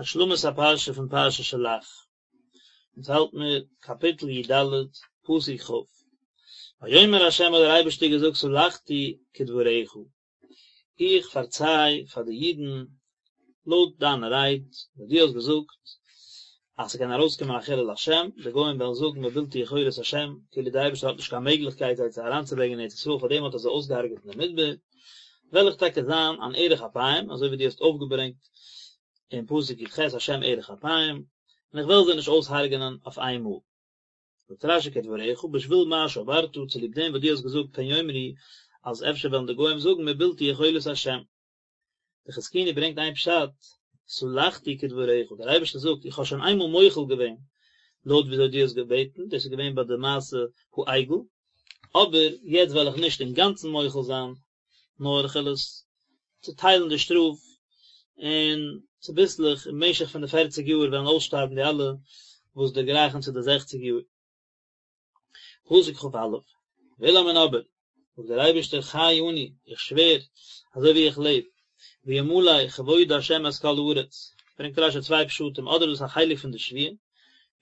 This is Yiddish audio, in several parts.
השלמת הפרשה פון פרשת שלח, אונז האלט מיר קאפיטל י ד, פסוק כ, ויאמר ה' האט דער אייבערשטער געזאגט סלחתי כדבריך, איך פארציי פאר די אידן לויט דיינע רייד, וואס דו האסט געזאגט אז ס'קען ארויסקומען א חילול השם, די גוים וועלן זאגן מבלתי יכולת השם, כאילו דער אייבערשטער האט נישט קיין מעגליכקייט זיי צו אריינצוברענגען אין ארץ ישראל, פארדעם האט ער זיי אויסגעהארגעט אין די מדבר, וועל איך טאקע זיין אן ארך אפים, אזוי ווי דו האסט אויפגעברענגט אין פסוק י ח השם ארך אפים, און איך וועל זיי נישט אויסהרג'ענען אויף איין מאל. זאגט רש י כדבריך, בשביל מה שאמרת, צוליב דעם וואס דו האסט געזאגט פן יאמרו, אז אפשר וועלן די גוים זאגן מבלתי יכולת השם. די חזקוני ברענגט איין פשט, סלחתי כדבריך, דער אייבערשטער זאגט, איך האב שוין איינמאל מוחל געווען לויט וויאזוי דו האסט געבעטן, דאס איז געווען ביי די מעשה העגל, אבער יעצט וועל איך נישט אינגאנצן מוחל זיין, נאר איך וועל עס צוטיילן די שטראף, און צוביסלעך אין משך פון די פערציג יאר וועלן אויסשטארבן די אלע וואס דערגרייכן צו די זעכציג יאר. פסוק כ א, ואולם און אבער, זאגט דער אייבערשטער חי אני, איך שווער, אזוי ווי איך לעב, וימלא כבוד ה' את כל הארץ, ברענגט רש י צוויי פשטים, אדער איז דאס א חלק פון די שבועה,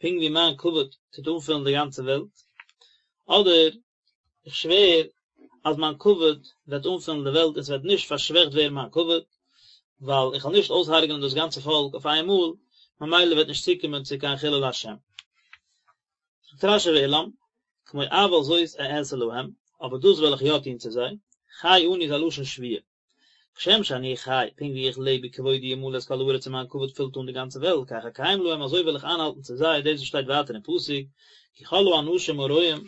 פונקט ווי מיין כבוד טוט אנפילן די גאנצע וועלט, אדער איך שווער אז מיין כבוד וועט אנפילן די וועלט און ס'וועט נישט פארשוועכט ווערן מיין כבוד, ווייל איך וועל נישט אויסהרג'נען דאס גאנצע פאלק אויף איין מאל, ממילא וועט נישט צוקומען צו קיין חילול השם. זאגט רש י ואולם, כמו אבל זאת אעשה להם, אבער דאס וועל איך יא טון צו זיי, חי אני איז א לשון שבועה. כשם שאני חי, פונקט ווי איך לעב וכבודי ימלא את כל הארץ און מיין כבוד פילט אן די גאנצע וועלט, כך אקיים להם אזוי וועל איך איינהאלטן צו זיי, דאס וואס שטייט ווייטער אין פסוק, כי כל האנשים הרואים,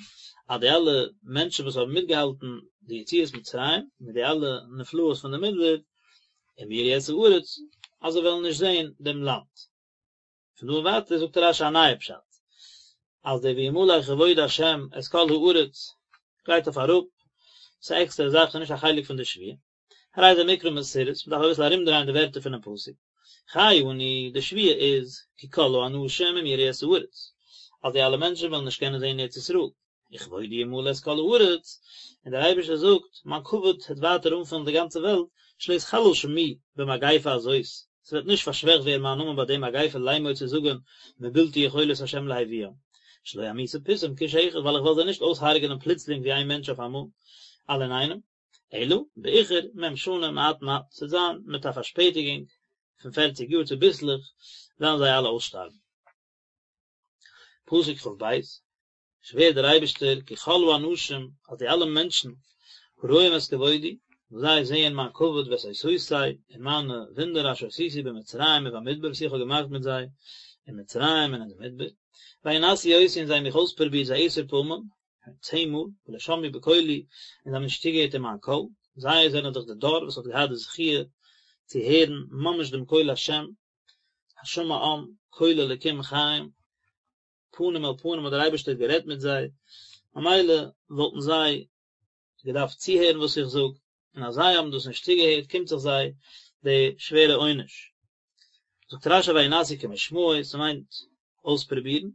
אז די אלע מענטשן וואס האבן מיטגעהאלטן די יציאת מצרים, מיט די אלע נפלאות פון די מדבר, אם יראו את הארץ, אז זיי וועלן נישט זען דעם לאנד. פון דא און ווייטער זאגט רש י א נייע פשט, אז דער וימלא כבוד השם את כל הארץ גייט אויף אראפ, ס'איז א עקסטערע זאך, ס'איז נישט א חלק פון די שבועה. הרי זה מקרא מסורס, מ'דארף אביסל ארומדרייען די ווערטער פונעם פסוק. חי אני, די שבועה איז, כי כל האנשים אם יראו את הארץ, אז די אלע מענטשן וועלן נישט קענען זען ארץ ישראל. וכבודי ימלא את כל הארץ, און דער אייבערשטער זאגט, מיין כבוד וועט ווייטער אנפילן די גאנצע וועלט, שלא יתחלל שמי במגיפה הזאת, ס'וועט נישט פארשוועכט ווערן מיין נאמען ביי די מגיפה לאמור צו זאגן מבלתי יכולת ה' להביאם, שלא אמיתם פתאום כאיש אחד, ווייל איך וועל זיי נישט אויסהרג'נען פלוצלינג ווי איין מענטש אויף אמאל, אלע אינאיינעם, אלא באיחור מ' שנה מעט מעט, ס'וועט זיין מיט א פארשפעטיגונג פון פערציג יאר צוביסלעך וועלן זיי אלע אויסשטארבן. פסוק כ ב, שווערט דער אייבערשטער כי כל האנשים, אז די אלע מענטשן, הרואים את כבודי, וואס זיי זעען מיין כבוד ואת אותותי, און מיינע וואונדער אשר עשיתי במצרים ובמדבר וואס איך האב געמאכט מיט זיי אין מצרים און אין די מדבר, וינסו אותי און זיי האבן מיך אויספרובירט זה עשר פעמים, צען מאל, ולא שמעו בקולי, און זיי האבן נישט צוגעהערט אין מיין קול, זיי זענען דאך די דור וואס האט געהאט די זכיה צו הערן ממש דעם קול השם, השמע עם קול אלקים חיים, פנים אל פנים האט דער אייבערשטער גערעדט מיט זיי, ממילא וואלטן זיי געדארפט צוהערן וואס איך זאג, און אז זיי האבן דאס נישט צוגעהערט קומט זיך זיי די שווערע עונש. זאגט רשי וינסו כמשמעו, ס'מיינט אויספרובירן,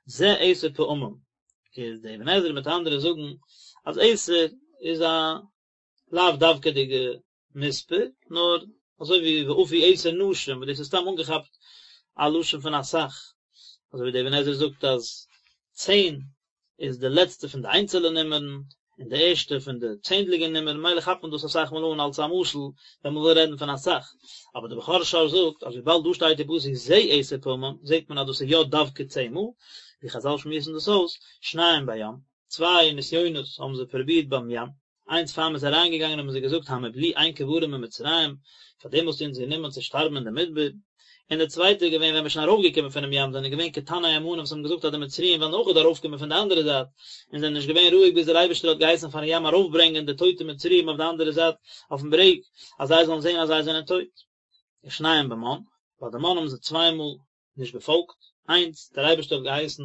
זה עשר פעמים, איז די אבן עזרא מיט אנדערע זאגן אז עשר איז א לאו דווקא'דיגע מספר, נאר אזוי ווי ואפו עשר נשים, וואס דאס איז סתם אנגעכאפט א לשון פון אסאך, אזוי ווי דער אבן עזרא זאגט אז צען איז די לעצטע פון די איינצעלע נומערן, און די ערשטע פון די צענדליגע נומערן, ממילא כאפט מען דאס אסאך מאל אן אלס א משל ווען מען וויל רעדן פון אסאך, אבער דער בכור שור זאגט אז וויבאלד דא שטייט אין פסוק זה עשר פעמים, זעט מען אז דאס איז יא דווקא צען מאל, ווי חזל שמועסן דאס אויס, שניים בים, צוויי נסיונות האבן זיי פרובירט ביים ים, איינס פאר מ'איז אריינגעגאנגען האבן זיי געזאגט המבלי אין קברים במצרים, פאר דעם האסטו אונז גענומען צו שטארבן אין די מדבר, און די צווייטע איז געווען ווען מ'איז שוין ארויפגעקומען פונעם ים זענען געווען קטני אמונה וואס האבן געזאגט אז די מצריים וועלן אויכעט ארויפקומען פון די אנדערע זייט, און זענען נישט געווען רואיג ביז דער אייבערשטער האט געהייסן פארן ים ארויפברענגען די טויטע מצריים אויף די אנדערע זייט אויפן ברעג, אז זיי זאלן זען אז זיי זענען טויט. ושניים במן, ביי די מן האבן זיי צוויי מאל נישט געפאלגט, איינס, דער אייבערשטער האט געהייסן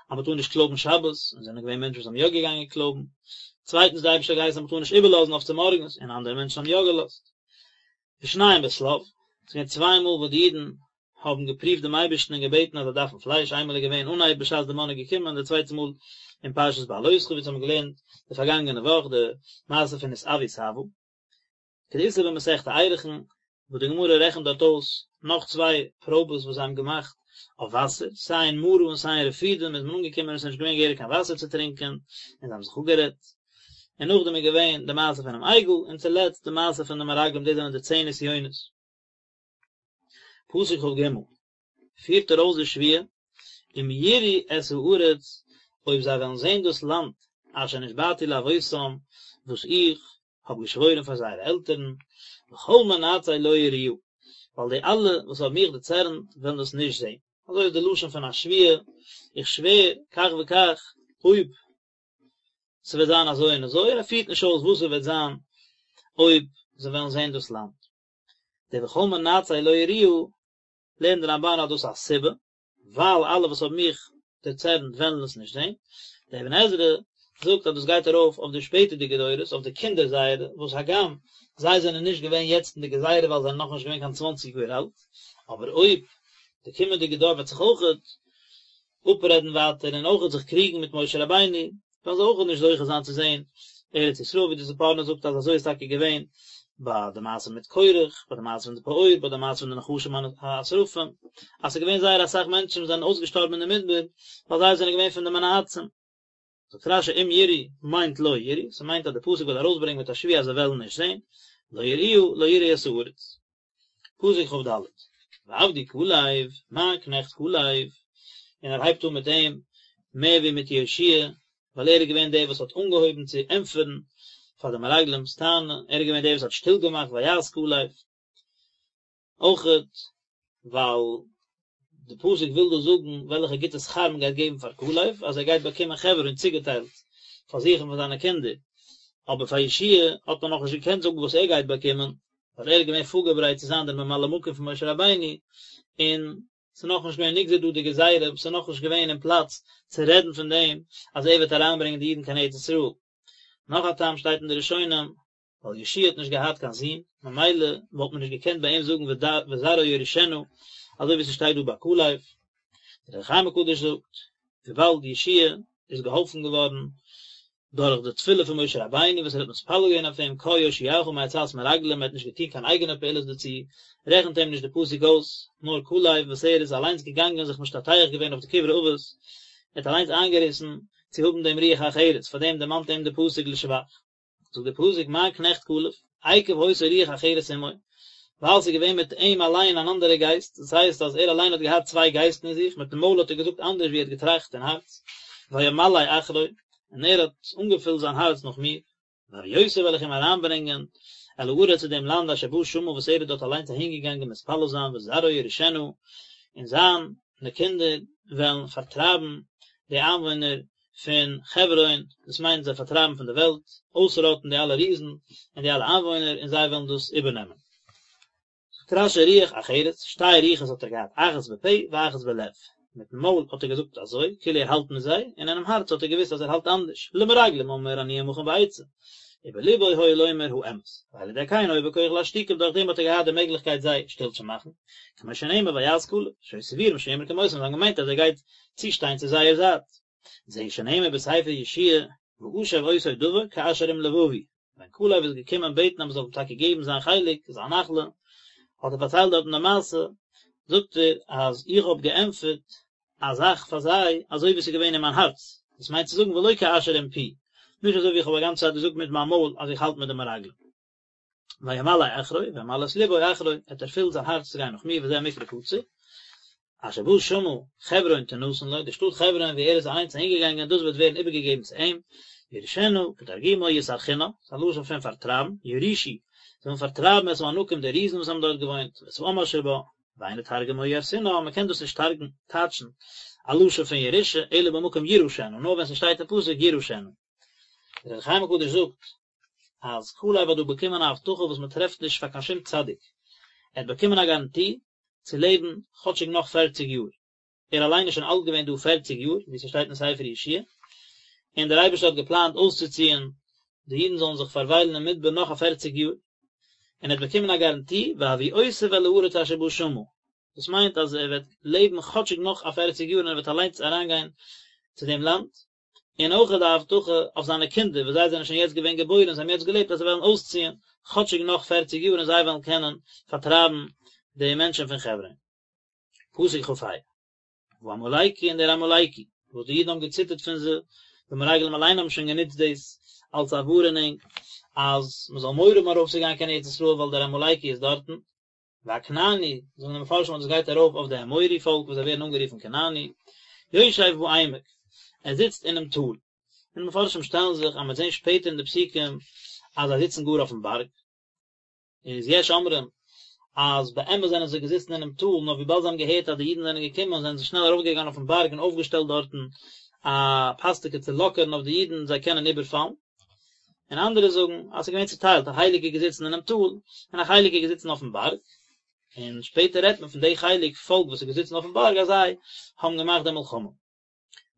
אז מען טאר נישט קלויבן שבת, און זענען געווען מענטשן וואס האבן יא געגאנגען קלויבן, צווייטנס, דער אייבערשטער האט געהייסן אז מען טאר נישט איבערלאזן אויף צומארגנס, און אנדערע מענטשן האבן יא געלאזט. ושניים בשליו, עס איז געווען צוויי מאל וואס די אידן האבן געפריווט דעם אייבערשטן און געבעטן אז זיי דארפן פלייש, איינמאל איז געווען אנהייב בשעת די מן איז געקומען, די צווייטע מאל אין פרשת בהעלותך ווי אונז האבן געלערנט די פארגאנגענע וואך די מעשה פון התאוו תאוה. כדאיתא במסכת ערכין, וואס די גמרא רעכנט דארט אויס. נאך צוויי פראבעס וואס זיי האבן געמאכט אויף וואסער, סיי אין מרה און סיי אין רפידים איז מען אנגעקומען און עס איז נישט געווען געהעריג קיין וואסער צו טרינקען, און זיי האבן זיך אפגערעדט. און נאכדעם איז געווען די מעשה פונעם עגל, און צולעצט די מעשה פון די מרגלים, דאס זענען די צען נסיונות. פסוק כג, פירט ער אויס די שבועה, אם יראו את הארץ, אויב זיי וועלן זען דאס לאנד, אשר נשבעתי לאבותם, וואס איך האב געשוואוירן פאר זייערע עלטערן, וכל מנאצי לא יראוה, ווייל די אלע וואס האבן מיך דערצערנט וועלן דאס נישט זען. אזוי איז די לשון פון א שבועה, איך שווער כך וכך, אויב ס'וועט זיין אזוי און אזוי, און ער פירט נישט אויס וואס ס'וועט זיין אויב זיי וועלן זען דאס לאנד. די וכל מנאצי לא יראוה, לערנט די רמבן אז דאס איז א סיבה, ווייל אלע וואס האבן מיך דערצערנט וועלן עס נישט זען. דער אבן עזרא זאגט אז דאס גייט ארויף אויף די שפעטערדיגע דורות, אויף די קינדער זייערע, וואס הגם זיי זענען נישט געווען יעצט אין די גזירה ווייל זיי זענען נאכנישט געווען קיין צוואנציג יאר אלט, אבער אויב די קומענדיגע דור וועט זיך אויכעט אפרעדן ווייטער און אויכעט זיך קריגן מיט משה רבינו, וועלן זיי אויכעט נישט זוכה זיין צו זען ארץ ישראל, ווי די ספורנו זאגט אז אזוי איז טאקע געווען ביי די מעשה מיט קורח, ביי די מעשה פון די פעור, ביי די מעשה פון די נחשים השרפים, אז ס'איז געווען זייער אסאך מענטשן וואס זענען אויסגעשטארבן אין די מדבר, ווייל זיי זענען געווען פון די מנאצים. זאגט רשי אם יראו מיינט לא יראו, ס'מיינט אז די פסוק וויל ארויסברענגען מיט א שבועה אז זיי וועלן נישט זען, לא יראוה, לא יראו את הארץ. פסוק כד, ועבדי כלב, מיין קנעכט כלב, און ער הייבט אן מיט אים מער ווי מיט יהושע, ווייל ער איז געווען דער וואס האט אנגעהויבן צו ענטפערן פאר די מרגלים'ס טענה, ער איז געווען דער וואס האט שטיל געמאכט ויהס כלב. אויכעט ווייל די פסוק וויל דא זאגן וועלכע גוטע שכר מען גייט געבן פאר כלב, אז ער גייט באקומען חברון צוגעטיילט פאר זיך און פאר זיינע קינדער, אבער פאר יהושע האט מען נאכנישט געקענט זאגן וואס ער גייט באקומען, ווייל ער איז געווען פארגעברייט צו זיין דער ממלא מקום פון משה רבינו, און ס'איז נאכנישט געווען נגזר דא די גזירה, ס'איז נאכנישט געווען אין פלאץ צו רעדן פון דעם אז ער וועט אריינברענגען די אידן קיין ארץ ישראל. נאך א טעם שטייט אין די ראשונים, ווייל יהושע האט נישט געהאט קיין זון, ממילא וואלט מען נישט געקענט ביי אים זאגן וזרעו יירשנה, אזוי ווי ס'שטייט דא ביי כלב. דער אור החיים הקדוש זאגט, וויבאלד יהושע איז געהאלפן געווארן דורך די תפילה פון משה רבינו וואס ער האט מתפלל געווען אויף אים קה יושיעך מעצת מרגלים, ער האט נישט געטון קיין אייגענע פעולות דערצו, רעכנט אים נישט די פסוק אויס, נאר כלב וואס ער איז אליינס געגאנגען זיך משתטח געווען אויף די קברי אבות, ער האט אליינס איינגעריסן צו האבן דעם רוח אחרת, פאר דעם דערמאנט אים די פסוק לשבח. זאגט דער פסוק מיין קנעכט כלב, עקב היתה רוח אחרת עמו, ווייל ס'איז געווען מיט אים אליין אן אנדערע גייסט, דאס הייסט אז ער אליין האט געהאט צוויי גייסטן אין זיך, מיטן מויל האט ער געזאגט אנדערש ווי ער האט געטראכט אין הארץ, וימלא אחרי, און ער האט אנגעפילט זיין הארץ נאך מיר, והביאותיו וועל איך אים אריינברענגען אל הארץ צו דעם לאנד אשר בא שמה וואס ער איז דארט אליינס אהינגעגאנגען מתפלל זיין וזרעו יירשנה, און זיינע קינדער וועלן פארטרייבן די איינוואוינער פון חברון, דאס מיינט זיי פארטרייבן פון די וועלט, אויסראטן די אלע ריזן און די אלע איינוואוינער און זיי וועלן דאס איבערנעמען. זאגט רש"י רוח אחרת, שתי רוחות האט ער געהאט, אחת בפה ואחת בלב, מיטן מויל האט ער געזאגט אזוי, כאילו ער האלט מיט זיי, און אינעם הארץ האט ער געוואוסט אז ער האלט אנדערש, למרגלים אמר אני עמכם בעצה, ובלבו היה לומר האמת, ועל ידי כן היה בכח להשתיקם, דורך דעם האט ער געהאט די מעגליכקייט זיי שטיל צו מאכן, כמו שנאמר ויהס כלב, שהיו סבורים שיאמר כמותם, זיי האבן געמיינט אז ער גייט צושטיין צו זייער זייט. זהו שנאמר בספר יהושע ואשב אותו דבר כאשר עם לבבי, ווען כלב איז געקומען בעטן אז מען זאל אים טאקע געבן זיין חלק, זיין נחלה, האט ער פארציילט דארטן די מעשה, זאגט ער אז איך האב געענטפערט א זאך פאר זיי אזוי ווי עס איז געווען אין מיין הארץ, דאס מיינט צו זאגן ולא כאשר עם פי, נישט אזוי ווי איך האב א גאנצע צייט געזאגט מיט מיין מויל אז איך האלט מיט די מרגלים. וימלא אחרי, וימלא את לבו אחרי, ער האט ערפילט זיין הארץ צו גיין נאך מיר, וזה מקרא קצר. אשר בא שמה חברון תנתן לו, די שטאט חברון וואו ער איז אליינס אהינגעגאנגען, דאס וועט ווערן איבערגעגעבן צו אים, יירשנה, כתרגומו יסרחינא, ס'איז א לשון פון פארטרייבן, יורישו, זיי וועלן פארטרייבן את הענקים די ריזן וואס האבן דארט געוואוינט, ואת העם אשר בה, ואין לתרגמו ירסינא, מען קען דאס נישט תרג'ן, טייטשן, א לשון פון ירושה, אלא במקום יירשנה, נאר ווען ס'שטייט אין פסוק יירשנה. דער אור החיים הקדוש זאגט אז כלב האט דא באקומען א הבטחה וואס מען טרעפט נישט פאר קיין שום צדיק, ער האט באקומען א גאראנטי צו לעבן כאטשיג נאך פערציג יאר, ער אליין איז שוין אלט געווען דא פערציג יאר, ווי ס'שטייט אין ספר יהושע, און דער אייבערשטער האט געפלאנט אויסצוציען די אידן זאלן זיך פארוויילן אין מדבר נאך א פערציג יאר, און ער האט באקומען א גאראנטי והביאותיו אל הארץ אשר בא שמה, דאס מיינט אז ער וועט לעבן כאטשיג נאך א פערציג יאר און ער וועט אליינס אריינגיין צו דעם לאנד, און אויך די הבטחה אויף זיינע קינדער וואס זיי זענען שוין יעצט געווען געבוירן און זיי האבן יעצט געלעבט אז זיי וועלן אויסציען כאטשיג נאך פערציג יאר און זיי וועלן קענען פארטרייבן די. די מענטשן פון חברון. פסוק כ"ה, והעמלקי און דער עמלקי, וואס די אידן האבן געציטערט פון זיי, די מרגלים אליין האבן שוין גענוצט דאס אלס א ווארענונג אז מען זאל מורא האבן ארויפצוגיין קיין ארץ ישראל ווייל דער עמלקי איז דארטן, והכנעני, זאגן די מפרשים אז דאס גייט ארויף אויף די אמורי פאלק וואס זיי ווערן אנגערופן כנעני, יושב בעמק, ער זיצט אינעם טאל, און די מפרשים שטעלן זיך אז מען וועט זען שפעטער אין די פסוקים אז זיי זיצן גאר אויפן בארג. איז יש אומרים אז באמת זענען זיי געזיצן אינעם טאל, נאר וויבאלד זיי האבן געהערט אז די אידן זענען געקומען זענען זיי שנעל ארויפגעגאנגען אויפן בארג און אויפגעשטעלט דארטן א פאסטקע צו לאקערן אויף די אידן זיי קענען איבערפאלן. און אנדערע זאגן אז ס'איז געווען צוטיילט, א חלק איז געזיצן אינעם טאל, און א חלק איז געזיצן אויפן בארג, און שפעטער רעדט מען פון די חלק פאלק וואס איז געזיצן אויפן בארג אז זיי האבן געמאכט די מלחמה.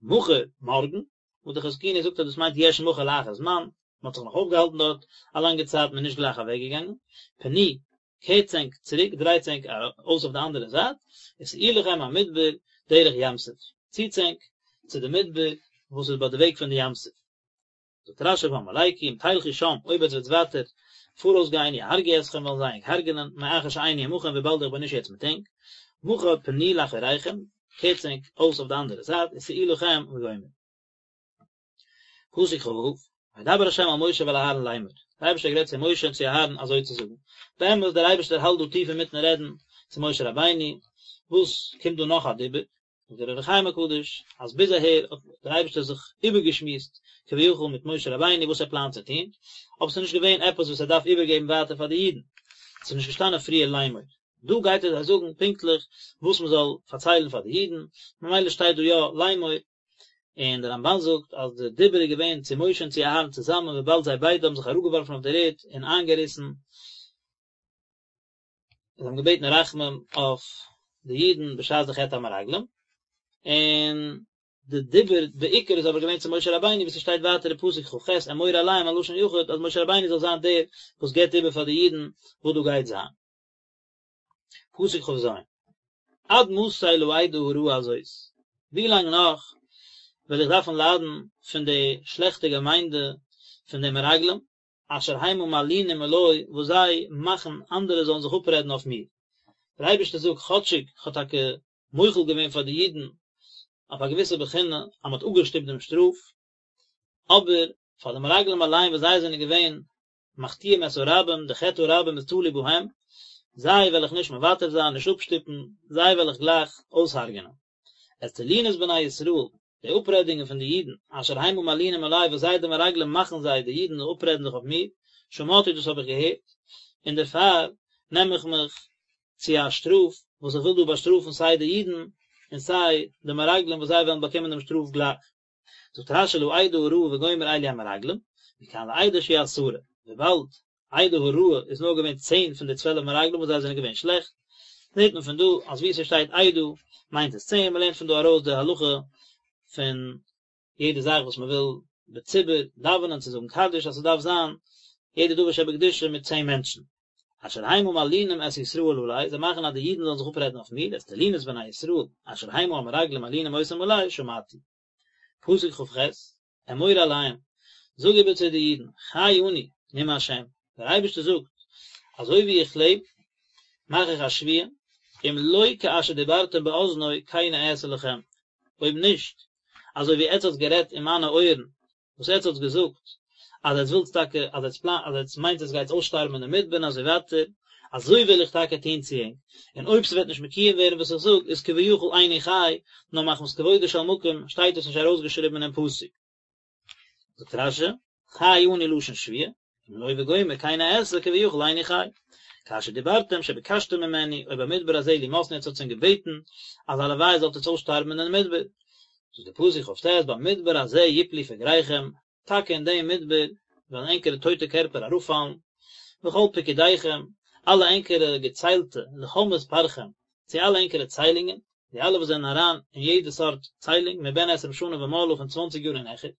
מחר, מארגן, וואס די חזקוני זאגט אז דאס מיינט יש מחר לאחר זמן, מען האט זיך נאך אויפגעהאלטן דארט א לאנגע צייט, מען איז נישט גלייך אוועקגעגאנגען, פנו, קערטס ענק צוריק, דרייטס ענק אויס אויף די אנדערע זייט, וסעו לכם המדבר דרך ים סוף, ציטס ענק צו די מדבר וואס איז ביי די וועג פון די ים סוף. זאגט רשי והעמלקי אם תלכו שם, אויב עטס וועטס ווייטער פאראויס גיין יהרגו אתכם וועלן זיי ענק הרג'נען, מאחר שאיני עמכם וויבאלד איך בין נישט יעצט מיט ענק, מחר פנו לאחוריכם, קערטס ענק אויס אויף די אנדערע זייט, וסעו לכם וגומר. פסוק כ"ו, וידבר ה' אל משה ואל אהרן לאמר, דער אייבערשטער האט גערעדט צו משה און צו אהרן אזוי צו זאגן, באמת דער אייבערשטער האלט דא טיף אינמיטן רעדן צו משה רבינו, וואס קומט דא נאך א דיבור? זאגט דער אור החיים הקדוש אז ביז אהער האט דער אייבערשטער זיך איבערגעשמועסט כביכול מיט משה רבינו וואס ער פלאנט צו טון, אבער ס'איז נישט געווען עפעס וואס ער דארף איבערגעבן ווייטער פאר די אידן, ס'איז נישט געשטאנען פריער לאמור, דא גייט ער זיי זאגן פונקטליך וואס מען זאל פארציילן פאר די אידן, ממילא שטייט דא יא לאמור, און דער רמבן זאגט אז די דיבור איז געווען צו משה און צו אהרן צוזאמען וויבאלד זיי ביידע האבן זיך אראפגעווארפן אויף דער ערד און איינגעריסן, זיי האבן געבעטן רחמים אויף די אידן בשעת די חטא המרגלים, און די דיבור בעיקר איז אבער געווען צו משה רבינו ווי ס'שטייט ווייטער אין פסוק כ"ח אמור אליהם א לשון יחיד אז משה רבינו זאל זיין דער וואס געבט איבער פאר די אידן וואס דא גייט זיין. פסוק כ"ז, עד מתי לעדה הרעה הזאת, ווי לאנג נאך וועל איך דארפן ליידן פון די שלעכטע געמיינדע פון די מרגלים, אשר המה מלינים עלי, וואס זיי מאכן אנדערע זאלן זיך אפרעדן אויף מיר. דער אייבערשטער זאגט, כאטשיג כ'האב טאקע מוחל געווען פאר די אידן אויף א געוויסע בחינה אז מ'האט אפגעשטופט דעם שטראף, אבער פאר די מרגלים אליין וואס זיי זענען געווען מחטיאים את הרבים, די חטא הרבים איז תלוי בהם, זיי וועל איך נישט מוותר זיין, נישט אפשטופן, זיי וועל איך גלייך אויסהרג'ענען. את תלונות בני ישראל, די אפרעדונגען פון די אידן, אשר המה מלינים עלי, וואס זיי די מרגלים מאכן זיי, די אידן, אפרעדן זיך אויף מיר, שמעתי דאס האב איך געהערט, און דערפאר נעם איך מיך צו א שטראף, וואס איך וויל דא באשטראפן סיי די אידן, און סיי די מרגלים וואס זיי וועלן באקומען דעם שטראף גלייך. זאגט רשי לעדה הרעה וגומר אלו המרגלים, מכאן לעדה שהיא עשרה, וויבאלד עדה הרעה איז נאר געווען צען פון די צוועלף מרגלים וואס זיי זענען געווען שלעכט, זעט מען פון דא אז וואו ס'שטייט עדה מיינט עס צען, מ'לערנט פון דא ארויס די הלכה פון יעדע זאך וואס מ'וויל בציבור דאווענען צו זאגן קדיש אז ס'דארף זיין יעדע דבר שבקדושה מיט צען מענטשן. אשר המה מלינים את ישראל עלי, זיי מאכן אז די אידן זאלן זיך אפרעדן אויף מיר, את תלונות בני ישראל, אשר המה המרגלים מלינים אותם עלי, שמעתי. פסוק כ"ח, אמור אליהם, זאג איבער צו די אידן, חי אני, נאם השם, דער אייבערשטער זאגט, אזוי ווי איך לעב, מאך איך א שבועה, אם לא כאשר דיברתם באזני כן אעשה לכם, אויב נישט, אזוי ווי עטץ האטס גערעדט אין מיינע אויערן, וואס עטץ האטס געזאגט אז עטץ ווילטס טאקע אז עטץ פלאנט אז עטץ מיינט עטץ גייטס אויסשטארבן אין די מדבר און אזוי ווייטער, אזוי וועל איך טאקע טון צו ענק, און אויב ס'וועט נישט מקוים ווערן וואס איך זאג, איז כביכול איני חי, נאר מחמת כבודו של מקום שטייט עס נישט ארויסגעשריבן אינעם פסוק. זאגט רשי, חי אני לשון שבועה, אם לא וגומר כן אעשה כביכול איני חי. כאשר דיברתם שביקשתם ממני, או במדבר הזה לימות און עטץ האטס שוין געבעטן אז הלוואי זאלט עטץ אויסשטארבן אין מדבר. זאגט דער פסוק כ"ט במדבר הזה יפלו פגריכם, טאקע אין דעם מדבר וועלן ענקערע טויטע קערפער אראפפאלן, וכל פקודיכם, אלע ענקערע געציילטע, לכל מספרכם, צו אלע ענקערע ציילונגען, די אלע וואס זענען אריין אין יעדע סארט ציילונג, מבן עשרים שנה ומעלה פון צוואנציג יאר און העכער,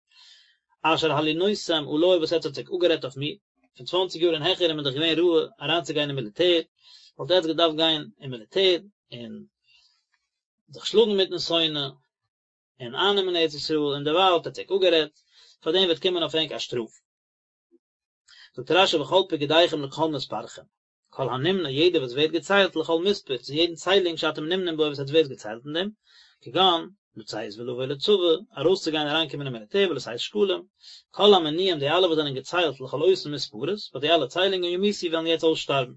אשר הלינותם עלי וואס עטץ האט זיך אפגערעדט אויף מיר, פון צוואנציג יאר און העכער איז מען דאך געווען ראוי אריינצוגיין אין מיליטער, וואלט עטץ געדארפט גיין אין מיליטער און זיך שלאגן מיטן שונא און אייננעמען ארץ ישראל, און דערווייל האט עטץ זיך אפגערעדט, פאר דעם וועט קומען אויף ענק א שטראף. זאגט רשי וכל פקודיכם לכל מספרכם. כל הנמנה יעדער וואס ווערט געציילט לכל מספר צו יעדן ציילונג שאתם נמנים בו וואס עטס ווערט געציילט אין דעם, כגון, לצאת ולבוא לצבא, ארויסצוגיין אריינקומען אין מיליטער ולשאת שקלים, כל המנויים די אלע וואס זענען געציילט לכל אותן מספרות, ביי די אלע ציילונגען ימותו וועלן יעצט אויסשטארבן.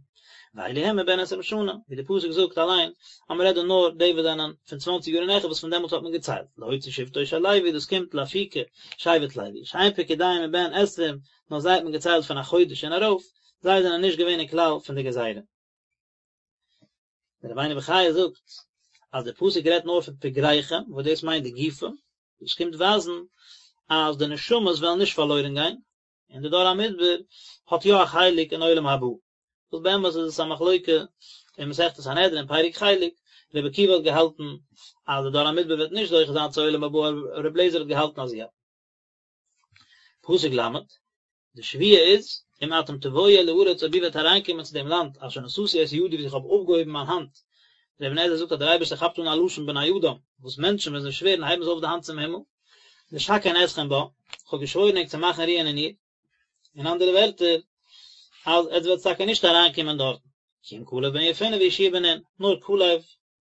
ואלו הן מבן עשרים שנה, ווי די פסוק זאגט אליין אז מען רעדט דא נאר די וואס זענען פון צוואנציג יאר און העכער וואס פון דעמאלטס האט מען געציילט, להוציא שבטו של לוי דאס קומט לאפוקי שבט לוי, שאין פקודיהם מבן עשרים, נאר זיי האט מען געציילט פון א חודש און ארויף, זיי זענען נישט געווען אין כלל פון די גזירה. דער רבינו בחיי זאגט אז דער פסוק רעדט נאר פון פגריכם וואס דאס מיינט די גופים, דאס קומט ווייזן אז די נשמות וועלן נישט פארלוירן גיין, און די דור המדבר האט יא א חלק אין עולם הבא, וואס באמת איז עס א מחלוקה אין מסכת סנהדרין פרק חלק, רבי עקיבא האט געהאלטן אז די דור המדבר וועט נישט זוכה זיין צו עולם הבא, רבי אליעזר האט געהאלטן אז יא. פסוק ל', די שבועה איז, אם אתם תבואו אל הארץ אויב איר וועט אריינקומען צו דעם לאנד אשר נשאתי את ידי וואס איך האב אויפגעהויבן מיין האנט, דער אבן עזרא זאגט אז דער אייבערשטער כאפט אן א לשון בני אדם, וואס מענטשן ווען זיי שווערן הייבן זיי אויף די האנט צום הימל, לשכן אתכם בה, איך האב געשוואוירן ענק צו מאכן רוען אין איר, אין אנדערע ווערטער, אז עטס וועטס טאקע נישט אריינקומען דארטן, כי אם כלב בן יפונה ויהושע בן נון, נאר כלב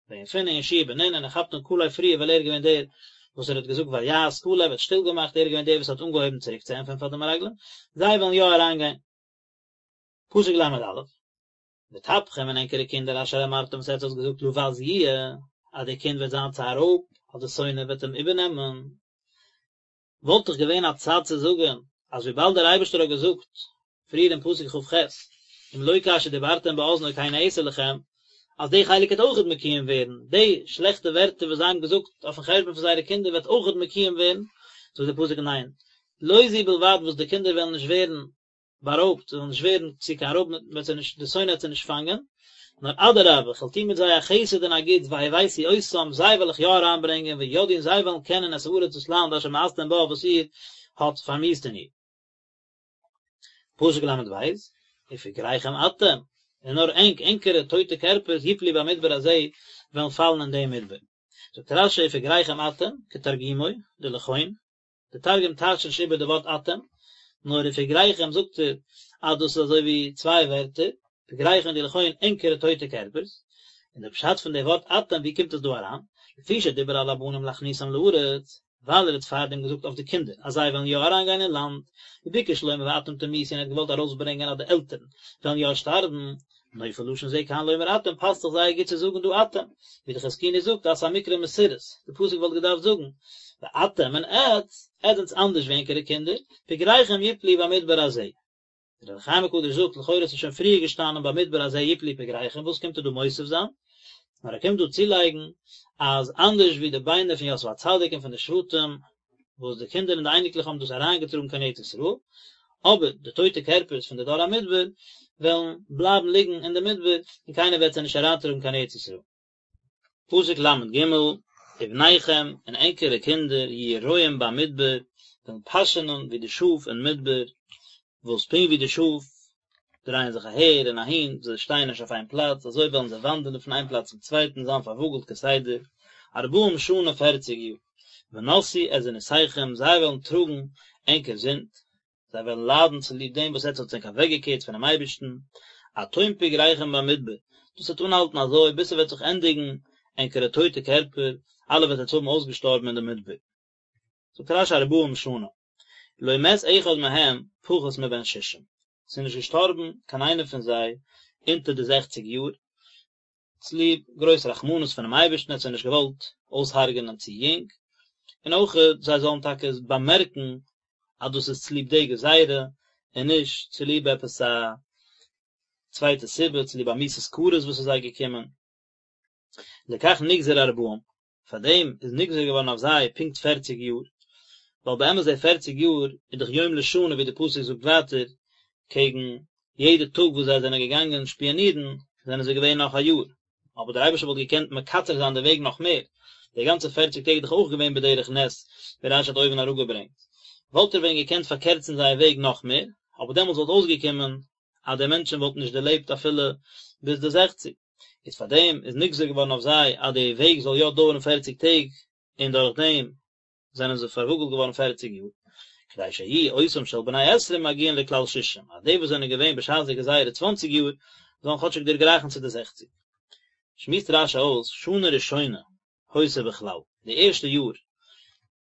בן יפונה און יהושע בן נון, און ער כאפט אן כלב פריער ווייל ער איז געווען דער וואס ער האט געזאגט ויהס כלב האט שטיל געמאכט, ער איז געווען דער וואס האט אנגעהויבן צוריק צו ענטפערן פאר די מרגלים, זיי וועלן יא אריינגיין. פסוק ל"א, וטפכם און ענקערע קינדער אשר אמרתם וואס עטס האט געזאגט לבז יהיה, אז דער קינד וועט זיין צו א רויב, אז די שונא וועט אים איבערנעמען, וואלט דאך געווען א צד צו זאגן אז וויבאלד דער אייבערשטער האט געזאגט פריער אין פסוק כ"ח אם לא כאשר דיברתם באזני כן אעשה לכם, אז די חלק וועט אויכעט מקוים ווערן, די שלעכטע ווערטער וואס זיי האבן געזאגט אויפן חשבון פון זייערע קינדער וועט אויכעט מקוים ווערן, זאגט דער פסוק ניין, לא זו בלבד וואס די קינדער וועלן נישט ווערן בארויבט, זיי וועלן נישט ווערן צו קיין רויב, מען וועט זיי נישט, די שונא וועט זיי נישט פאנגען, נאר אדרבה, כ'וועל טון מיט זיי א חסד און א גוטס, והבאתי אותם, זיי וועל איך יא אריינברענגען, וידעו און זיי וועלן קענען את הארץ דאס לאנד אשר מאסתם בה וואס איר האט פארמיאוסט אין איר. פסוק ל"ב, ופגריכם אתם, און נאר ענק, ענקערע טויטע קערפערס, יפלו במדבר הזה, וועלן פאלן אין דעם מדבר. זאגט רש"י ופגריכם אתם, כתרגומו, דלכון, די תרגום טייטשט נישט איבער די ווארט אתם, נאר ופגריכם זאגט ער אז דאס איז אזוי ווי צוויי ווערטער, פגריכם דלכון ענקערע טויטע קערפערס, און די פשט פון די ווארט אתם ווי קומט עס דא אריין, לפי שדיבר על הבנים להכניסם לארץ, ווייל ער האט פארדעם געזאגט אויף די קינדער אז זיי וועלן יא אריינגיין אין לאנד, וביקש לומר ואתם תמותו און ער האט געוואלט ארויסברענגען אז די עלטערן וועלן יא שטארבן, נופל לשון זה כאן לומר אתם פאסט זיך זייער גוט צו זאגן דא אתם, ווי די חזקוני זאגט אז ס'איז א מקרא מסורס, די פסוק וואלט געדארפט זאגן ואתם און עטץ, עטץ זענטס אנדערש ווי ענקערע קינדער, פגריכם יפלו במדבר הזה. דער אור החיים הקדוש זאגט לכאורה ס'איז שוין פריער געשטאנען במדבר הזה יפלו פגריכם וואס קומט ער דא מוסיף זיין? נאר ער קומט דא צולייגן אז אנדערש ווי די ביינער פון יוסף הצדיק און פון די שבטים וואס די קינדער און די אייניקלעך האבן דאס אריינגעטראגן קיין ארץ ישראל, אבער די טויטע קערפערס פון די דור המדבר וועלן בלייבן ליגן אין די מדבר און קיינער וועט זיי נישט אריינטראגן קיין ארץ ישראל. פסוק ל"ג, ובניכם, און ענקערע קינדער, יהיו רועים במדבר, וועלן פאשענען ווי די שאף אין מדבר, וואס פונקט ווי די שאף דרייען זיך אהער און אהין, זיי שטייען נישט אויף איין פלאץ, אזוי וועלן זיי וואנדערן פון איין פלאץ צום צווייטן, זיין פארוואגלט כסדר, ארבעים שנה פערציג יאר. ונשאו את זנותיכם, זיי וועלן טראגן ענקער זינד, זיי וועלן ליידן צוליב דעם וואס עטס האטס ענק אוועקגעקערט פונעם אייבערשטן, עד תום פגריכם במדבר, דאס וועט אנהאלטן אזוי ביז ס'וועט זיך ענדיגן ענקערע טויטע קערפער, אלע וועט עטס האבן אויסגעשטארבן אין די מדבר. זאגט רש"י ארבעים שנה, לא מת אחד מהם פחות מבן שישים, ס'איז נישט געשטארבן קיין איינער פון זיי אונטער די זעכציג יאר, צוליב גרויס רחמנות פונעם אייבערשטן האט זיי נישט געוואלט אויסהרג'ענען צו יונג, און אויך זיי זאלן טאקע באמערקן אז דאס איז צוליב די גזירה און נישט צוליב עפעס א צווייטע סיבה, צוליב א מיתת כרת וואס איז זיי געקומען. לכך נגזר ארבעים, פאר דעם איז נגזר געווארן אויף זיי פונקט פערציג יאר, ווייל באמת די פערציג יאר איז דאך יום לשנה ווי די פסוק זאגט ווייטער, קעגן יעדע טאג וואס זיי זענען געגאנגען שפיאנירן זענען זיי געווען נאך א יאר, אבער דער אייבערשטער וואלט געקענט מקצר זיין די וועג נאך מער, די גאנצע פערציג טעג איז דאך אויך געווען בדרך נס, ווי רש"י האט אויבן אראפגעברענגט, וואלט ער ווען געקענט פארקערצן זייער וועג נאך מער, אבער דעמאלטס וואלט אויסגעקומען אז די מענטשן וואלטן נישט דערלעבט אפילו ביז די זעכציג. איז פאר דעם איז נגזר געווארן אויף זיי אז די וועג זאל יא דויערן פערציג טעג, און דורך דעם זענען זיי פארוואגלט געווארן פערציג יאר, כדי שיהיו אותם של בני עשרים מגיעין לכלל שישים, אז די וואס זענען געווען בשעת די גזירה צוואנציג יאר, זאלן כאטשיג דערגרייכן צו די זעכציג. שמועסט רש"י אויס, שנה ראשונה היתה בכלל, די ערשטע יאר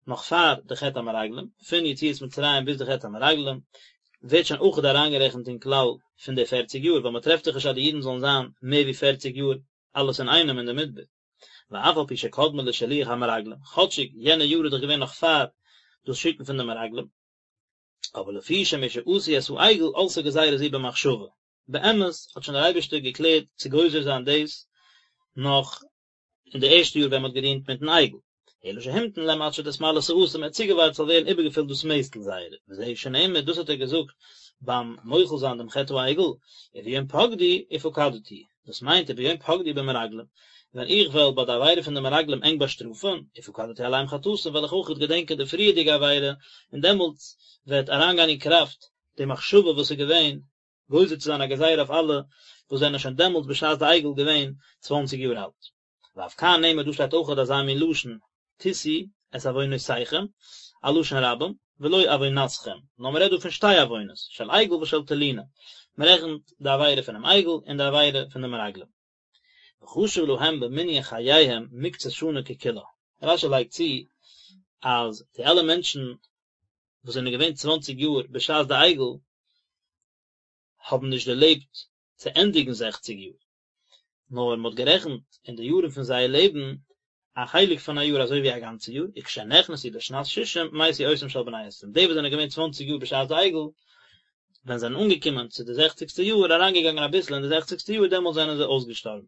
נאך פאר די חטא המרגלים, פון יציאת מצרים ביז די חטא המרגלים, ווערט שוין אויכעט אריינגערעכנט אין כלל פון די פערציג יאר, ווייל מען טרעפט דאך נישט אז די אידן זאלן זיין מער ווי פערציג יאר אלעס אינאיינעם אין די מדבר. ואף על פי שקדמה לשילוח המרגלים, כאטשיג יענע יאר איז דאך געווען נאך פאר דאס שיקן פון די מרגלים, אבער לפי שמשעשו את העגל עלתה גזירה זו במחשבה, באמת האט שוין דער אייבערשטער געקלערט צו גוזר זיין דאס נאך אין די ערשטע יאר ווען מען האט געדינט מיטן עגל, אלא שהמתין להם עד שתתמלא סאתם, ער האט צוגעווארט ס'זאל ווערן איבערגעפילט דאס מעסטל זייערע, וזהו שנאמר, דאס האט ער געזאגט ביים מוחל זיין דעם חטא העגל, וביום פקדי ופקדתי, דאס מיינט וביום פקדי במרגלים, ווען איך וועל ביי די עבירה פון די מרגלים ענק באשטראפן, ופקדתי עליהם חטאתם וועל איך אויך געדענקען די פריערדיגע עבירה, און דעמאלטס וועט אריינגיין אין קראפט די מחשבה וואס איז געווען גוזר צו זיין א גזירה אויף אלע וואס זענען שוין דעמאלטס בשעת די עגל געווען צוואנציג יאר אלט. ואף כאן נאמר דא שטייט אויכעט אזא מין לשון תשאו את עוונותיכם, א לשון רבים, ולא עוונתכם, נאר מען רעדט דא פון שתי עוונות, של עגל ושל תלונה, מען רעכנט די עבירה פונעם עגל און די עבירה פון די מרגלים. וחשב להם במנין חייהם מקצת שנה ככולה. רש"י לייגט צו אז די אלע מענטשן וואס זענען געווען צוואנציג יאר בשעת די עגל האבן נישט דערלעבט צו ענדיגן זעכציג יאר, נאר מען האט גערעכנט אין די יארן פון זייער לעבן א חלק פון א יאר אזוי ווי א גאנצע יאר, וכשנכנסו לשנת ששים מתו אותם של בני עשרים, די וואס זענען געווען צוואנציג יאר בשעת די עגל, ווען זיי זענען אנגעקומען צו די זעכציגסטע יאר, אריינגעגאנגען אביסל אין די זעכציגסטע יאר, דעמאלט זענען זיי אויסגעשטארבן.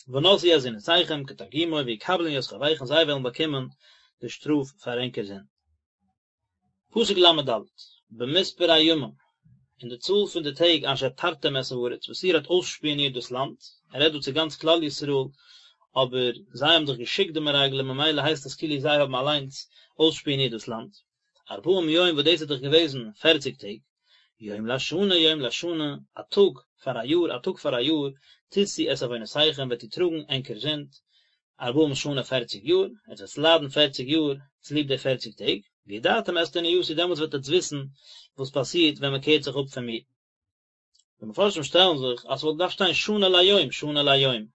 ונשאו את זנותיכם כתרגומו ויקבלון ית חובכון זיי וועלן באקומען די שטראף פאר ענקער זינד. פסוק ל"ד, במספר הימים, אין די צאל פון די טעג אשר תרתם את הארץ, וואס איר האט אויסשפיאנירט דאס לאנד, ער רעדט דא צו גאנץ כלל ישראל, אבער זיי האבן דאך געשיקט די מרגלים ממילא הייסט עס כאילו זיי האבן אליינס אויסשפיאנירט דאס לאנד, ארבעים יום וואס דאס איז דאך געוועזן פערציג טעג, יום לשנה יום לשנה, א טאג פאר א יאר א טאג פאר א יאר, תשאו את עונותיכם וועט איר טראגן ענקער זינד, ארבעים שנה פערציג יאר, עטס וועטס ליידן פערציג יאר צוליב די פערציג טעג, וידעתם את תנואתי דעמאלטס וועט עטס וויסן וואס פאסירט ווען מען קערט זיך אפ פון מיר. די מפרשים שטעלן זיך אז ס'וואלט געדארפט שטיין שנה ליום שנה ליום,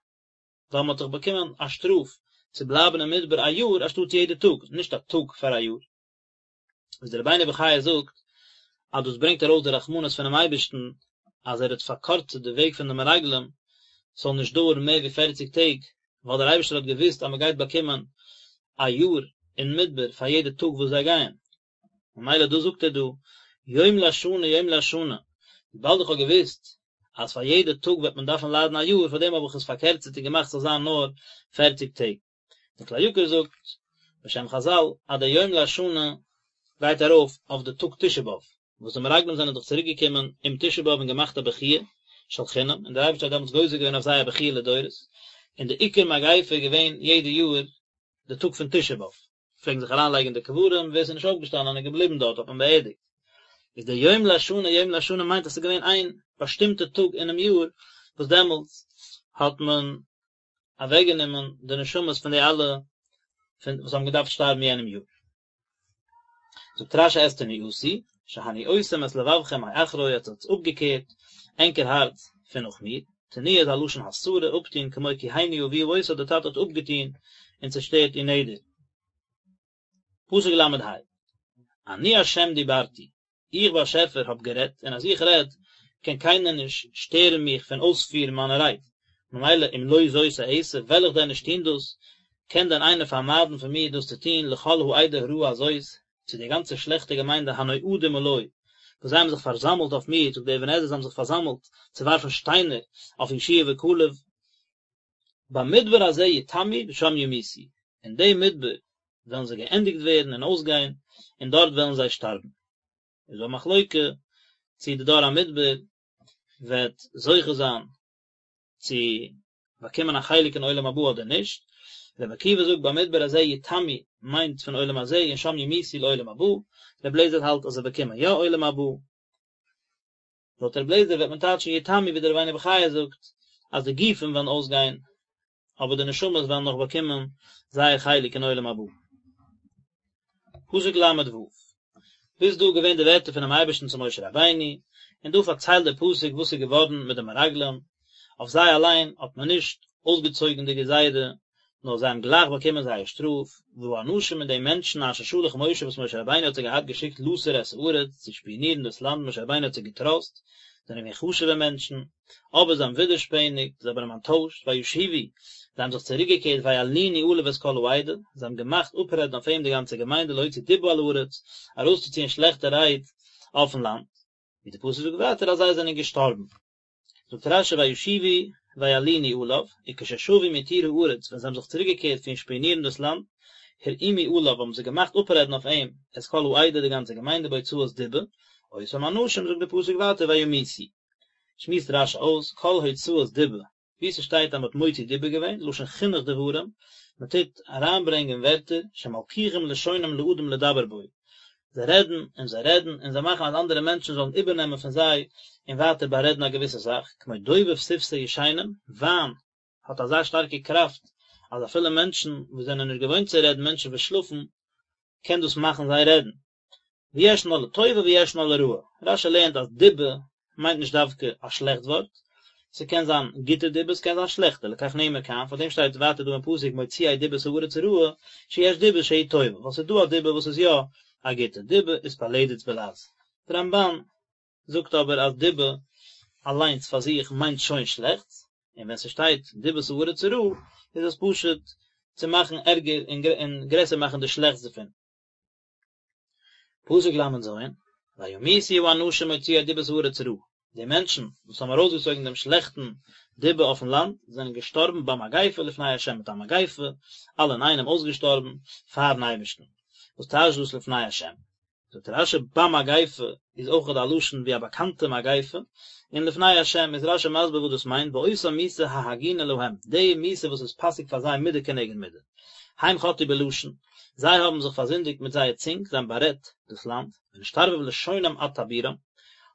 ווייל מען האט דאך באקומען א שטראף צו בלייבן אין מדבר א יאר אנשטאט יעדע טאג, נישט א טאג פאר א יאר. וואס דער רבינו בחיי זאגט אז דאס ברענגט ארויס די רחמנות פונעם אייבערשטן אז ער האט פארקורצט די וועג פון די מרגלים ס'זאל נישט דויערן מער ווי פערציג טעג, ווייל דער אייבערשטער האט געוואוסט אז מען גייט באקומען א יאר אין מדבר פאר יעדע טאג וואס זיי גייען, ממילא דאס זאגט ער דא, יום לשנה יום לשנה, וויבאלד איך האב געוואוסט אז פאר יעדע טאג וועט מען דארפן ליידן א יאר, פאר דעם האב איך עס פארקערצערט און געמאכט ס'זאל זיין נאר פערציג טעג. דער כלי יקר זאגט בשם חזל אז דער יום לשנה גייט ארויף אויף די טאג תשעה באב, וואס די מרגלים זענען דאך צוריק געקומען אום תשעה באב און געמאכט א בכיה של חינם, און דער אייבערשטער האט דעמאלטס גוזר געווען אויף זיי א בכיה לדורות, און די עיקר מגיפה איז געווען יעדע יאר די טאג פון תשעה באב, פלעגן זיך אריין לייגן אין די קברים, ווער ס'איז נישט אויפגעשטאנען און געבליבן דארט האט מען באערדיגט. איז דער יום לשנה יום לשנה מיינט אז ס'איז געווען איין באשטימטע טאג אינעם יאר וואס דעמאלטס האט מען אוועקגענומען די נשמות פון די אלע פון וואס האבן געדארפט שטארבן יענעם יאר. זאגט רש"י את תנואתי, שהניאותם את לבבכם מאחרי עטס האטס אפגעקערט ענקער הארץ פון נאך מיר, תנואה איז א לשון הסרה, אפטון, כמו כי הניא אביה אותה די טאטע האט אפגעטון און צעשטערט איר נדר. פסוק ל"ה, אני השם דיברתי, איך באשעפער האב גערעדט, און אז איך רעד, קען קיינער נישט שטערן מיך פון אויספירן מיינע רייד, ממילא אם לא זאת אעשה, וועל איך דען נישט טון דאס? קען דען איינער פארמיידן פון מיר דאס צו טון, לכל העדה הרעה הזאת, צו די גאנצע שלעכטע געמיינדע הנועדים עלי, וואס זיי האבן זיך פארזאמלט אויף מיר, זאגט דער אבן עזרא זיי האבן זיך פארזאמלט צו ווארפן שטיינער אויף יהושע וכלב, במדבר הזה יתמו ושם ימותו, אין דעם מדבר וועלן זיי געענדיגט ווערן און אויסגיין, און דארט וועלן זיי שטארבן. איז דא א מחלוקה צי די דור המדבר וועט זוכה זיין צו באקומען א חלק אין עולם הבא אדער נישט, רבי עקיבא זאגט במדבר הזה יתמו מיינט פון עולם הזה און שם ימותו לעולם הבא, רבי אליעזר האלט אז זיי באקומען יא עולם הבא. לויט רבי אליעזר וועט מען טייטשן יתמו ווי דער רבינו בחיי זאגט אז די גופים וועלן אויסגיין אבער די נשמות וועלן נאך באקומען זייער חלק אין עולם הבא. פסוק ל"ו, ביז דא געווען די ווערטער פונעם אייבערשטן צו משה רבינו, און דא פארציילט דער פסוק וואס איז געווארן מיט די מרגלים, אויף זיי אליין האט מען נישט אויסגעצויגן די גזירה, נאר זיי האבן גלייך באקומען זייער שטראף, והאנשים און די מענטשן אשר שלח משה וואס משה רבינו האט זיי געהאט געשיקט לתור את הארץ צו שפיאנירן דאס לאנד, משה רבינו האט זיי געטראסט, זענען געווען חשוב'ע מענטשן, אבער זיי האבן ווידערשפעניגט, זיי האבן אים אנטוישט, וישובו, זיי האבן זיך צוריקגעקערט וילינו עליו את כל העדה, זיי האבן געמאכט אפרעדן אויף אים די גאנצע געמיינדע להוציא דיבה על הארץ, ארויסצוציען שלעכטע רייד אויפן לאנד. ווי די פסוק זאגט ווייטער אז זיי זענען געשטארבן. זאגט רש"י וישובו וילינו עליו, וכששבו מתור הארץ, ווען זיי האבן זיך צוריקגעקערט פון שפיאנירן דאס לאנד, הרעימו עליו האבן זיי געמאכט אפרעדן אויף אים את כל העדה די גאנצע געמיינדע בהוצאת דיבה, אותם אנשים זאגט די פסוק ווייטער וימותו. שמועסט רש"י אויס כל הוצאת דיבה, וואו ס'שטייט אז מ'האט מוציא דיבה געווען, לשון חינוך דברים, מ'טוט אריינברענגען ווערטער, שמלקיחים לשונם לאדם לדבר בו, זיי רעדן און זיי רעדן און זיי מאכן אז אנדערע מענטשן זאלן איבערנעמען פון זיי און ווייטער בארעדן א געוויסע זאך, כמו דובב שפתי ישנים, וויין האט אזא שטארקע קראפט אז אפילו מענטשן וואס זענען נישט געוואוינט צו רעדן, מענטשן וואס שלאפן, קען דאס מאכן זיי רעדן. וישנה לטובה וישנה לרעה, רש"י לערנט אז דיבה מיינט נישט דווקא א שלעכט ווארט, ס'קען זיין גוטע דיבה ס'קען זיין שלעכטע, לכך נאמר כאן, פאר דעם שטייט ווייטער דא אין פסוק מוציאי דיבת הארץ רעה, שיש דיבה שהיא טובה, ווייל ס'איז דא א דיבה וואס איז יא א גוטע, דיבה איז פלדת בלע"ז. די רמב"ן זאגט אבער אז דיבה אליינס פאר זיך מיינט שוין שלעכטס, און ווען ס'שטייט דיבת הארץ רעה איז עס פשוט צו מאכן ערגער און גרעסער מאכן די שלעכטס דערפון. פסוק ל"ז, וימותו האנשים מוציאי דיבת הארץ רעה, די מענטשן וואס האבן ארויסגעצויגן דעם שלעכטן דיבה אויפן לאנד, זענען געשטארבן במגיפה לפני ה', מיט א מגיפה, אלע אינאיינעם אויסגעשטארבן פארן אייבערשטן. וואס טייטשט דאס לפני ה'? זאגט רש"י במגיפה איז אויך א לשון ווי א באקאנטע מגיפה, און לפני ה' איז רש"י מסביר וואס דאס מיינט, באותה מיתה ההגונה להם, די מיתה וואס איז פאסיג פאר זיי מידה כנגד מידה. הם חטאו בלשון, זיי האבן זיך פארזינדיגט מיט זייער צונג, זיי האבן בארעדט דאס לאנד, ונשתרבב לשונם עד טבורם,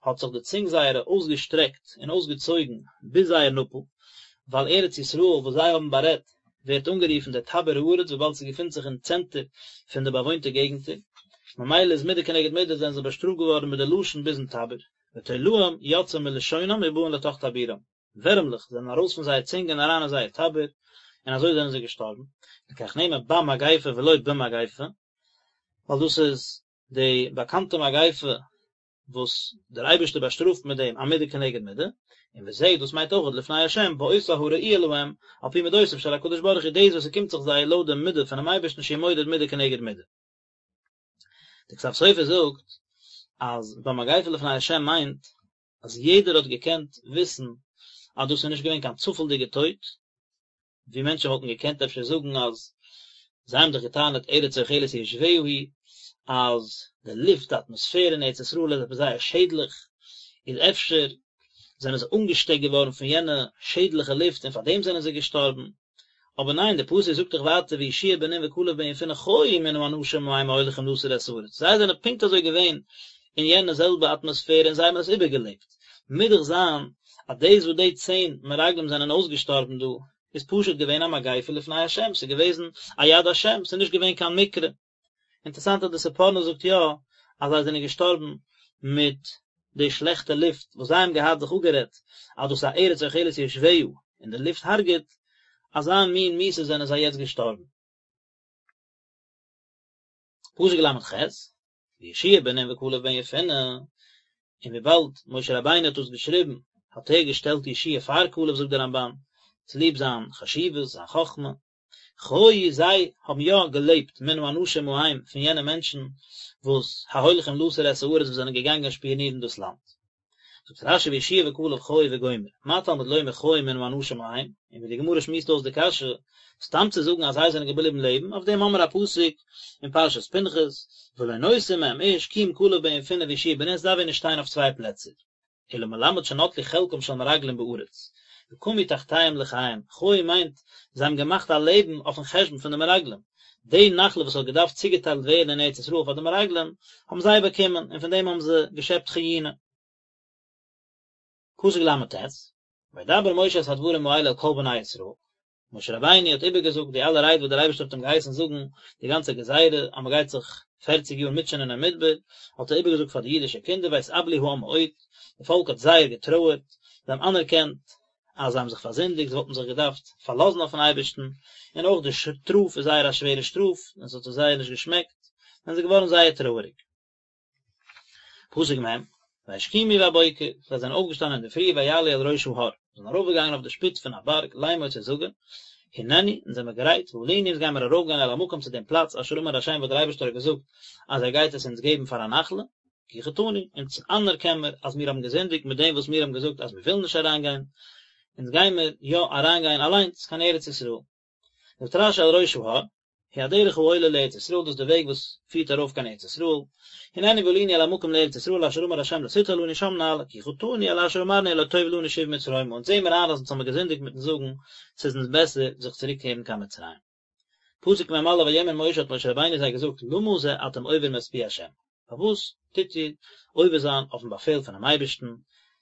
האט זיך די צונג זייערע אויסגעשטרעקט און אויסגעצויגן ביז זייער נאפל, ווייל ארץ ישראל וואס זיי האבן בארעדט ווערט אנגערופן דער טבור הארץ וויבאלד ס'געפינט זיך אין צענטער פון די באוואוינטע געגנטער, ממילא איז מידה כנגד מידה זענען זיי באשטראפט געווארן מיט די לשון ביזן טבור, ותולעים יוצאים מלשונם ובאין לתוך טבורם. ווערעמלעך זענען ארויס פון זייער צונג און אריין אין זייער טבור, און אזוי זענען זיי געשטארבן, לכך נאמר במגיפה ולא במגפה, ווייל דאס איז די באקאנטע מגיפה וואס דער אייבערשטער באשטראפט מיט דעם א מידה כנגד מידה, און וזה דאס מיינט אויך לפני השם באותה הראויה להם על פי מדותיו של הקדוש ברוך הוא דאס וואס ס'קומט זיך זיי לויט די מידה פונעם אייבערשטן שהוא מודד מידה כנגד מידה. דער כתב סופר זאגט אז במגיפה לפני השם מיינט אז יעדער האט געקענט וויסן אז דאס איז נישט געווען קיין צופעלדיגע טויט, ווי מענטשן וואלטן געקענט אפשר זאגן אז זיי האבן דאך געטענה'ט ארץ אוכלת יושביה היא, אז די לופט, די אטמאספער אין ארץ ישראל איז עפעס זייער שעדליך, איז אפשר זענען זיי אנגעשטעקט געווארן פון יענע שעדליכע לופט און פאר דעם זענען זיי געשטארבן. אבער ניין, דער פסוק זאגט דאך ווייטער ויהושע בן נון וכלב בן יפונה חיו מן האנשים ההם ההולכים לתור את הארץ, זיי זענען פונקט אזוי געווען אין יענע זעלבע אטמאספערע און זיי האבן עס איבערגעלעבט, מוז דאך זיין אז דאס וואס די צען מרגלים זענען אויסגעשטארבן דא איז פשוט געווען א מגיפה לפני השם, ס'איז געוועזן א יד השם, ס'איז נישט געווען קיין מקרה. אינטערעסאנט אז די ספורנו זאגט יא אז זיי זענען געשטארבן מיט די שלעכטע לופט וואס זיי האבן געהאט זיך אפגערעדט אז דאס איז א ארץ אוכלת יושביה און די לופט הרג'ט, אזא מין מיתה זענען זיי יעצט געשטארבן. פסוק ל"ח, ויהושע בן נון וכלב בן יפונה, און וויבאלד משה רבינו האט דאס געשריבן האט ער געשטעלט יהושע פאר כלב זאגט דער רמב"ן, צוליב זיין חשיבות, זיין חכמה, חיו זיי האבן יא געלעבט מן האנשים ההם פון יענע מענטשן וואס ההולכים לתור את הארץ וואס זענען געגאנגען שפיאנירן דאס לאנד. זאגט רש"י ויהושע וכלב חיו וגומר, מה תלמוד לומר חיו מן האנשים ההם, און ווי די גמרא שמועסט אויס די קשיא, סתם צו זאגן אז זיי זענען געבליבן לעבן, אויף דעם האמיר א פסוק אין פרשת פנחס, ולא נותר מהם איש כי אם כלב בן יפונה ויהושע בן נון, ס'דארף ווען נישט שטיין אויף צוויי פלעצער. אלא מלמד שנטלו חלקם של מרגלים בארץ, וקמו תחתיהם לחיים, חיו מיינט, זיי האבן געמאכט א לעבן אויפן חשבון פון די מרגלים, די נחלה וואס האט געדארפט צוגעטיילט ווערן אין ארץ ישראל פאר די מרגלים, האבן זיי באקומען, און פון דעם האבן זיי געשעפט חיונה. פסוק ל"ט, וידבר משה את הדברים האלה אל כל בני ישראל, משה רבינו האט איבערגעזאגט די אלע רייד וואס דער אייבערשטער האט אים געהייסן זאגן, די גאנצע גזירה אז מען גייט זיך פערציג יאר מוטשענען אין מדבר, האט ער איבערגעזאגט פאר די אידישע קינדער ויתאבלו העם מאוד, די פאלק האט זייער געטרויערט, זיי האבן אנערקענט אז זיי האבן זיך פארזינדיגט, זיי וואלטן זיך געדארפט פארלאזן אויפן אייבערשטן, און אויך די שטראף איז זייער א שווערע שטראף, און עס האט זיי זייער נישט געשמעקט, זענען זיי געווארן זייער טרויעריג. פסוק מ', וישכימו בבוקר, זיי זענען אויפגעשטאנען אינדערפרי ויעלו אל ראש ההר, זיי זענען ארויפגעגאנגען אויף די שפיץ פון א בארג, לאמור צו זאגן, הננו, אונז זעמיר גרייט, ועלינו אונז גיימיר ארויפגיין אל המקום צו דעם פלאץ אשר אמר ה' וואס דער אייבערשטער האט געזאגט אז ער גייט עס אונז געבן פאר א נחלה, כי חטאנו, אונז אנערקען מיר אז מיר האבן געזינדיגט מיט דעם וואס מיר האבן געזאגט אז מיר ווילן נישט אריינגיין, אונז גיימיר יא אריינגיין אליינס קיין ארץ ישראל. זאגט רש"י אל ראש ההר, הוא הדרך העולה לארץ ישראל, דאס איז די וועג וואס פירט ארויף קיין ארץ ישראל, הננו ועלינו אל המקום לארץ ישראל אשר אמר ה' לתתה לנו שם נעלה, כי חטאנו על אשר אמרנו הלא טוב לנו שוב מצרימה, אונז זעהן מיר איין אז אונז האבן געזינדיגט מיטן זאגן ס'איז אונז בעסער זיך צוריקקערן קיין מצרים. פסוק מ"א ויאמר משה האט משה רבינו זיי געזאגט למה זה אתם עוברים את פי ה', פארוואס טוט איר עובר זיין אויפן באפעל פונעם אייבערשטן,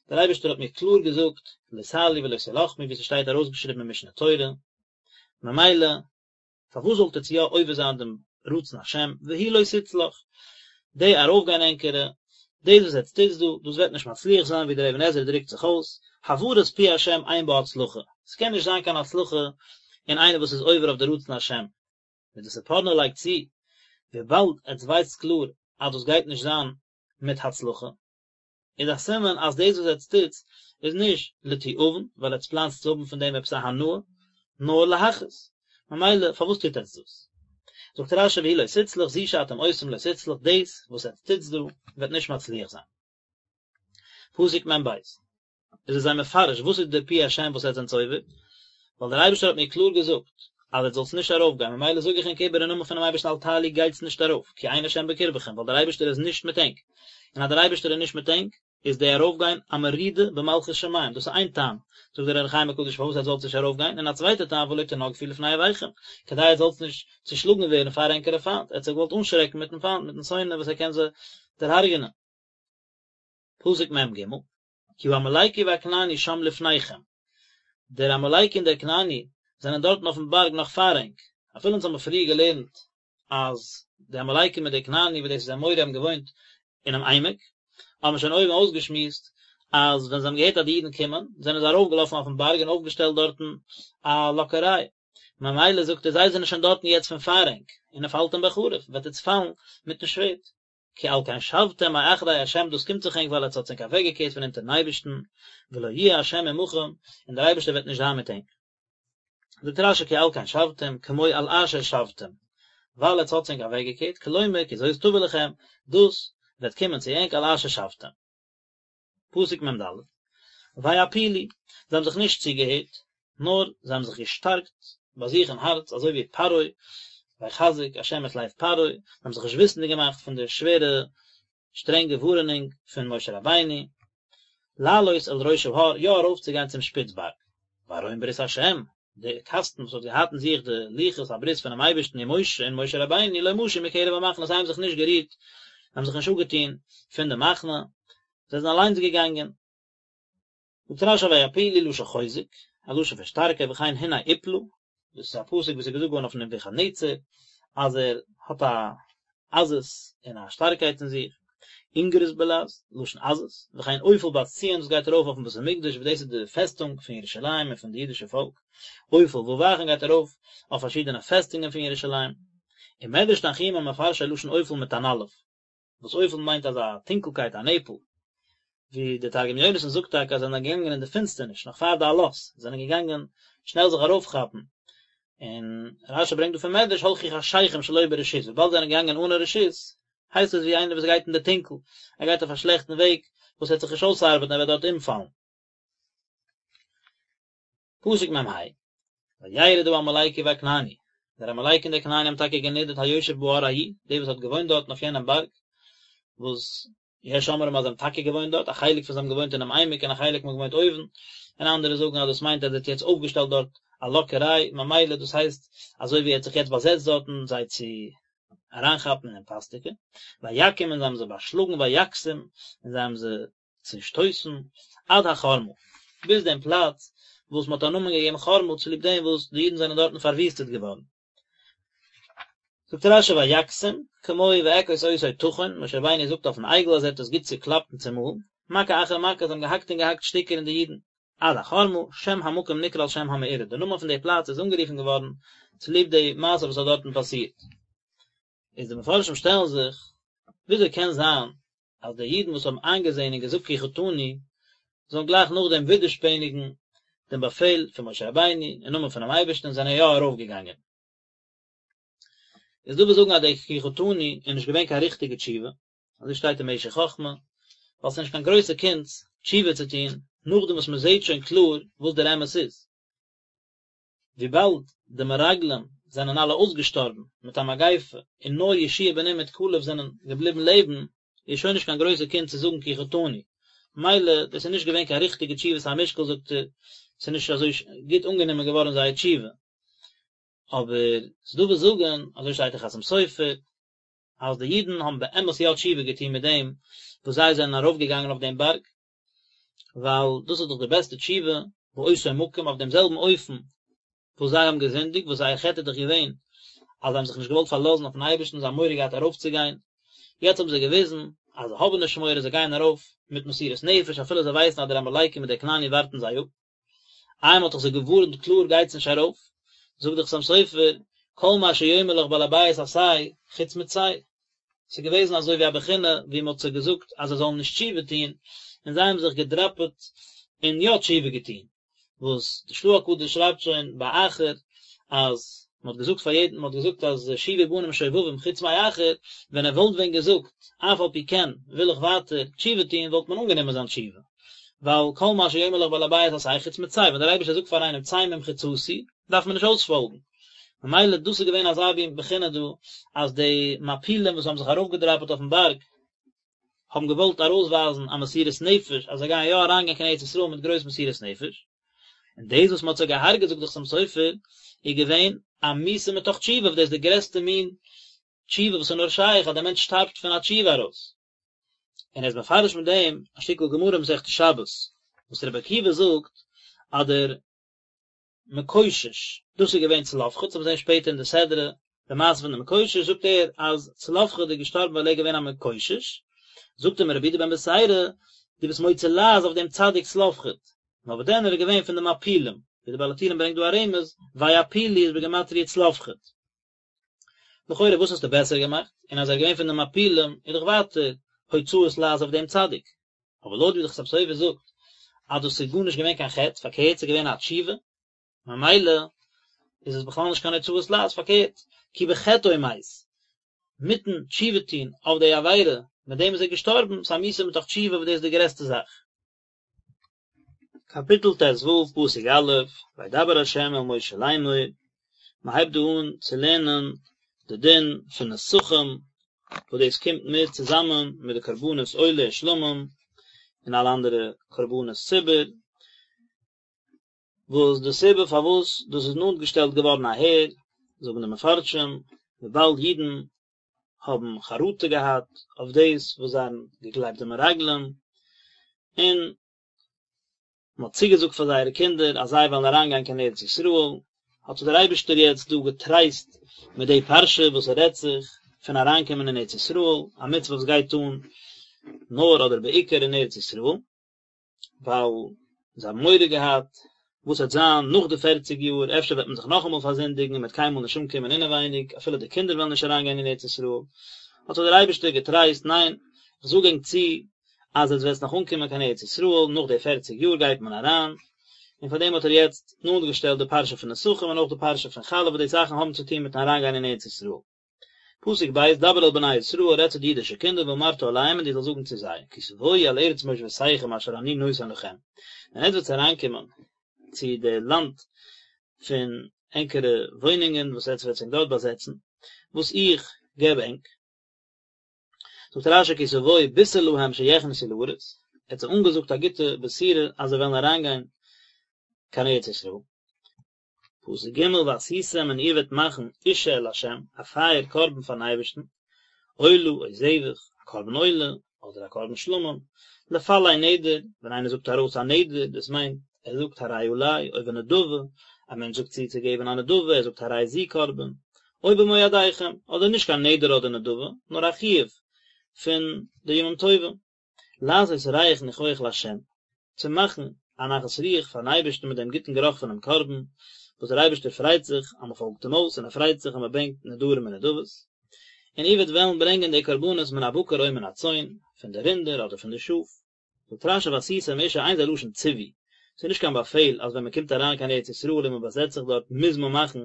דער אייבערשטער האט מיר קלאר געזאגט לא תעלו ולא תלחמו ווי ס'שטייט ארויסגעשריבן אין משנה תורה, ממילא פארוואס זאלט עטץ יא עובר זיין דעם רצון השם, והיא לא תצלח, די ארויפגיין ענקערע, דאס וואס עטץ טוטס דא, דאס וועט נישט מצליח זיין, ווי דער אבן עזרא דרוקט זיך אויס, הברת פי השם אין בה הצלחה, ס'קען נישט זיין קיין הצלחה אין איינער וואס איז עובר אויף די רצון השם, ווי דער ספורנו לייגט צו, וויבאלד עטץ ווייסטס קלאר אז דאס גייט נישט זיין מיט הצלחה, איז א סימן אז דאס וואס עטץ טוטס איז נישט לתיאבון, ווייל עטץ פלאנסט צו האבן פון דעם עפעס א הנאה, נאר להכעיס. ממילא פארוואס טוט עטץ דאס? זאגט רש"י והיא לא תצלח, זו שאתם עושים לא תצלח, דאס וואס עטץ טוטס דא וועט נישט מצליח זיין. פסוק מ"ב. איז ער זיי מפרש וואס איז דער פי השם וואס עטץ זענטס עובר, ווייל דער אייבערשטער האט מיר קלאר געזאגט אז עטס זאלטס נישט ארויף גיין, ממילא זאג איך ענק איבער אין נאמען פונעם אייבערשטן אל תעלו גייטס נישט ארויף, כי אין השם בקרבכם, ווייל דער אייבערשטער איז נישט מיט ענק, און אז דער אייבערשטער איז נישט מיט ענק, איז די ארויף גיין א מרידה במלכות שמים, דאס איז איין טעם, זאגט דער אור החיים הקדוש פארוואס עטס זאלטס נישט ארויף גיין, און א צווייטע טעם ולא תנגפו לפני אויביכם, כדי עטס זאלטס נישט צושלאגן ווערן פאר ענקערע פיינט, ער האט זיי געוואלט אנשרעקן מיטן פיינט, מיטן שונא וואס ער קען זיי דערהרגענען. פסוק מ"ג, כי העמלקי והכנעני שם לפניכם, דער עמלקי און דער כנעני זענען דארטן אויפן בארג נאך פאר ענק, אפילו אונז האבן פריער געלערנט אז די עמלקי מיט די כנעני וואס דאס איז אמורי האבן געוואוינט אינעם עמק, האבן מיר שוין אויבן אויסגעשמועסט אז ווען זיי האבן געהערט אז די אידן קומען, זענען זיי ארויפגעלאפן אויפן בארג און אויפגעשטעלט דארטן א לאקעריי, ממילא זאגט ער זיי זענען שוין דארטן יעצט פון פאר ענק, ונפלתם בחרב, וועט עטס פאלן מיטן שווערד. כי על כן שבתם מאחרי ה' דאס קומט זיך ענק ווייל עטס האטס ענק אוועקגעקערט פון אונטערן אייבערשטן, ולא יהיה ה' עמכם, און דער אייבערשטער וועט נישט זיין מיט ענק. זאגט רש"י כי על כן שבתם, כמו על אשר שבתם, ווייל עטס האטס ענק אוועקגעקערט, כלומר כי זאת תבוא לכם, דאס וועט קומען צו ענק על אשר שבתם. פסוק מ"ד, ויעפילו, זיי האבן זיך נישט צוגעהערט, נאר זיי האבן זיך געשטארקט ביי זיך אין הארץ, אזוי ווי פרעה, ויחזק ה' את לב פרעה, זיי האבן זיך נישט וויסנדיג געמאכט פון די שווערע שטרענגע ווארענונג פון משה רבינו, לעלות אל ראש ההר, יא ארויפצוגיין צום שפיץ בארג, וארון ברית ה', די קאסטן וואס האט געהאט אין זיך די לוחות הברית פונעם אייבערשטן ומשה און משה רבינו לא משו מקרב המחנה, זיי האבן זיך נישט גערירט, זיי האבן זיך נישט אפגעטון פון די מחנה, זיי זענען אליינס געגאנגען. זאגט רש"י ויעפילו לשון חוזק, א לשון פון שטארקייט וכן הנה עיפלה, דאס איז א פסוק וואס איז געזאגט געווארן אויף נבוכדנצר, אז ער האט א עזות און א שטארקייט אין זיך, אינגרוס בלע"ז, לשון עזות, וכן אופל בת ציון וואס גייט ארויף אויפן בית המקדש וואס דאס איז די פעסטונג פון ירושלים און פון די אידישע פאלק, אופל וואו גייט ארויף אויף פארשידענע פעסטונגען פון ירושלים, ומדרש תנחומא מפרשו לשון אופל מיט אן אלף. וואס אופל מיינט אזא טונקלקייט א נעפל, ווי דער תרגום יונתן זאגט טאקע אז זיי זענען געגאנגען אין די פינסטערניש נאך פאר די עלות, זיי זענען געגאנגען שנעל זיך ארויפכאפן, און רש"י ברענגט דא פון מדרש הלכו חשכים שלא ברשות, וויבאלד זיי זענען געגאנגען אנע רשות, הייסט עס ווי איינער וואס גייט אין די טונקל, ער גייט אויף א שלעכטן וועג וואס וועט זיך נישט אויסארבעטן ער וועט דארט אומפאלן. פסוק מ"ה, וירד העמלקי והכנעני, דער עמלקי און דער כנעני האבן טאקע גענידערט היושב בהר ההוא, דער וואס האט געוואוינט דארטן אויף יענעם בארג, וואס יש אומרים אז זיי האבן טאקע געוואוינט דארט, א חלק פון זיי האבן געוואוינט אינעם עמק און א חלק האבן געוואוינט אויבן, און אנדערע זאגן אז דאס מיינט אז ער האט יעצט אויפגעשטעלט דארט א לאקעריי, ממילא דאס הייסט אזוי ווי ער האט זיך יעצט באזעצט דארטן זיי צו אריינכאפן אין פאסטיקע, ויכום און זיי האבן זיי באשלאגן ויכתום און זיי האבן זיי צעשטויסן, עד החרמה, ביז דעם פלאץ וואס מען האט א נאמען געגעבן חרמה צוליב דעם וואס די אידן זענען דארטן פארוויסטעט געווארן. זאגט רשי ויכתום, כמו ואכות אותו טחון, משה רבינו זאגט אויפן עגל אז ער האט עס גוט צוקלאפט און צומאלן, מכה אחר מכה, זיי האבן געהאקט און געהאקט שטיקער אין די אידן, עד החרמה, שם המקום נקרא על שם המאורע, די נאמען פון די פלאץ איז אנגערופן געווארן צוליב די מעשה וואס האט דארטן פאסירט. איז די מפרשים שטעלן זיך, וויאזוי קען זיין אז די אידן וואס האבן איינגעזען און געזאגט כי חטאנו, זאלן גלייך נאכדעם ווידערשפעניגן דעם באפעל פון משה רבינו אין נאמען פונעם אייבערשטן און זענען יא ארויפגעגאנגען. איז דא וואס זאגן אז די כי חטאנו איז נישט געווען קיין ריכטיגע תשובה, אזוי שטייט אין משך חכמה, ווייל ס'איז נישט קיין גרויסע קונץ תשובה צו טון נאכדעם וואס מ'זעט שוין קלאר וואס דער אמת איז. וויבאלד די מרגלים זענען אלע אויסגעשטארבן מיט א מגיפה און נאר יהושע בן נון מיט כלב זענען געבליבן לעבן, איז שוין נישט קיין גרויסע קונץ צו זאגן כי חטאנו. מילא, דאס איז נישט געווען קיין ריכטיגע תשובת המשקל זאגט ער, ס'איז נישט אזוי גוט אנגענומען געווארן זייער תשובה. אבער ס'דא וואס זאגן, אזוי שטייט אין חתם סופר, אז די אידן האבן באמת יא תשובה געטון מיט דעם וואס זיי זענען ארויפגעגאנגען אויף דעם בארג, ווייל דאס איז דאך די בעסטע תשובה, באותו מקום, אויף דעם זעלבן אופן וואס זיי האבן געזינדיגט, וואס זייער חטא איז דאך געווען אז זיי האבן זיך נישט געוואלט פארלאזן אויפן אייבערשטן, זיי האבן מורא געהאט ארויפצוגיין, יעצט האבן זיי געוויזן אז זיי האבן נישט מורא, זיי גייען ארויף מיט מסירות נפש אפילו זיי ווייסן אז דער עמלקי מיט דער כנעני ווארטן זיי אפ. איי מ'האט דאך זיי געווארנט קלאר גייטס נישט ארויף, זאגט דער חתם סופר, כל מה שיאמר לך בעל הבית עשה, חוץ מצא. ס'איז געוועזן אזוי ווי א בחינה ווי מ'האט זיי געזאגט אז זיי זאלן נישט תשובה טון, און זיי האבן זיך געדראפעט און יא תשובה געטון. וואס די של"ה הקדוש שרייבט שוין ביי אחר אז מען האט געזאגט פאר יעדן, מען האט געזאגט אז שובו בנים שובבים חוץ מאחר, ווען ער וואלט ווען געזאגט אף על פי כן וויל איך ווייטער תשובה טון וואלט מען אנגענומען זיין תשובה, ווייל כל מה שיאמר לך בעל הבית עשה חוץ מצא, ווען דער אייבערשטער זאגט פאר איינעם צא ממחיצתי דארף מען נישט אויספאלגן, ממילא דאס איז געווען אזא מין בחינה דא אז די מעפילים וואס האבן זיך ארויפגעדראפעט אויפן בארג האבן געוואלט ארויסווייזן א מסירות נפש אז זיי גייען יא אריינגיין קיין ארץ ישראל מיט גרויס מסירות נפש, און דאס וואס מען האט זיי געהארגעט זאגט דער חתם סופר איז געווען א מיתה מתוך תשובה וואס דאס איז די גרעסטע מין תשובה וואס איז נאר שייך אז דער מענטש שטארבט פון א תשובה ארויס. און ער איז מפרש מיט דעם א שטיקל גמרא מסכת שבת וואס רבי עקיבא זאגט אז דער מקושש, דאס איז געווען צלפחד, אונז וועלן זען שפעטער אין די סדרה די מעשה פון די מקושש, זאגט ער אז צלפחד איז געשטארבן ווייל ער איז געווען א מקושש, זאגט אים רבי יהודה בן בתירא, דו ביסט מוציא לעז אויף דעם צדיק צלפחד, נאר וואס דען ער איז געווען פון די מעפילים, ווי די בעל הטורים ברענגט דא א רמז, ויעפילו איז בגימטריא צלפחד. לכאורה וואס האסטו בעסער געמאכט, און אז ער איז געווען פון די מעפילים איז דאך ווייטער הוצאת לעז אויף דעם צדיק. אבער לויט ווי די חתם סופר זאגט אז דאס איז גארנישט געווען קיין חטא, פארקערט ס'איז געווען א תשובה, ממילא איז עס בכלל נישט קיין הוצאת לעז, פארקערט, כי בחטאו מת, מיטן תשובה טון אויף די עבירה, מיט דעם איז ער געשטארבן, ס'איז א מיתה מתוך תשובה וואס דאס איז די גרעסטע זאך. קאפיטל ט"ו, פסוק א', וידבר ה' אל משה לאמור, מען הייבט דא אן צו לערנען די דין פון נסכים, וואס דאס קומט מיט צוזאמען מיט די קרבנות עולה און שלמים, און אלע אנדערע קרבנות ציבור, וואס די סיבה פארוואס דאס איז נאנט געשטעלט געווארן אהער, זאגן די מפרשים, וויבאלד אידן האבן חרטה געהאט אויף דאס וואס זיי האבן געגלייבט די מרגלים, און מען האט צוגעזאגט פאר זייערע קינדער אז זיי וועלן אריינגיין קיין ארץ ישראל, האט זיי דער אייבערשטער יעצט דא געטרייסט מיט די פרשה וואס עס רעדט זיך פון אריינקומען אין ארץ ישראל, א מצוה וואס גייט אן נאר אדער בעיקר אין ארץ ישראל. ווייל זיי האבן מורא געהאט וואס וועט זיין נאך די פערציג יאר, אפשר וועט מען זיך נאכאמאל פארזינדיגן און מען וועט קיינמאל נישט אנקומען אינעווייניג, אפילו די קינדער וועלן נישט אריינגיין אין ארץ ישראל, האט זיי דער אייבערשטער געטרייסט, ניין, איך זאג ענק צו אז עטס וועטס נאך אנקומען קיין ארץ ישראל, נאך די פערציג יאר גייט מען אריין, און פאר דעם האט ער יעצט נאנט געשטעלט די פרשה פון נסכים און אויך די פרשה פון חלה וואס די זאכן האבן צו טון מיטן אריינגיין אין ארץ ישראל. פסוק ב', דבר אל בני ישראל, רעד צו די אידישע קינדער, ואמרת אליהם, און דו זאלסט זאגן צו זיי, כי תבואו אל ארץ מושבותיכם אשר אני נותן לכם, ווען עטס וועטס אריינקומען צו די לאנד פון ענקערע וואוינונגען וואס עטס וועטס ענק דארט באזעצן, וואס איך געב ענק. זאגט רש"י כי תבואו בישר להם שיכנסו לארץ, ער האט זיי אנגעזאגט א גוטע בשורה אז זיי וועלן אריינגיין קיין ארץ ישראל. פסוק ג' ועשיתם און איר וועט מאכן אשה לה', א פייער קרבן פארן אייבערשטן, עולה או זבח, א קרבן עולה, אדער א קרבן שלמים, לפלא נדר, ווען איינער זאגט ארויס א נדר, דאס מיינט, ער זאגט הרי עלי, או בנדבה, א מענטש זאגט צו צו געבן א נדבה, ער זאגט הרי זו קרבן, או במועדיכם, אדער נישט קיין נדר אדער נדבה, נאר א חיוב פון די ימים טובים, לעשות ריח ניחוח לה', צו מאכן א נחת רוח פארן אייבערשטן מיט דעם גוטן גערוך פונעם קרבן, וואס דער אייבערשטער פרייט זיך אז מען פאלגט אים אויס און ער פרייט זיך אז מען ברענגט נדרים און נדבות. און איר וועט וועלן ברענגען די קרבנות מן הבקר או מן הצאן, פון די רינדער אדער פון די שאף. זאגט רש"י ועשיתם אשה אין זה לשון ציווי, ס'איז נישט קיין באפעל אז ווען מען קומט אריין קיין ארץ ישראל און מען באזעצט זיך דארט מוז מען מאכן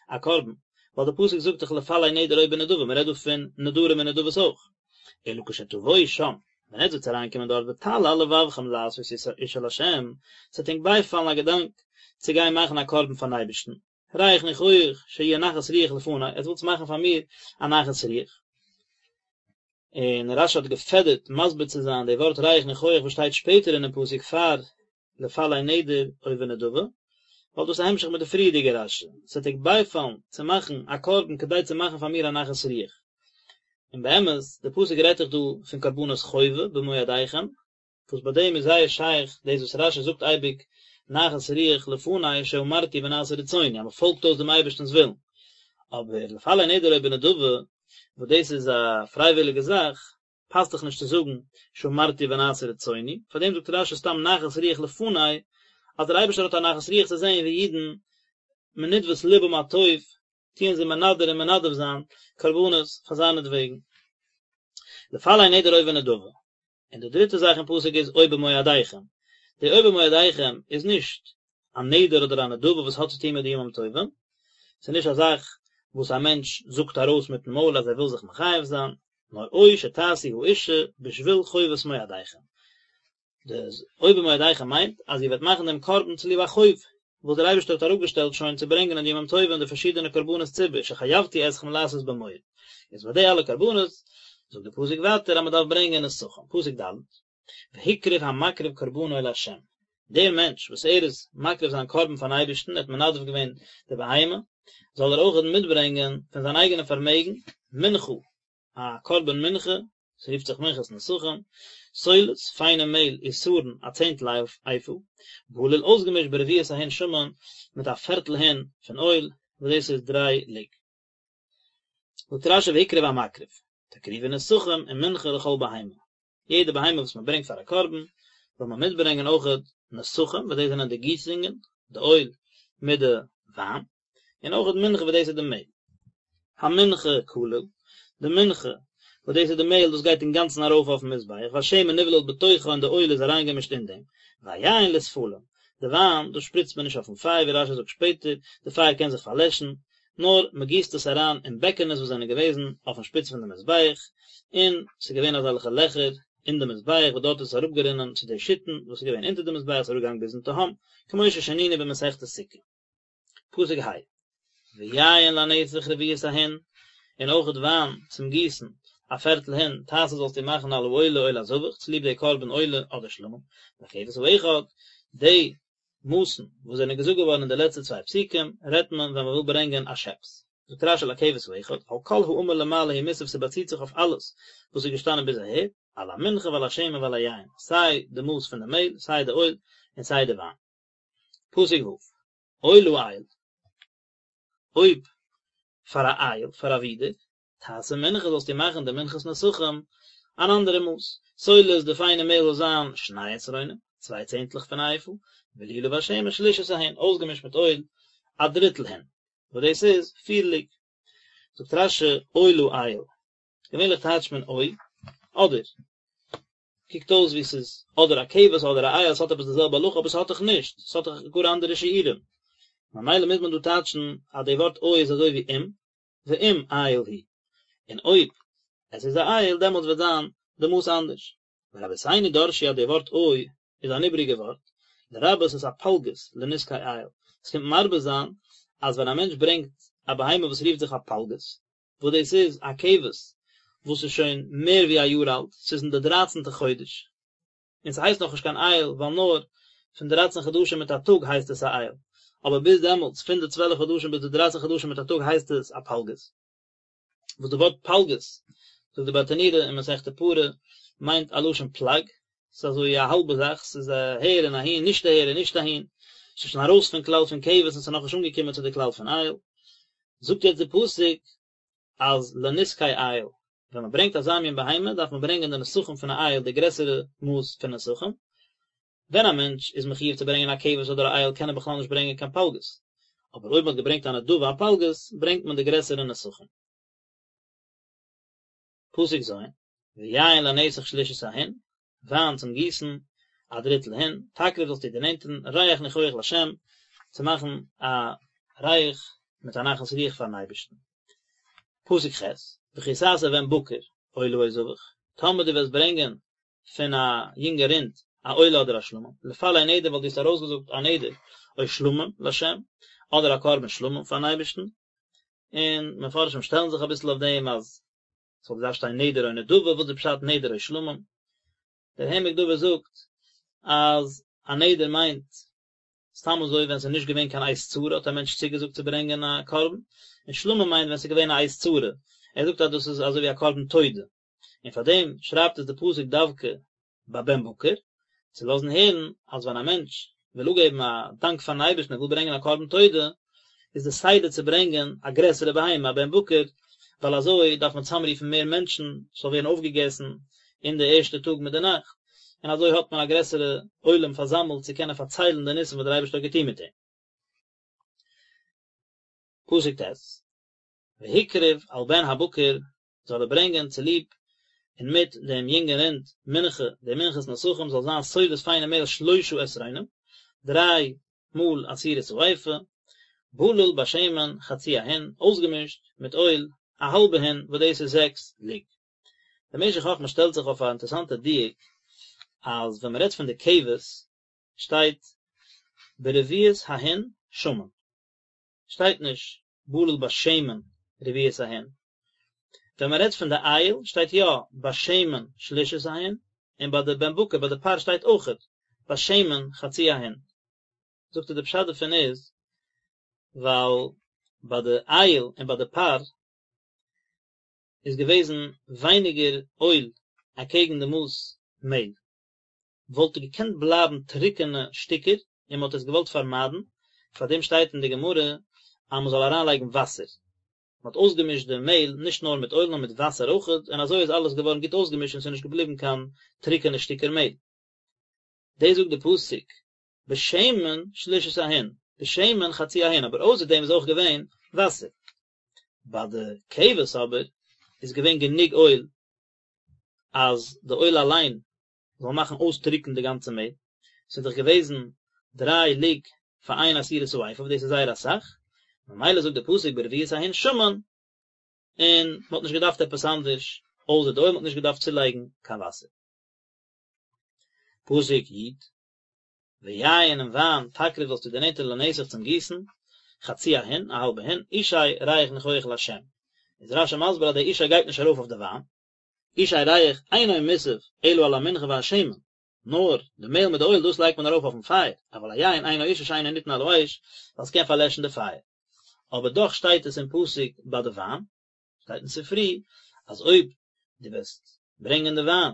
א קרבן, ווייל די פסוק זאגט דאך לפלא נדר או בנדבה, מען רעדט דא פון נדרים און נדבות אויך. אלא כשתבואו שם, ווען עטס וועטס אריינקומען דארט ותעלה על לבבכם לעשות אשה לה', ס'וועט ענק בייפאלן א געדאנק צו גיין מאכן א קרבן פארן אייבערשטן, ריח ניחוח שיהיה נחת רוח לפני, עטס ווילטס מאכן פאר מיר א נחת רוח. און רש"י האט געפעדערט מסביר צו זיין די ווארט ריח ניחוח וואס שטייט שפעטער אינעם פסוק פאר לפלא נדר או בנדבה, ווייל דאס איז א המשך מיט די פריערדיגע רש"י, ס'וועט ענק בייפאלן צו מאכן א קרבן כדי צו מאכן פאר מיר א נחת רוח. און באמת, די פסוק רעדט דאך דא פון קרבנות חובה במועדיכם, וואס ביי דעם איז זייער שייך דאס וואס רש"י זאגט אייביג נחת רוח לפני שאמרתי ונעשה רצוני אז מען פאלגט אויס דעם אייבערשטנ'ס ווילן, אבער לפלא נדר או בנדבה וואס דאס איז א פרייוויליגע זאך, פאסט דאך נישט צו זאגן שאמרתי ונעשה רצוני, פאר דעם זאגט רש"י סתם נחת רוח לפני, אז דער אייבערשטער האט א נחת רוח צו זען ווי אידן מנדבת לבם הטוב טוען זיי מנדר און מנדב זיין קרבנות פאר זיינעטוועגן. לפלא נדר או בנדבה. און די דריטע זאך אין פסוק איז או במועדיכם. די או במועדיכם איז נישט א נדר אדער א נדבה וואס האט צו טון מיט די ימים טובים, ס'איז נישט א זאך וואס א מענטש זאגט ארויס מיטן מויל אז ער וויל זיך מחייב זיין, נאר או שתעשו האשה בשביל חובת מועדיכם. די או במועדיכם מיינט אז איר וועט מאכן דעם קרבן צוליב א חוב וואס דער אייבערשטער האט אראפגעשטעלט שוין צו ברענגען אין די ימים טובים די פארשידענע קרבנות ציבור שחייבתי אתכם לעשות במועד, איז ביי די אלע קרבנות זאגט די פסוק ווייטער אז מען דארף ברענגען נסכים, פסוק ד', והקריב המקריב קרבנו לה', דער מענטש וואס ער איז מקריב זיין קרבן פארן אייבערשטן, ער האט מנדב געווען די בהמה, זאל ער אויך מיטברענגען פון זיין אייגענע פארמעגן מנחה, א קרבן מנחה, ס'רופט זיך מנחת נסכים, סולת, פיינע מעהל, עשרון, א צענטל איפה, בלול אויסגעמישט ברביעית ההין שמן, מיט א פערטל הין פון אויל, וואס דאס איז דריי לוג. זאגט רש"י והקריב המקריב, תקריבו נסכים ומנחה לכל בהמה, יעדע בהמה וואס מען ברענגט פאר א קרבן, זאל מען מיטברענגען אויכעט נסכים, וואס דאס זענען די גיסונגען, די אויל מיט די וויין, און אויכעט מנחה וואס דאס איז די מעהל. המנחה כליל, די מנחה, וואס דאס איז די מעהל, דאס גייט אינגאנצן ארויף אויפן מזבח, והשמן נבלל בתוכה און די אויל איז אריינגעמישט אין דעם, והיין לספלים, די וויין, דאס שפריצט מען נישט אויפן פייער, ווי רש"י זאגט שפעטער, די פייער קען זיך פארלעשן, נאר מען גיסט עס אריין אין בעקענעס וואס זענען געוועזן אויפן שפיץ פון די מזבח, און ס'איז געווען אזעלכע לעכער אין די מזבח וואס דארט איז עס אראפגערינען צו די שיתין וואס איז געווען אונטער די מזבח, ס'איז אראפגעגאנגען ביזן תהום, כמו ששנינו במסכת סוכה. פסוק ה', ויין לנסך רביעית ההין, און אויכעט וויין צום גיסן, א פערטל הין, תעשה זאלסטו מאכן על העולה או לזבח, צוליב די קרבן עולה אדער שלמים, לכבש האחד, די מאסן וואס זענען געזאגט געווארן אין די לעצטע צוויי פסוקים, רעדט מען ווען מען וויל ברענגען א שעפס. זאגט רש"י לכבש האחד, על כל האמור למעלה הוא מוסב ס'באציט זיך אויף אלעס וואס איז געשטאנען ביז אהער, על המנחה ועל השמן ועל היין, סיי די מאס פון די מעהל, סיי די אויל, און סיי די וויין. פסוק ו', או לאיל, אויב פאר א איל, פאר א ווידער, תעשה מנחה זאלסטו מאכן די מנחת נסכים אן אנדערע מאס, סולת די פיינע מעהל זאל זיין שני עשרונים, צוויי צענטלעך פון א איפה, בלולה בשמן שלישית ההין, אויסגעמישט מיט אויל א דריטל הין, וואס דאס איז פיר לוג. זאגט רש"י או לאיל, געווענליך טייטשט מען או, אדער, קוקט אויס ווי ס'איז אדער א כבש אדער א איל, ס'האט עפעס די זעלבע הלכה אבער ס'האט דאך נישט, ס'האט דאך גאר אנדערע שיעורים, ממילא מוז מען דא טייטשן אז די ווארט או איז אזוי ווי אם, ואם איל הוא, און אויב עס איז א איל דעמאלטס וועט זיין די מאס אנדערש. ורבותינו דרשו אז די ווארט או איז אן איבריגע ווארט, לרבות את הפלגות לנסכי איל, עס קומט מרבה זיין אז ווען א מענטש ברענגט א בהמה וואס רופט זיך א פלגות, וואס דאס איז א כבש וואס איז שוין מער ווי א יאר אלט, ס'איז אין די דרייצנטע חודש, און ס'הייסט נאכנישט קיין איל ווייל נאר פון דרייצן חדשים מיט א טאג הייסט עס א איל, אבער ביז דעמאלטס פון די צוועלף חדשים ביז די דרייצן חדשים מיט א טאג הייסט עס א פלגות. וואס די ווארט פלגות, זאגט די ברטנורא אין מסכת פרה, מיינט א לשון פלג, ס'איז אזוי א האלבע זאך, ס'איז אהער און אהין, נישט אהער און נישט אהין, ס'איז שוין ארויס פון כלל פון כבש און ס'איז נאכנישט אנגעקומען צו די כלל פון איל. זאגט יעצט די פסוק אז לנסכי איל, ווען מען ברענגט אזא מין בהמה דארף מען ברענגען די נסכים פון א איל די גרעסערע מאס פון נסכים, ווען א מענטש איז מחיוב צו ברענגען א כבש אדער א איל קען ער בכלל נישט ברענגען קיין פלגות, אבער אויב מען האט געברענגט א נדבה א פלגות ברענגט מען די גרעסערע נסכים. פסוק ז', ויין לנסך שלישית ההין, וויין צום גיסן, א דריטל הין, תקריב זאלסטו דערנענטערן, ריח ניחוח לשם, צו מאכן א ריח מיט א נחת רוח פארן אייבערשטן. פסוק ח', וכי תעשה בן בקר, עולה או זבח, טאמער דו וועסט ברענגען פון א יונגע רינד א עולה אדער א שלמים, לפלא נדר ווייל דו האסט ארויסגעזאגט א נדר או שלמים לשם, אדער א קרבן שלמים פארן אייבערשטן, און מפרשים שטעלן זיך אביסל אויף דעם אז ס'וואלט געדארפט שטיין נדר או נדבה, וואס איז פשט נדר או שלמים? דער העמק דבר זאגט אז א נדר מיינט סתם אזוי ווען ס'איז נישט געווען קיין עת צרה האט א מענטש צוגעזאגט צו ברענגען א קרבן, און שלמים מיינט ווען ס'איז געווען א עת צרה, ער זאגט אז דאס איז אזוי ווי א קרבן תודה, און פאר דעם שרייבט עס די פסוק דווקא ביי בן בקר, צו לאזן הערן אז ווען א מענטש וויל אפגעבן א דאנק פארן אייבערשטן ער וויל ברענגען א קרבן תודה, איז די סדר צו ברענגען א גרעסערע בהמה, א בן בקר, ווייל אזוי דארף מען צוזאמרופן מער מענטשן, ס'זאל ווערן אויפגעגעסן אין די ערשטע טאג מיט די נאכט, און אזוי האט מען א גרעסערע עולם פארזאמלט צו קענען פארציילן די ניסים וואס דער אייבערשטער האט געטון מיט אים. פסוק ט', והקריב על בן הבקר זאל ער ברענגען צוליב און מיט דעם יונגן רינד מנחה, די מנחת נסכים זאל זיין סולת פיינע מעהל שלשה עשרונים, דריי מאל עשירית האיפה, בלול בשמן חצי ההין, אויסגעמישט מיט אויל א האלבע הין וואס דאס איז זעקס לוג. דער משך חכמה שטעלט זיך אויף א אינטערעסאנטע דיוק, אז ווען מען רעדט פון די כבש שטייט ברביעית ההין שמן, שטייט נישט בלול בשמן רביעית ההין. ווען מען רעדט פון די איל שטייט יא בשמן שלישית ההין, און ביי די בן בקר ביי די פר שטייט אויכעט בשמן חצי ההין. זאגט ער די פשט דערפון איז ווייל ביי די איל און ביי די פר איז געוועזן ווייניגער אויל אקעגן די מאס מעהל. וואלט געקענט בלייבן טרוקענע שטיקער און מען האט עס געוואלט פארמיידן, פאר דעם שטייט אין די גמרא אז מען זאל אריינלייגן וואסער, מען האט אויסגעמישט די מעהל נישט נאר מיט אויל נאר מיט וואסער אויכעט, און אזוי איז אלעס געווארן גוט אויסגעמישט און ס'איז נישט געבליבן קיין טרוקענע שטיקער מעהל. דאס זאגט די פסוק בשמן שלישית ההין, בשמן חצי ההין, אבער אויסער דעם איז אויך געווען וואסער. ביי די כבש אבער איז געווען גענוג אויל אז די אויל אליין זאל מאכן אויסטרוקן די גאנצע מעהל, ס'איז דאך געוועזן דריי לוג פאר איין עשירית האיפה וואס דאס איז זייער אסאך, ממילא זאגט די פסוק ברביעית ההין שמן, און מען האט נישט געדארפט עפעס אנדערש אויסער די אויל, מען האט נישט געדארפט צולייגן קיין וואסער. פסוק י', ויין און וויין תקריב זאלסטו דערנענטערן לנסך צום גיסן, חצי ההין, א האלבע הין, אשי ריח ניחוח לה'. איז רש"י מסביר אז דער אשי גייט נישט ארויף אויף די וויין, אשי ריח אינו מוסף אלא על המנחה והשמן, נאר די מעהל מיט די אויל דאס לייגט מען ארויף אויפן פייער, אבל היין אינו אשה שאינו ניתן על האש, ווייל ס'קען פארלעשן די פייער. אבער דאך שטייט עס אין פסוק ביי די וויין, שטייט אין ספרי אז אויב דו וועסט ברענגען די וויין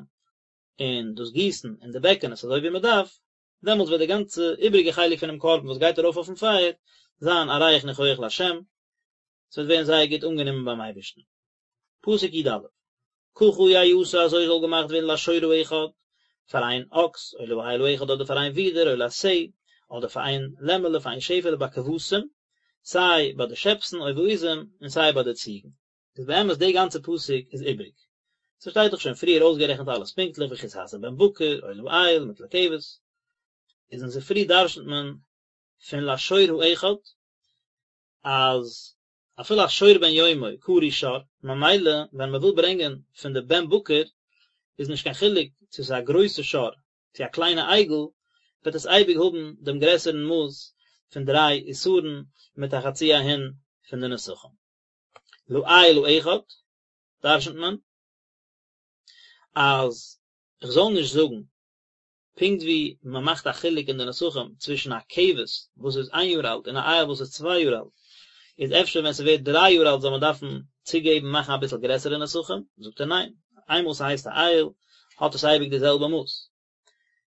און דאס גיסן אין די בעקענעס אזוי ווי מען דארף, דעמאלטס וועט די גאנצע איבריגע חלק פונעם קרבן וואס גייט ארויף אויפן פייער זיין א ריח ניחוח לה', ס'וועט ווערן זייער גוט אנגענומען ביים אייבערשטן. פסוק י"א, ככה יעשה אזוי זאל געמאכט ווערן לשור האחד, פאר איין אקס, או לאיל האחד אדער פאר איין ווידער, או לשה, אדער פאר איין לעמעלע, פאר איין שעפעלע בכבשים, סיי ביי די שעפסן או בעזים, און סיי ביי די ציגן. איז באמת די גאנצע פסוק איז איבריג. ס'שטייט דאך שוין פריער אויסגערעכנט אלעס פונקטליך וכי תעשה בן בקר, או לאיל, מיט לכבש. איז אין ספרי דרש'נט מען פון לשור האחד אז אפילו א שור בן יומו קרוי שור, ממילא ווען מען וויל ברענגען פון די בן בקר איז נישט קיין חילוק צו ס'איז א גרויסע שור צו א קליינע עגל, וועט עס אייביג האבן דעם גרעסערן מאס פון דריי עשרון מיט א חצי ההין פון די נסכים. לאיל האחד דרש'נט מען אז איך זאל נישט זאגן פונקט ווי מען מאכט א חילוק אין די נסכים צווישן א כבש וואס איז איין יאר אלט און א איל וואס איז צוויי יאר אלט, איז אפשר ווען ס'ווערט דריי יאר אלט זאל מען דארפן צוגעבן מאכן אביסל גרעסערע נסכים, זאגט ער ניין, איינמאל ס'הייסט א איל האט עס אייביג די זעלבע מאס.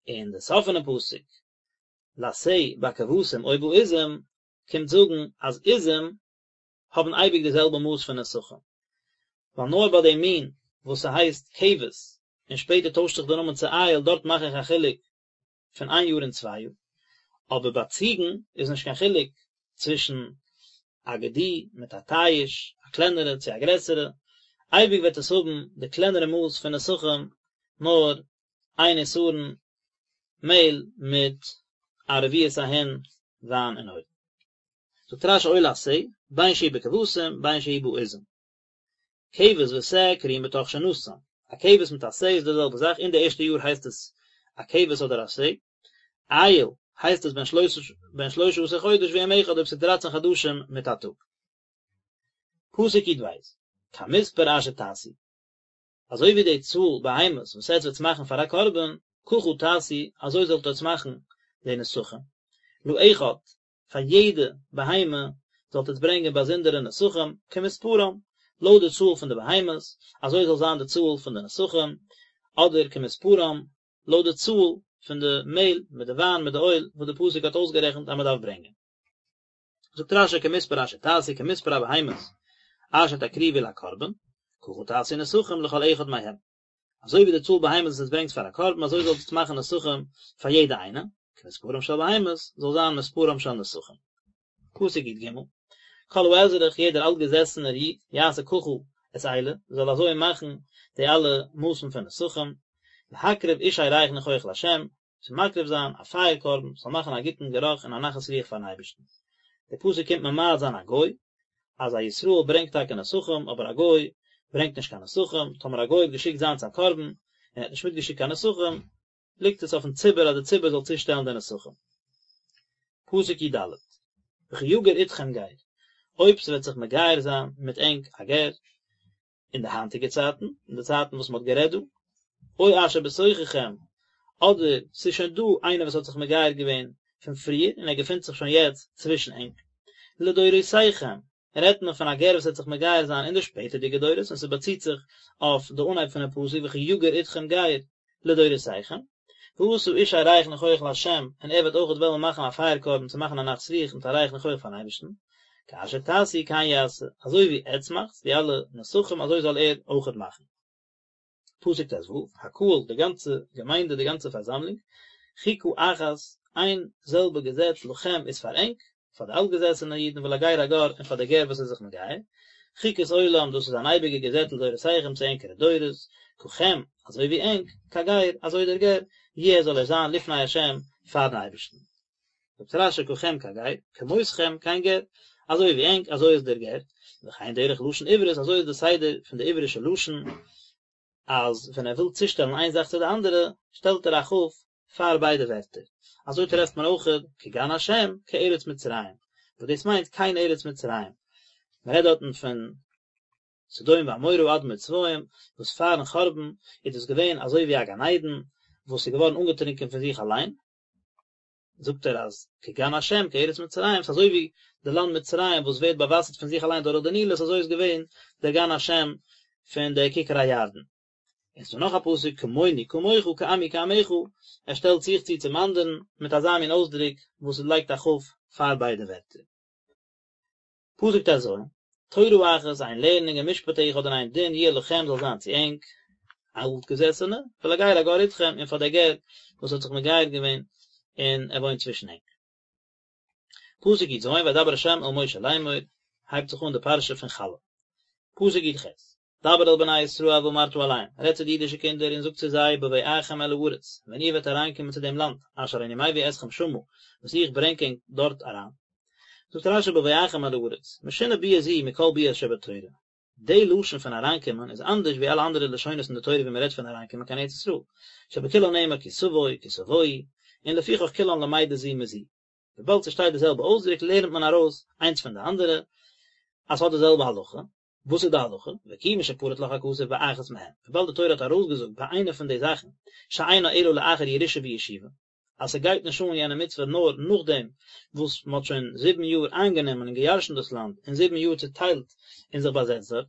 און די סוף פונעם פסוק לשה בכבשים או בעזים קומט זאגן אז עזים. האבן אייביג די זעלבע מאס פון נסכים, ווייל נאר ביי די מין וואס ס'הייסט כבש און שפעטער טוישט זיך די נאמען צו איל דארט מאך איך א חילוק פון איין יאר און צוויי יאר, אבער ביי ציגן איז נישט קיין חילוק צווישן א גדי מיט א תיש, א קלענערע צו א גרעסערע, אייביג וועט עס האבן די קלענערע מאס פון נסכים, נאר איין עשרון מעהל מיט א רביעית ההין וויין און אויל. זאגט רש"י עולת שה, בין שהיא בכבשים בין שהיא בעזים. כבש ושה קרויים בתוך שנתם, א כבש מיט א שה איז די זעלבע זאך, אין די ערשטע יאר הייסט עס א כבש אדער א שה, איל הייסט עס בן שלשה עשר חודש ויום אחד אויב ס'איז דרייצן חדשים מיט א טאג. פסוק י"ב, כמספר אשר תעשו, אזוי ווי די צאל בהמות וואס עטץ וועטס מאכן פאר א קרבן, ככה תעשו, אזוי זאלט עטץ מאכן די נסכים, לאחד, פאר יעדע בהמה זאלט עטץ ברענגען באזונדערע נסכים, כמספרם, לויט די צאל פון די בהמות, אזוי זאל זיין די צאל פון די נסכים, אדער כמספרם, לויט די צאל פון די מעהל מיט די וויין מיט די אויל וואס די פסוק האט אויסגערעכנט אז מען דארף ברענגען. זאגט רש"י כמספר אשר תעשו כמספר הבהמות אשר תקריבו לקרבן, ככה תעשו נסכים לכל אחד מהם. אזוי ווי די צאל בהמות וואס עטס ברענגט פאר א קרבן אזוי זאלט עטס מאכן נסכים פאר יעדע איינע, כמספרם של בהמות זאל זיין מספרם של נסכים. פסוק י"ג, כל האזרח יעדער אלטגעזעסענער איד, יעשה ככה את אלה, זאל אזוי מאכן די אלע מאסן פון נסכים, להקריב אשי ריח ניחוח לה', צו מקריב זיין א פייער קרבן, ס'זאל מאכן א גוטן גערוך און א נחת רוח פארן אייבערשטן. דער פסוק קומט ממעט זיין א גוי, אז א ישראל ברענגט טאקע נסכים, אבער א גוי ברענגט נישט קיין נסכים, טאמער א גוי האט געשיקט זיינס א קרבן, און ער האט נישט מיטגעשיקט קיין נסכים, ליגט עס אויפן ציבור אז די ציבור זאל צושטעלן די נסכים. פסוק י"ד, וכי יגור אתכם גר, אויב ס'וועט זיך מגייר זיין מיט ענק א גר, אין די היינטיגע צייטן, אין די צייטן וואס מ'האט גערעדט דא, או אשר בתוככם, אדער ס'איז שוין דא איינער וואס האט זיך מגייר געווען פון פריער און ער געפינט זיך שוין יעצט צווישן ענק, לדורותיכם, רעדט מען פון א גר וואס וועט זיך מגייר זיין אין די שפעטערדיגע דורות און ס'באציט זיך אויף די אנהייב פונעם פסוק וכי יגור אתכם גר לדורותיכם, ועשה אשי ריח ניחוח לה' און ער וועט אויכעט וועלן מאכן א פייער קרבן צו מאכן א נחת רוח מיט א ריח ניחוח פארן אייבערשטן, כאשר תעשו כן יעשה, אזוי ווי עטץ מאכטס די אלע נסכים אזוי זאל ער אויכעט מאכן. פסוק ט"ו, הקהל, די גאנצע געמיינדע, די גאנצע פארזאמלונג, חוקה אחת, איין זעלבע געזעץ לכם איז פאר ענק, פאר די אלטגעזעסענע אידן ולגר הגר און פאר די גר וואס איז זיך מגייר, חוקת עולם, דאס איז אן אייביגע געזעץ לדורותיכם צו ענקערע דורות, ככם, אזוי ווי ענק, כגר, אזוי דער גר, יהיה זאל ער זיין לפני השם, פארן אייבערשטן. זאגט רש"י ככם כגר, כמותכם כן גר, אזוי ווי ענק אזוי איז דער גר, וכן דרך לשון עברית אזוי איז די סדר פון די עברישע לשון, אז ווען ער וויל צושטעלן איין זאך צו די אנדערע, שטעלט ער א כ' פאר ביידע ווערטער, אזוי טרעפט מען אויך כגן השם כארץ מצרים, וואס דאס מיינט כן ארץ מצרים, מען רעדט דארטן פון סדום ועמורה אדמה וצבוים, וואס פארן חורבן איז דאס געווען אזוי ווי א גן עדן וואס איז געווארן אנגעטרונקען פון זיך אליין, זאגט ער אז כגן השם כארץ מצרים, ס'איז אזוי ווי די לאנד מצרים וואס ווערט באוואסערט פון זיך אליין דורך די נילוס, אזוי איז געווען דער גן השם פון די כיכר הירדן. און ס'דא נאך א פסוק כמוני כמוך כעמי כעמך, ער שטעלט זיך צו צום אנדערן מיט אזא מין אויסדרוק וואס עס לייגט א כ' פאר ביידע ווערטער. פסוק ט"ז, תורה אחת, איין לערנונג ומשפט אחד און איין דין יהיה לכם זאל זיין צו ענק, אלטגעזעסענע, ולגר הגר אתכם, און פאר דער גר וואס האט זיך מגייר געווען און ער וואוינט צווישן ענק. פסוק י"ז, וידבר ה' אל משה לאמור, הייבט זיך אן די פרשה פון חלה. פסוק י"ח, דבר אל בני ישראל ואמרת אליהם, רעד צו די אידישע קינדער און זאג צו זיי, בבואכם אל הארץ, ווען איר וועט אריינקומען צו דעם לאנד, אשר אני מביא אתכם שמה, וואס איך ברענג ענק דארט אריין. זאגט רש"י בבואכם אל הארץ, משונה ביאה זו מכל ביאות שבתורה. די לשון פון אריינקומען איז אנדערש ווי אלע אנדערע לשונות אין די תורה ווי מען רעדט פון אריינקומען קיין ארץ ישראל, שבכולן נאמר כי תבוא, כי תבואו, און לפיכך כולן למדות זו מזו. וויבאלד ס'שטייט די זעלבע אויסדרוק לערנט מען ארויס איינס פון די אנדערע אז ס'האט די זעלבע הלכה. וואס איז די הלכה? וכיוון שפרט לך הכתוב באחת מהן, וויבאלד די תורה האט ארויסגעזאגט ביי איינע פון די זאכן, שאינה אלא לאחר ירושה וישיבה, אז ס'גייט נישט אן יענע מצוה נאר נאכדעם וואס מ'האט שוין זיבן יאר איינגענומען און געירשנט דאס לאנד און זיבן יאר צוטיילט און זיך באזעצט דארט,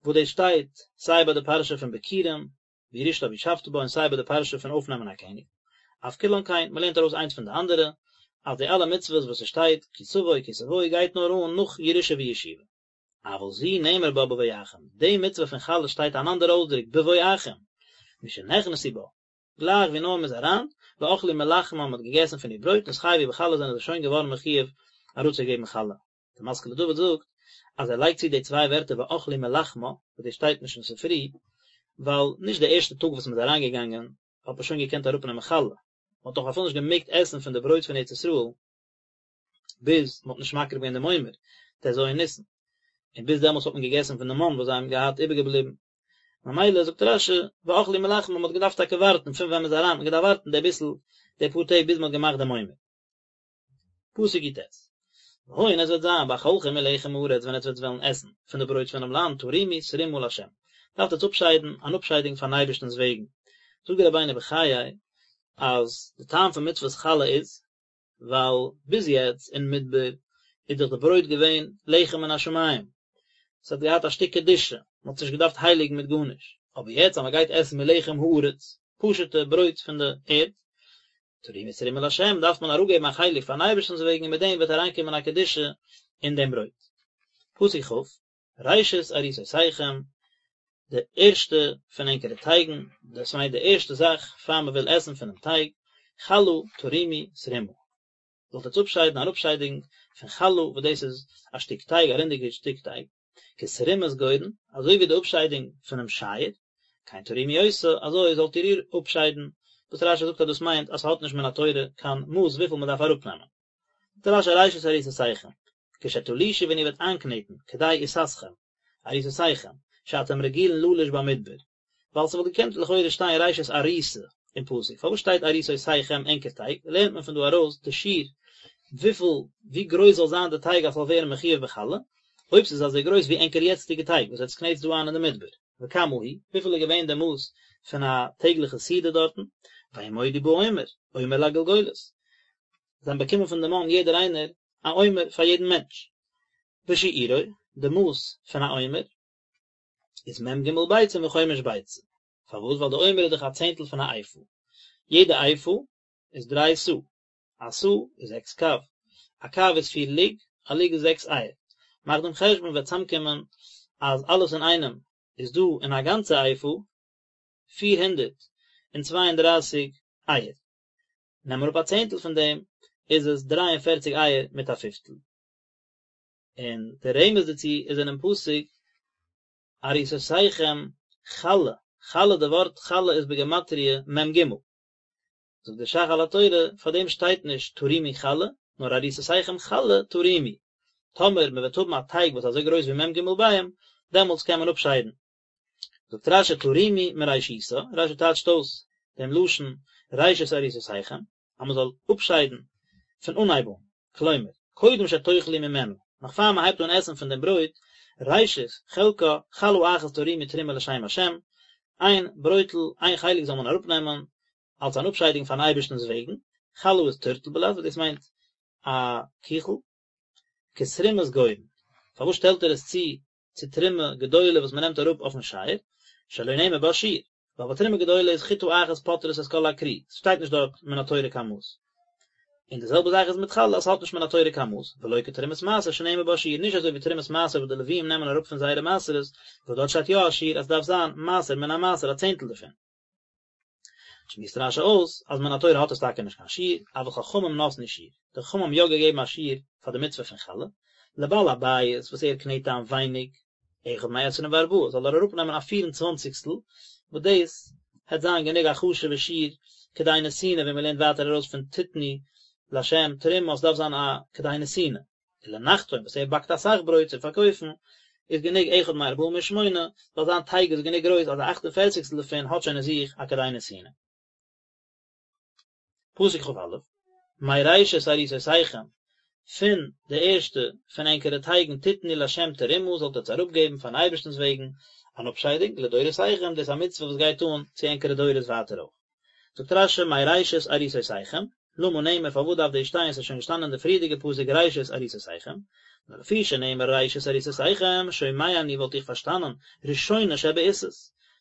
וואס דאס שטייט סיי ביי די פרשה פון ביכורים, וירשתה וישבת בה און סיי ביי די פרשה פון אויפנעמען א קעניג. אף כולן כן, מ'לערנט ארויס איינס פון די אנדערע, אז די אלע מצוות וואס ס'שטייט כי תבוא כי תבואו גייט נאר אן נאך ירושה וישיבה. אבל זו נאמר בה בבואכם, די מצוה פון חלה שטייט אן אנדער אויסדרוק בבואכם, משנכנסו בה, גלייך ווי נאר מען איז אריין, ואכלו מלחמה מען האט געגעסן פון איר ברויט, נתחייבו בחלה זענען זיי שוין געווארן מחויב אראפצוגעבן חלה. דער משכיל לדוד זאגט אז ער לייגט צו די צוויי ווערטער ואכלו מלחמה, וואס דאס שטייט נישט אין ספרי, ווייל נישט די ערשטע טאג וואס מען איז אריינגעגאנגען האט מען שוין געקענט אראפנעמען חלה, מען האט דאך אפילו נישט געמעגט עסן פון די ברויט פון ארץ ישראל ביז מען האט נישט מקריב געווען דעם עומר, ט"ז ניסן, און ביז דעמאלטס האט מען געגעסן פון די מן וואס זיי האבן געהאט איבערגעבליבן. ממילא זאגט רש"י ואכלו מלחמה מען האט געדארפט טאקע ווארטן פון ווען מען איז אריין האט מען געדארפט ווארטן די ביסל די פאר טעג ביז מען האט געמאכט דעם עומר. פסוק י"ט, והיה און עס וועט זיין באכלכם מלחם הארץ ווען עטס וועט וועלן עסן פון די ברויט פונעם לאנד תרימו תרומה לה' דארפט עטס אפשיידן אן אפשיידונג פארן אייבערשטנ'ס וועגן. זאגט דער רבינו בחיי אז די טעם פון מצוות חלה איז ווייל ביז יעצט אין מדבר איז דאך די ברויט געווען לחם מן השמים, עס האט געהאט א שטיק קדושה, מען האט עס נישט געדארפט הייליגן מיט גארנישט, אבער יעצט אז מען גייט עסן מלחם הארץ, פשוט'ע ברויט פון די ערד, תרימו תרומה לה', דארף מען אראפגעבן א חלק פארן אייבערשטנ'ס וועגן און מיט דעם וועט אריינקומען א קדושה אין דעם ברויט. פסוק כ', ראשית עריסותיכם, די ערשטע פון ענקערע טייגן, דאס מיינט די ערשטע זאך פאר מען וויל עסן פונעם טייג, חלה תרימו תרומה, זאלט עטס אפשיידן אן אפשיידונג פון חלה, וואס דאס איז א שטיק טייג, א רינדיגע שטיק טייג, כתרומת גורן, אזוי ווי די אפשיידונג פונעם שייער, כן תרימו אותה, אזוי זאלט איר איר אפשיידן, וואס רש"י זאגט אז דאס מיינט אז ס'האט נישט מן התורה קיין מאס וויפיל מען דארף אראפנעמען. זאגט רש"י ראשית עריסותיכם, כשתלושו ווען איר וועט איינקנעטן, כדי עיסתכם, עריסותיכם, שאתם רגילין ללוש במדבר, ווייל ס'וואלט געקענט לכאורה שטיין ראשית עריסה אין פסוק, פארוואס שטייט עריסותיכם ענקער טייג, לערנט מען פון דא ארויס די שיעור וויפיל ווי גרויס זאל זיין די טייג אז ס'זאל ווערן מחויב בחלה, אויב ס'איז אזוי גרויס ווי ענקער יעצטיגע טייג וואס עטס קנעטס דא איין אין די מדבר, וכמה הוא, וויפיל איז געווען די מאס פון א טעגליכע סעודה דארטן, וימודו בעומר, עומר לגולגולת, זיי האבן באקומען פון די מן יעדער איינער א עומר פאר יעדן מענטש, ושיעורו, די מאס פון א עומר איז מ"ג ביצים וחומש ביצה, פארוואס? ווייל די עומר איז דאך א צענטל פון א איפה, יעדע איפה איז דריי סאה, א סאה איז זעקס קב, א קב איז פיר לוג, א לוג איז זעקס אייער, מאך דעם חשבון וועט צאמקומען אז אלעס אינאיינעם איז דא אין א גאנצע איפה 432 אייער. נעם אראפ א צענטל פון דעם איז עס 43 אייער מיט א פיפטל. און דער רמז דערצו איז אינעם פסוק עריסותיכם חלה, חלה די ווארט חלה איז בגימטריא מ"ג. זאגט דער ש"ך על התורה, פאר דעם שטייט נישט תרימו חלה, נאר עריסותיכם חלה תרימו. טאמער מען וועט האבן א טייג וואס איז אזוי גרויס ווי מ"ג ביעים, דעמאלטס קען מען אפשיידן. זאגט רש"י תרימו מראשיתה, רש"י טייטשט אויס דעם לשון ראשית עריסותיכם, אז מען זאל אפשיידן פון אנהייב אן, כלומר, קודם שתאכלו ממנה, נאך פאר מען הייבט אן עסן פון דעם ברויט, ראשית חלקה, חלה אחת תרימו תרומה לשם השם, איין ברויטל, איין חלק זאל מען אראפנעמען, אלס אן אפשיידונג פארן אייבערשטנ'ס וועגן, חלה איז טורטל בלע"ז, וואס דאס מיינט א קיכל, כתרומת גורן, פארוואס שטעלט ער עס צו צו תרומה גדולה וואס מען נעמט אראפ אויפן שייער, שלא נאמר בה שיעור, ווייל ביי תרומה גדולה איז חיטה אחת פוטרת את כל הכרי, ס'שטייט נישט דארט מן התורה קיין מאס. און די זעלבע זאך איז מיט חלה, עס האט נישט מן התורה קיין מאס, ולא כתרומת מעשר שנאמר בה שיעור, נישט אזוי ווי תרומת מעשר וואס די לוויים נעמען אראפ פון זייערע מעשרות, וואס דארט שטייט יא א שיעור אז ס'דארף זיין מעשר מן המעשר א צענטל דערפון. שמועסט רש"י אויס אז מן התורה האט עס טאקע נישט קיין שיעור, אבל חכמים נתנו שיעור, די חכמים האבן יא געגעבן א שיעור פאר די מצוה פון חלה, לבעל הבית וואס ער קנעט איין ווייניג, אחד מעשרים וארבעה, זאל ער אראפנעמען א פיר און צוואנציגסטל, וואס דאס העט זיין גענוג א חשוב'ע שיעור כדי נתינה ווי מען לערנט ווייטער ארויס פון תתנו לה' תרומה אז ס'דארף זיין א כדי נתינה. ולנחתום וואס ער באקט אסאך ברויט צו פארקויפן, איז גענוג אחד מארבעים ושמונה, ווייל זיין טייג איז גענוג גרויס אז א אכט און פערציגסטל דערפון האט שוין אין זיך א כדי נתינה. פסוק כ"א, מראשית עריסותיכם, פון די ערשטע פון ענקערע טייגן תתנו לה' תרומה זאלט עטס אראפגעבן פארן אייבערשטנ'ס וועגן אן אפשיידונג, לדורותיכם, דאס איז א מצוה וואס גייט אן צו ענקערע דורות ווייטער אויך. זאגט רש"י מראשית עריסותיכם, למה נאמר פארוואס דארף דאס שטיין ס'איז שוין געשטאנען אין די פריערדיגע פסוק ראשית עריסותיכם, נאר לפי שנאמר ראשית עריסותיכם, שומע אני וואלט איך פארשטאנען ראשונה שבעיסות,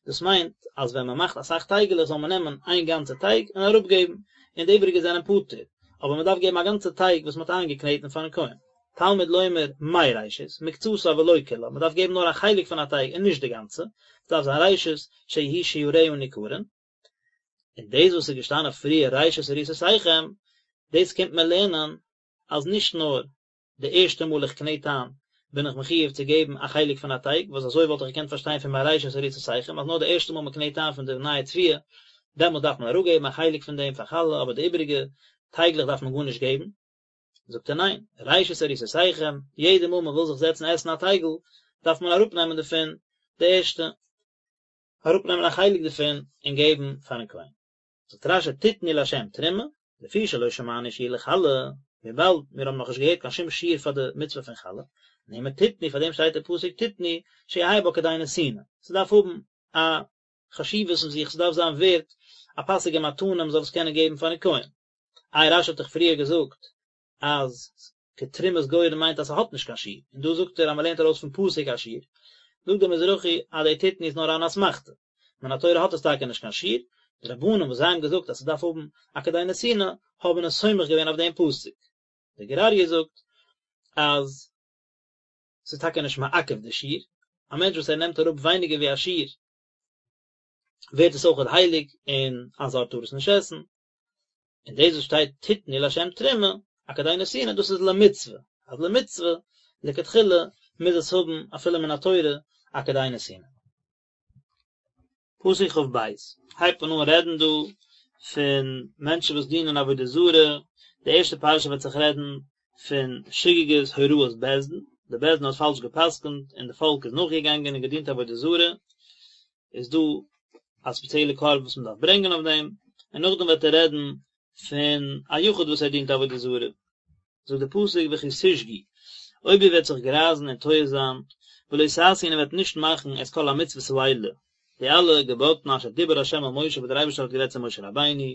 דאס מיינט אז ווען מען מאכט אסאך טייגעלעך זאל מען נעמען איין גאנצע טייג און אראפגעבן, און די איבעריגע זענען פטור, אבער מען דארף געבן א גאנצע טייג וואס מען האט איינגעקנעטן פארן כהן. תלמוד לומר מראשית, מקצתה ולא כולה, מען דארף געבן נאר א חלק פון א טייג און נישט די גאנצע, עס דארף זיין ראשית שיהיו שיריה ניכרין. און דאס וואס איז געשטאנען פריער ראשית עריסותיכם, דאס קומט מען לערנען אז נישט נאר די ערשטע מאל איך קנעט איין בין איך מחיוב צו געבן א חלק פון א טייג, וואס אזוי וואלט איך געקענט פארשטיין פון מראשית עריסותיכם אז נאר די ערשטע מאל מען קנעט איין פון די נייע תבואה דעמאלס דארף מען אראפגעבן א חלק פון דעם פאר חלה אבער די איבעריגע טייגלעך דארף מען גארנישט געבן. זאגט ער ניין, ראשית עריסותיכם, יעדע מאל מען וויל זיך זעצן עסן א טייגל דארף מען אראפנעמען דערפון די ערשטע, אראפנעמען א חלק דערפון און געבן פארן כהן. זאגט רש"י תתנו לה' תרומה, לפי שלא שמענו שיעור לחלה, וויבאלד מיר האבן נאכנישט געהערט קיין שום שיעור פאר די מצוה פון חלה, נאמר תתנו פאר דעם שטייט אין פסוק תתנו שיהא בה כדי נתינה, ס'דארף האבן א חשיבות אין זיך, ס'דארף זיין ווערט א פאסיגע מתנה מ'זאל עס קענען געבן פארן כהן. איי רש"י האט דאך פריער געזאגט אז כתרומת גורן מיינט אז ס'האט נישט קיין שיעור, און דא זאגט ער אז מ'לערנט ארויס פון פסוק א שיעור, זאגט דער מזרחי אז די תתנו איז נאר אן אסמכתא, מן התורה האט עס טאקע נישט קיין שיעור, די רבנן וואס זיי האבן געזאגט אז ס'דארף האבן א כדי נתינה האבן עס סומך געווען אויף דעם פסוק. דער גור אריה זאגט אז ס'איז טאקע נישט מעכב די שיעור, א מענטש וואס ער נעמט אראפ ווייניגער ווי א שיעור ווערט עס אויכעט הייליג און א זר טאר עס נישט עסן, און דאס וואס שטייט תתנו לה' תרומה, א כדי נתינה, דאס איז למצוה, אז למצוה, לכתחילה, מוז עס האבן אפילו מן התורה א כדי נתינה. פסוק כ"ב, הייבט מען אן רעדן דא פון מענטשן וואס דינען עבודה זרה, די ערשטע פרשה וועט זיך רעדן פון שגגת הוראת בית דין, די בית דין האט פאלש גע'פסק'נט און די פאלק איז נאכגעגאנגען און געדינט עבודה זרה, איז דא א ספעציעלע קרבן וואס מען דארף ברענגען אויף דעם, און נאכדעם וועט ער רעדן פון א יחיד וואס ער דינט עבודה זרה. זאגט דער פסוק וכי תשגו, אויב איר וועט זיך גרייזן און טועה זיין, ולא תעשו און איר וועט נישט מאכן את כל המצוות האלה, די אלע געבאטן אשר דיבר ה' אל משה וואס דער אייבערשטער האט גערעדט צו משה רבינו,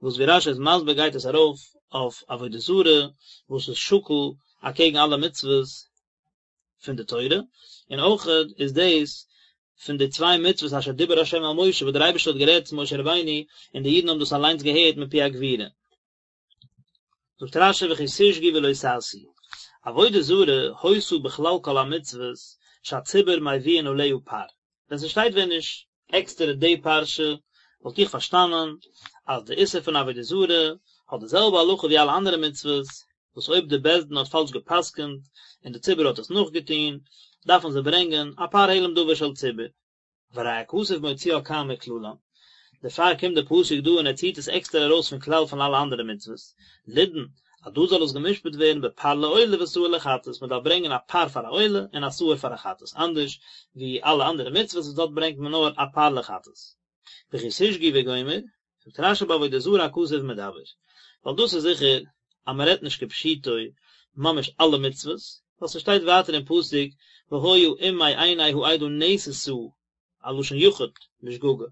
וואס ווי רש"י איז מסביר גייט עס ארויף אויף עבודה זרה וואס איז שקול אקעגן אלע מצוות פון די תורה, און אויכעט איז דאס פון די צוויי מצוות אשר דיבר ה' אל משה וואס דער אייבערשטער האט גערעדט צו משה רבינו און די אידן האבן דאס אליינס געהערט מפי הגבורה. זאגט רש"י וכי תשגו ולא תעשו, עבודה זרה היתה בכלל כל המצוות שהציבור מביאין עליה פר, ווען ס'שטייט ווען נישט עקסטערע די פרשה וואלט איך פארשטאנען אז די איסור פון עבודה זרה האט די זעלבע הלכה ווי אלע אנדערע מצוות, וואס אויב די בית דין האט פאלש גע'פסק'נט און די ציבור האט עס נאכגעטון, דארפן זיי ברענגען א פר העלם דבר של ציבור. והרי הכתוב מוציאה כאן מכללן, דערפאר קומט דער פסוק דא און ער ציט עס עקסטער ארויס פון כלל פון אלע אנדערע מצוות, לידון, אז דא זאל עס גע'משפט ווערן בפר לעולה ושעיר לחטאת, מען דארף ברענגען א פר פאר א עולה און א שעיר פאר א חטאת, אנדערש ווי אלע אנדערע מצוות וואס דארט ברענגט מען נאר א פר לחטאת. וכי תשגו וגומר, זאגט רש"י בעבודה זרה הכתוב מדבר, ווייל דאס איז זיכער אז מען רעדט נישט כפשוטו ממש אלע מצוות, ווייל ס'שטייט ווייטער אין פסוק והיה אם מעיני העדה נעשתה א לשון יחיד בשגגה,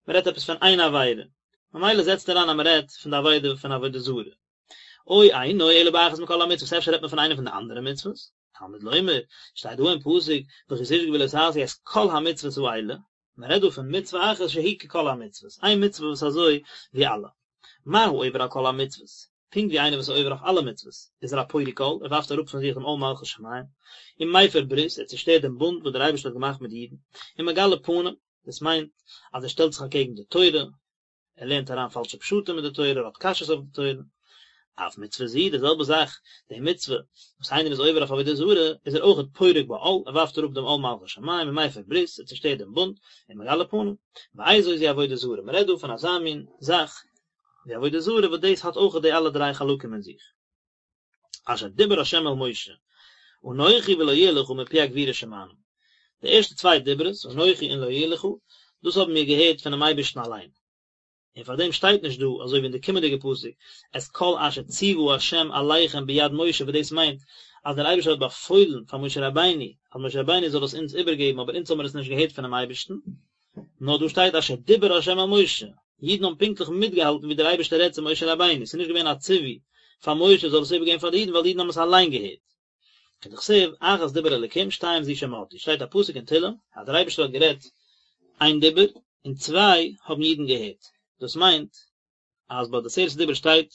מען רעדט עפעס פון איין עבירה, ממילא זעצט ער איין אז מען רעדט פון די עבירה פון עבודה זרה. או אינו אלא באחת מכל המצוות, אפשר רעדט מען פון איינע פון די אנדערע מצוות? תלמוד לומר, שטייט דא אין פסוק וכי תשגו ולא תעשו את כל המצוות האלה, מען רעדט דא פון מצוה אחת שהיא ככל המצוות, איין מצוה וואס אזוי ווי אלע. מה העובר על כל המצוות, פונקט ווי איינער וואס איז עובר אויף אלע מצוות, איז ער א פורק עול, ער ווארפט אראפ פון זיך דעם עול מלכות שמים, ומפר ברית, ער צושטערט דעם בונד וואס דער אייבערשטער האט געמאכט מיט די אידן, ומגלה פנים, דאס מיינט אז ער שטעלט זיך אקעגן די תורה, ער לערנט אריין פאלשע פשטים אין די תורה, ער האט קשיות אויף די תורה. אף מצוה זו, די זעלבע זאך, די מצוה וואס איינער איז עובר אויף עבודה זרה, איז ער אויכעט פורק בה עול, ער ווארפט אראפ דעם עול מלכות שמים ומפר ברית, ער צושטערט דעם בונד, ומגלה פנים. ואיזו זו עבודה זרה, מען רעדט דא פון אזא מין זאך ווי עבודה זרה וואס דאס האט אויכעט די אלע דריי חלקים אין זיך. אשר דיבר ה' אל משה, אנכי ולא יהיה לך מפי הגבורה שמענו. די ערשטע צוויי דיברות, אנכי און לא יהיה לך, דאס האבן מיר געהערט פונעם אייבערשטן אליין. און פאר דעם שטייט נישט דא, אזוי ווי אין די קומענדיגע פסוק, את כל אשר ציוה ה' אליכם ביד משה וואס דאס מיינט אז דער אייבערשטער האט באפוילן פאר משה רבינו אז משה רבינו זאל עס אונז איבערגעבן אבער אונז האבן מיר עס נישט געהערט פונעם אייבערשטן. נאר דא שטייט אשר דיבר ה' אל משה, אידן האבן פונקטליך מיטגעהאלטן ווי דער אייבערשטער רעדט צו משה רבינו, ס'איז נישט געווען א ציווי פאר משה זאל עס איבערגעבן פאר די אידן ווייל די אידן האבן עס אליין געהערט. כדכתיב, אחת דיבר אלקים שתיים זו שמעתי, שטייט א פסוק אין תהלים אז דער אייבערשטער האט גערעדט איין דיבור און צוויי האבן אידן געהערט, דאס מיינט אז ביי די עשרת הדיברות שטייט.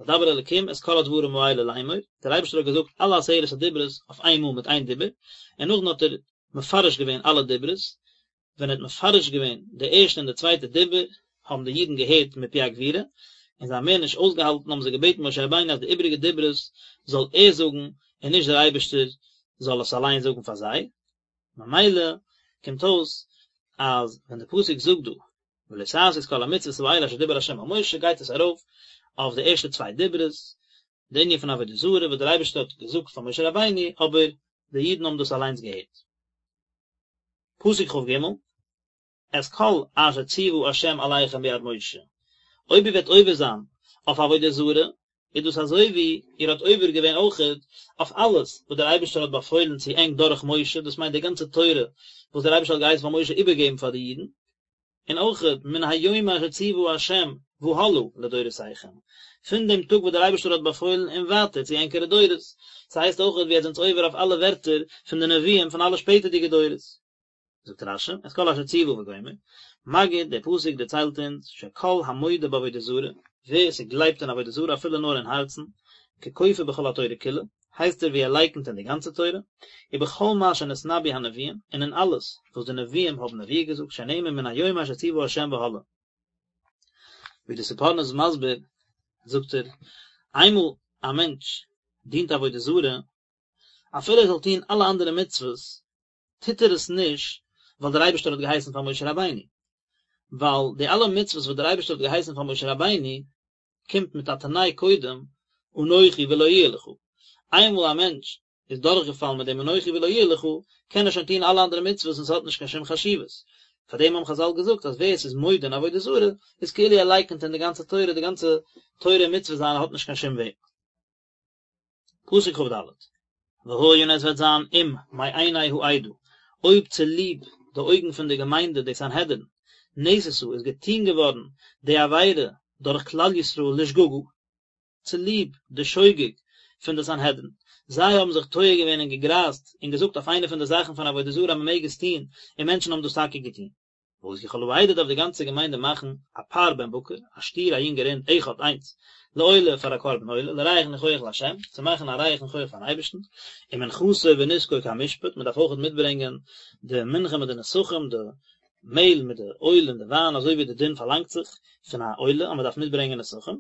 וידבר אלקים את כל הדברים האלה לאמור, דער אייבערשטער האט געזאגט אלע עשרת הדיברות אויף איין מאל מיט איין דיבור, און נאכדעם האט ער מפרש געווען אלע דיברות, ווען ער האט מפרש געווען די ערשטע און די צווייטע דיבור, האבן די אידן געהערט מפי הגבורה, און זיי האבן מער נישט אויסגעהאלטן האבן זיי געבעטן משה רבינו אז די איבעריגע דיברות זאל ער זאגן און נישט דער אייבערשטער זאל עס אליין זאגן פאר זיי, ממילא קומט אויס אז ווען די פסוק זאגט דא ולא תעשו את כל המצוות האלה אשר דיבר ה' אל משה גייט עס ארויף אויף די ערשטע צוויי דיברות, די ענין פון עבודה זרה וואס דער אייבערשטער האט געזאגט פאר משה רבינו אבער די אידן האבן דאס אליינס געהערט. פסוק כג, את כל אשר ציוה ה' אליכם ביד משה, אויב איר וועט עובר זיין אויף עבודה זרה, איז דאס אזוי ווי איר האט עובר געווען אויכעט אויף אלעס וואס דער אייבערשטער האט באפוילן צו ענק דורך משה, דאס מיינט די גאנצע תורה וואס דער אייבערשטער האט געהייסן פאר משה איבערגעבן פאר די אידן, און אויכעט מן היום אשר ציוה ה' והלאה לדורותיכם, פון דעם טאג וואס דער אייבערשטער האט באפוילן און ווייטער צו ענקערע דורות, ס'הייסט אויכעט ווי עטס זענטס עובר אויף אלע ווערטער פון די נביאים פון אלע שפעטערדיגע דורות. זאגט רש"י, את כל אשר ציוה וגומר, מגיד, דער פסוק דערציילט אונז, שכל המודה בעבודה זרה, ווער ס'גלייבט אין עבודה זרה אפילו נאר אין הארצן, ככופר בכל התורה כולה, הייסט ער ווי ער לייקנט אין די גאנצע תורה, ובכל מה שנתנבאו הנביאים, און אין אלעס וואס די נביאים האבן נבואה געזאגט, שנאמר מן היום אשר ציוה ה' והלאה. ווי די ספורנו איז מסביר, זאגט ער, איינמאל א מענטש דינט עבודה זרה, אפילו ער זאל טון אלע אנדערע מצוות, טוט ער עס נישט ווייל דער אייבערשטער האט געהייסן פאר משה רבינו, ווייל די אלע מצוות וואס דער אייבערשטער האט געהייסן פאר משה רבינו קומט מיט א תנאי קודם אנכי ולא יהיה לך, איינמאל א מענטש איז דורכגעפאלן מיט דעם אנכי ולא יהיה לך, קען ער שוין טון אלע אנדערע מצוות און ס'האט נישט קיין שום חשיבות. פאר דעם האבן חז"ל געזאגט אז ווער עס איז מודה אין עבודה זרה איז כאילו ער לייקנט אין די גאנצע תורה, די גאנצע תורה און מצוות זיינע האט נישט קיין שום ווערד. פסוק כ"ד, והיה און עס וועט זיין אם מעיני העדה, אויב צוליב די אויגן פון די געמיינדע די סנהדרין, נעשתה איז געטון געווארן די עבירה דורך כלל ישראל לשגגה, צוליב די שוגג פון די סנהדרין, זיי האבן זיך טועה געווען און געגרייזט און געזאגט אויף איינע פון די זאכן פון עבודה זרה אז מען מעג עס טון, און מענטשן האבן דאס טאקע געטון. ועשו כל העדה דארף די גאנצע געמיינדע מאכן א פר בן בקר, א שטיר א יונגע רינד, אחד איינס, לעולה פאר א קרבן עולה, לריח ניחוח לה', צו מאכן א ריח ניחוח פארן אייבערשטן, ומנחתו ונסכו כמשפט, מען דארף אויכעט מיטברענגען די מנחה מיט די נסכים, די מעהל מיט די אויל און די וויין אזוי ווי די דין פארלאנגט זיך פון א עולה אז מען דארף מיטברענגען נסכים,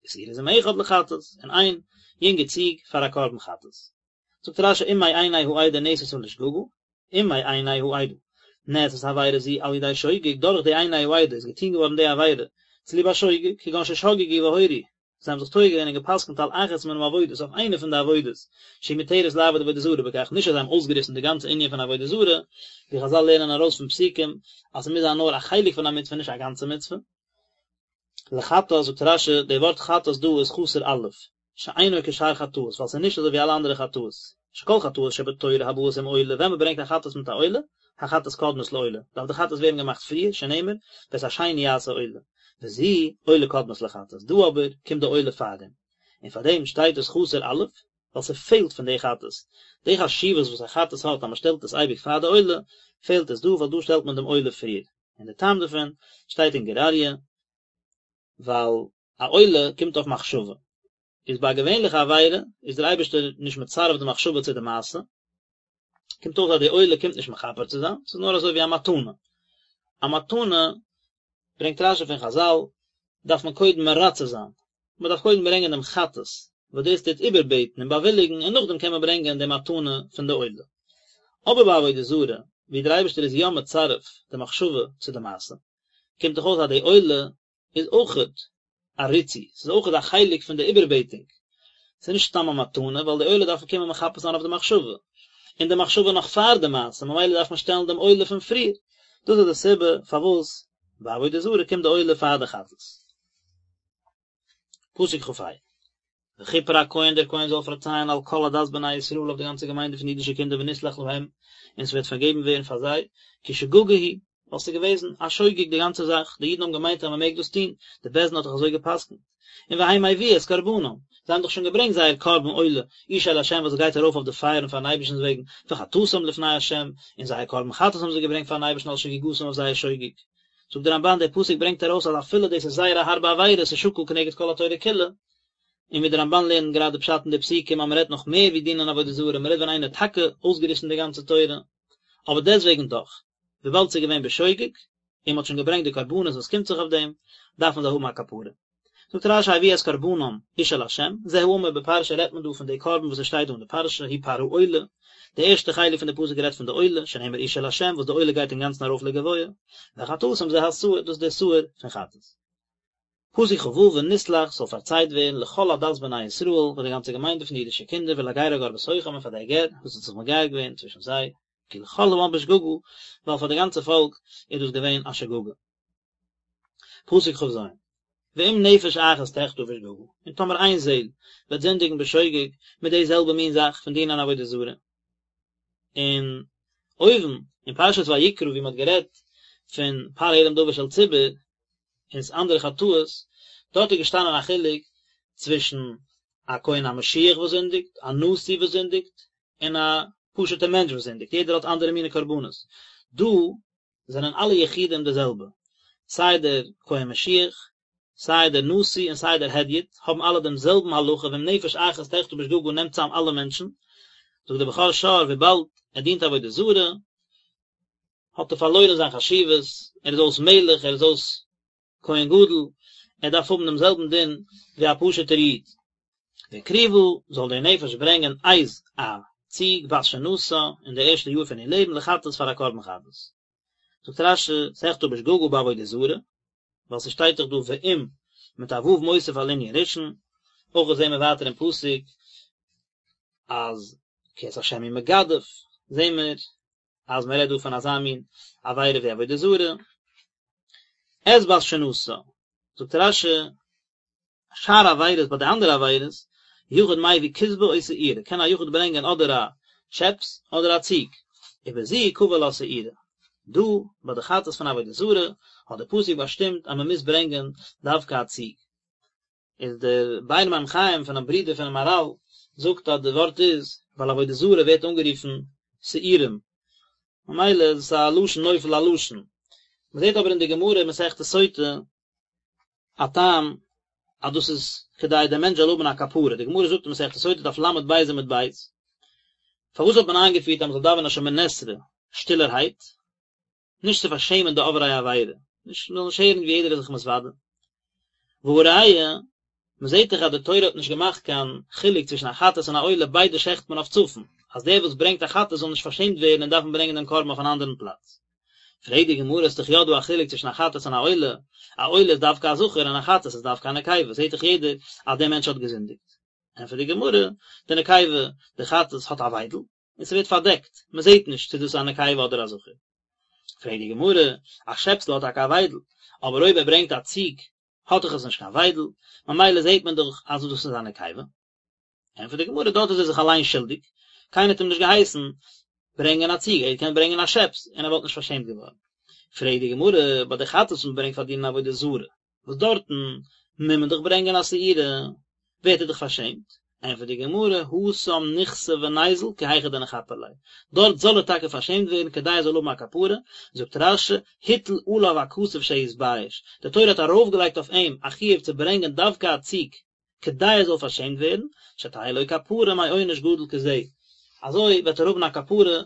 ושעיר עזים אחד לחטאת, און איין יונגע ציג פאר א קרבן חטאת. זאגט רש"י אם מעיני העדה נעשתה לשגגה, אם מעיני העדה נעשית עבירה זו על ידי שוגג, דורך די עיני העדה איז געטון געווארן די עבירה צוליב א שוגג, כגון ששגגו והורו, זיי האבן זיך טועה געווען און גע'פסק'נט על אחת מן העבודות אויף איינע פון די עבודות שהיא מותרת לעבוד עבודה זרה בכך, נישט אז זיי האבן אויסגעריסן די גאנצע ענין פון עבודה זרה, ווי חז"ל לערנען ארויס פון פסוקים אז ס'מוז זיין נאר א חלק פון א מצוה נישט א גאנצע מצוה. לחטאת זאגט רש"י, די ווארט חטאת דא איז חסר אלף, שאינו כשאר חטאות, ווייל ס'איז נישט אזוי ווי אלע אנדערע חטאות, שכל חטאות שבתורה הבאות עם עולה, ווען מ'ברענגט א חטאת מיט א עולה, החטאת קודמת לעולה, דארף די חטאת ווערן געמאכט פריער, שנאמר, ואת השני יעשה עולה, וזו עולה קודמת לחטאת, דא אבער קומט די עולה פארדעם, און פארדעם שטייט עס חסר אלף, ווייל ס'פעלט פון די חטאת, די חשיבות וואס א חטאת האט אז מ'שטעלט עס אייביג פאר די עולה, פעלט עס דא ווייל דא שטעלט מען דעם עולה פריער, און די טעם דערפון שטייט אין גור אריה, ווייל א עולה קומט אויף מחשבה, איז ביי א געווענליכע עבירה איז דער אייבערשטער נישט מצרף די מחשבה צו די מעשה, קומט אויס אז די עולה קומט נישט מכפר צו זיין, ס'איז נאר אזוי ווי א מתנה, א מתנה ברענגט רש"י פון חז"ל, דארף מען קודם מרצה זיין, מען דארף קודם ברענגען דעם חטאת, וואס דאס טוט איבערבעטן און באוויליגן, און נאכדעם קען מען ברענגען די מתנה פון די עולה. אבער ביי עבודה זרה, ווי דער אייבערשטער איז יא מצרף די מחשבה צו די מעשה, קומט דאך אויס אז די עולה איז אויכעט א ריצוי, ס'איז אויכעט א חלק פון די איבערבעטונג, ס'איז נישט סתם א מתנה, ווייל די עולה דארף קומען מכפר זיין אויף די מחשבה, און די מחשבה נאך פאר די מעשה, ממילא דארף מען שטעלן דעם עולה פון פריער, דאס איז די סיבה פארוואס ביי עבודה זרה קומט די עולה פאר די חטאת. פסוק כ"ה, וכפר הכהן דער כהן זאל פארצייען על כל עדת בני ישראל אויף די גאנצע געמיינדע פון אידישע קינדער ונסלח להם, און ס'וועט פארגעבן ווערן פאר זיי, כי שגגה היא, ווייל ס'איז געוועזן א שוגג די גאנצע זאך, די אידן האבן געמיינט אז מ'מעג דאס טון, די בית דין האט דאך אזוי גע'פסק'נט. און והם הביאו את קרבנם, זיי האבן דאך שוין געברענגט זייער קרבן עולה, אשה לה' וואס גייט ארויף אויף די פייערן פארן אייבערשטנ'ס וועגן, וחטאתם לפני ה', און זייער קרבן חטאת האבן זיי געברענגט פארן אייבערשטן על שגגתם אויף זייער שוגג. זאגט דער רמב"ן דער פסוק ברענגט ארויס אז אפילו דאס איז זייער א הארבע עבירה, ס'איז שקול כנגד כל התורה כולה. און ווי דער רמבן לערנט גראדע פשט אין די פסוקים אז מען רעדט נאך מער ווי דינען עבודה זרה, מען רעדט ווען איינער האט טאקע אויסגעריסן די גאנצע תורה, אבער דעסוועגן דאך, וויבאלד ס'איז געווען בשוגג, און מען האט שוין געברענגט די קרבנות וואס קומט זיך אויף דעם, דארפן זיי האבן א כפרה. זאגט רשי הביאו את קרבנם אשה לה', זה האמור בפרשה רעדט מען דא פון די קרבן וואס עס שטייט דא אין די פרשה, הוא פר העולה, די ערשטע חלק פון די פסוק רעדט פון די עולה, שנאמר אשה לה' וואס די עולה גייט אינגאנצן ארויף לגבוה, וחטאתם זה השעיר, דאס איז די שעיר פון חטאת. פסוק כו ונסלח זאל פארצייט ווערן לכל עדת בני ישראל פאר די גאנצע געמיינדע פון די אידישע קינדער ולגר הגר בתוכם און פאר דער גר וואס האט זיך מגייר געווען צווישן זיי, כי לכל העם בשגגה, ווייל פאר די גאנצע פאלק איז דאס געווען א שגגה. פסוק כז, ואם נפש אחת תחטא בשגגה, און טאמער איין זעהל וועט זינדיגן בשוגג מיט די זעלבע מין זאך פון דינען עבודה זרה, און אויבן אין פרשת ויקרא ווי מען האט גערעדט פון פר העלם דבר של ציבור און אנדערע חטאות, דארט איז געשטאנען א חילוק צווישן א כהן המשיח וואס זינדיגט, א נשיא וואס זינדיגט, און א פשוט'ער מענטש וואס זינדיגט, יעדער האט אנדערע מיני קרבנות. דא זענען אלע יחידים די זעלבע, סיי דער כהן משיח, סיי דער נשיא און סיי דער הדיוט, האבן אלע דעם זעלבן הלכה, ואם נפש אחת תחטא בשגגה נעמט צאם אלע מענטשן, זאגט דער בכור שור וויבאלד ער דינט עבודה זרה, האט ער פארלוירן זיין חשיבות, ער איז אויס מלך, ער איז אויס כהן גדול, ער דארף האבן דעם זעלבן דין ווי א פשוט'ער איד. והקריבה, זאל דער נפש ברענגען עז א ציג בת שנתה אין די ערשטע יאר פון איר לעבן לחטאת פאר א קרבן חטאת. זאגט רשי, תחטא בשגגה בעבודה זרה, ווייל ס'שטייט דאך דא ואם מיט א ו' מוסיף על ענין ראשון, אויך זעהן מיר ווייטער אין פסוק אז כי את השם הוא מגדף, זעהן מיר אז מען רעדט דא פון אזא מין עבירה ווי עבודה זרה. את בת שנתה, זאגט רשי, שאר עבירות ביי די אנדערע עבירות, יחיד מביא כשבה או שעירה, קען א יחיד ברענגען אדער א שעפס אדער א ציג, ובזו קבע לה שעירה. דא ביי די חטאת פון עבודה זרה האט די פסוק באשטימט אז מען מוז ברענגען דווקא א ציג. איז דער באר מים חיים פונעם ברודער פונעם מהרל זאגט אז די ווארט איז ווייל עבודה זרה ווערט אנגערופן שעירים ממילא איז עס א לשון נופל על לשון. מען זעט אבער אין די גמרא אין מסכת סוטה א טעם אז דאס איז כדי דער מענטש זאל האבן א כפרה, די גמרא זאגט אין מסכת סוטה דף ל"ב עמוד ב', פארוואס האט מען איינגעפירט אז מען זאל דאווענען שמונה עשרה שטילערהייט? נישט צו פארשעמען די עוברי עבירה, נישט מען זאל נישט הערן ווי יעדער איז זיך מתוודה. והא ראיה, מען זעט דאך אז די תורה האט נישט געמאכט קיין חילוק צווישן א חטאת און א עולה, ביידע שעכט מען אויף צפון, אז דער וואס ברענגט א חטאת זאל נישט פארשעמט ווערן און דארפן ברענגען דעם קרבן אויף אן אנדערן פלאץ. פרעגט די גמרא, איז דאך יא דא א חילוק צווישן א חטאת און א עולה, א עולה איז דווקא א זכר און א חטאת איז דווקא א נקבה, זעט דאך יעדער אז דער מענטש האט געזינדיגט. ענטפערט די גמרא, די נקבה, די חטאת האט א וויידל, און ס'ווערט פארדעקט, מ'זעט נישט צו דאס איז א נקבה אדער א זכר. פרעגט די גמרא, א שעפסל האט טאקע א וויידל, אבער אויב ער ברענגט א ציג האט דאך עס נישט קיין וויידל, ממילא זעט מען דאך אז דאס איז א נקבה. ענטפערט די גמרא, דארט איז ער זיך אליין שולדיג, קיינער האט אים נישט געהייסן ברענגען א ציג, ער האט געקענט ברענגען א שעפס און ער וואלט נישט פארשעמט געווארן. פרעגט די גמרא, ביי די חטאת וואס מ'ברענגט פאר דינען עבודה זרה, וואס דארטן מוז מען דאך ברענגען א שעירה, ווערט ער דאך פארשעמט, ענטפערט די גמרא, התם ניכסי וניזיל כי היכי דניכפר ליה, דארט זאל ער טאקע פארשעמט ווערן כדי ער זאל האבן א כפרה, זאגט רש"י, הטיל עליו הכתוב שיתבייש, די תורה האט ארויפגעלייגט אויף אים א חיוב צו ברענגען דווקא א ציג, כדי ער זאל פארשעמט ווערן, שתהא לו כפרה מעונש גדול כזה, אזוי וועט ער האבן א כפרה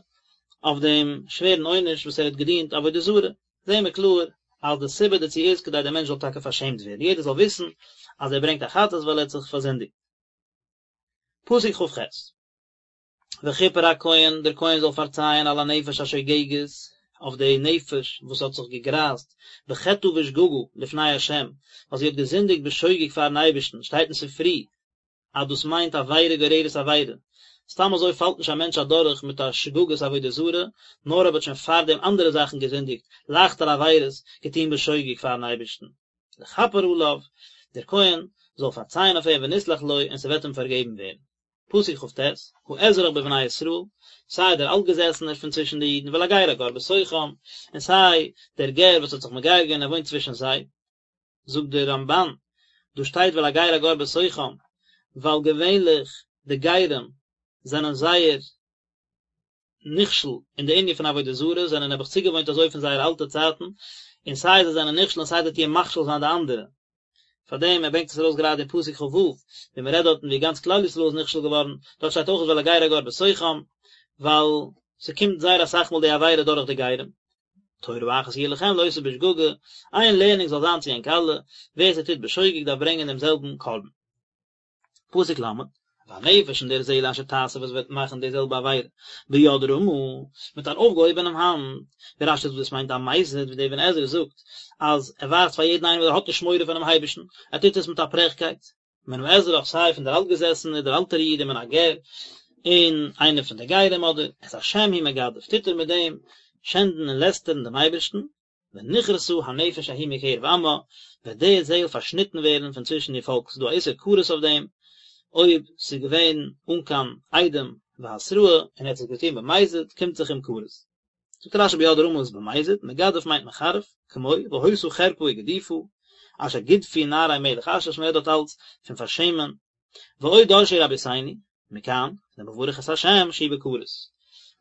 אויף דעם שווערן עונש וואס ער האט געדינט עבודה זרה, זעהן מיר קלאר אז די סיבה דערצו איז כדי דער מענטש זאל טאקע פארשעמט ווערן, יעדער זאל וויסן אז ער ברענגט א חטאת ווייל ער האט זיך פארזינדיגט. פסוק כ"ח. וכפר הכהן, דער כהן זאל פארצייען על הנפש השוגגת, אויף די נפש וואס האט זיך געגרייזט, בחטאה בשגגה, לפני ה', ווייל זי האט געזינדיגט בשוגג פארן אייבערשטן, שטייט אין ספרי אז דאס מיינט עבירה גוררת עבירה, סתם אזוי פאלט נישט א מענטש אדורך מיט א שגגת עבודה זרה, נאר אויב האט שוין פארדעם אנדערע זאכן געזינדיגט, לייכטערע עבירות, געטון בשוגג פארן אייבערשטן. לכפר עליו, דער כהן זאל פארצייען אויף אים ונסלח לו און ס'וועט אים פארגעבן ווערן. פסוק כ"ט, האזרח בבני ישראל, סיי דער אלטגעזעסענער פון צווישן די אידן, ולגר הגר בתוכם, און סיי דער גר וואס האט זיך מגייר געווען און ער וואוינט צווישן זיי. זאגט דער רמב"ן, דא שטייט ולגר הגר בתוכם, ווייל געווענליך די גרים זענען זייער נכשל אין די ענין פון עבודה זרה, זענען נעבעך צוגעוואוינט אזוי פון זייערע אלטע צייטן, און סיי זיי זענען נכשל און סיי זיי טוען מכשיל זיין די אנדערע. פאר דעם ער ברענגט עס ארויס גראדע אין פסוק כ ו, ווי מען רעדט דארטן ווי גאנץ כלל ישראל איז נכשל געווארן, דארט שטייט אויך ואל הגר הגר בתוכם, ווייל ס'קומט זייער אסאך מאל די עבירה דורך די גרים. תורה אחת יהיה לכם לעושה בשגגה, איין לערנונג זאל זיין צו ענק אלע, ווער ס'טוט בשוגג דארף ברענגען דעם זעלבן קרבן. פסוק ל', והנפש און דער זעהל אשר תעשה וואס וועט מאכן די זעלבע עבירה, ביד רמה, מיט אן אויפגעהויבענעם האנט, ווי רשי זאגט דאס מיינט א מזיד, ווי דער אבן עזרא זאגט אז ער ווייזט פאר יעדן איינעם אז ער האט נישט מורא פונעם אייבערשטן, ער טוט עס מיט א פרעכקייט, מן האזרח סיי פון דער אלטגעזעסענער דער אלטער איד ומן הגר, און איינער פון די גרים אדער, את השם הוא מגדף, טוט ער מיט דעם שענדן און לעסטערן דעם אייבערשטן, ונכרתה הנפש ההיא מקרב עמה, וועט די זעהל פארשניטן ווערן פון צווישן איר פאלק, ס'איז דא א איסור כרת אויף דעם, אויב ס'איז געווען אן קיין עדים והתראה און ער האט עס געטון במזיד, קומט זיך אים כרת. זאגט רשי ביד רמה איז במזיד, מגדף מיינט מחרף, כמו, והיתה חרפה וגדופה, אשר גדפו נערי מלך אשור, מ'רעדט דארט אלץ פון פארשעמען, ועוד דרשו רבותינו, מכאן, למברך את השם שהוא בכרת.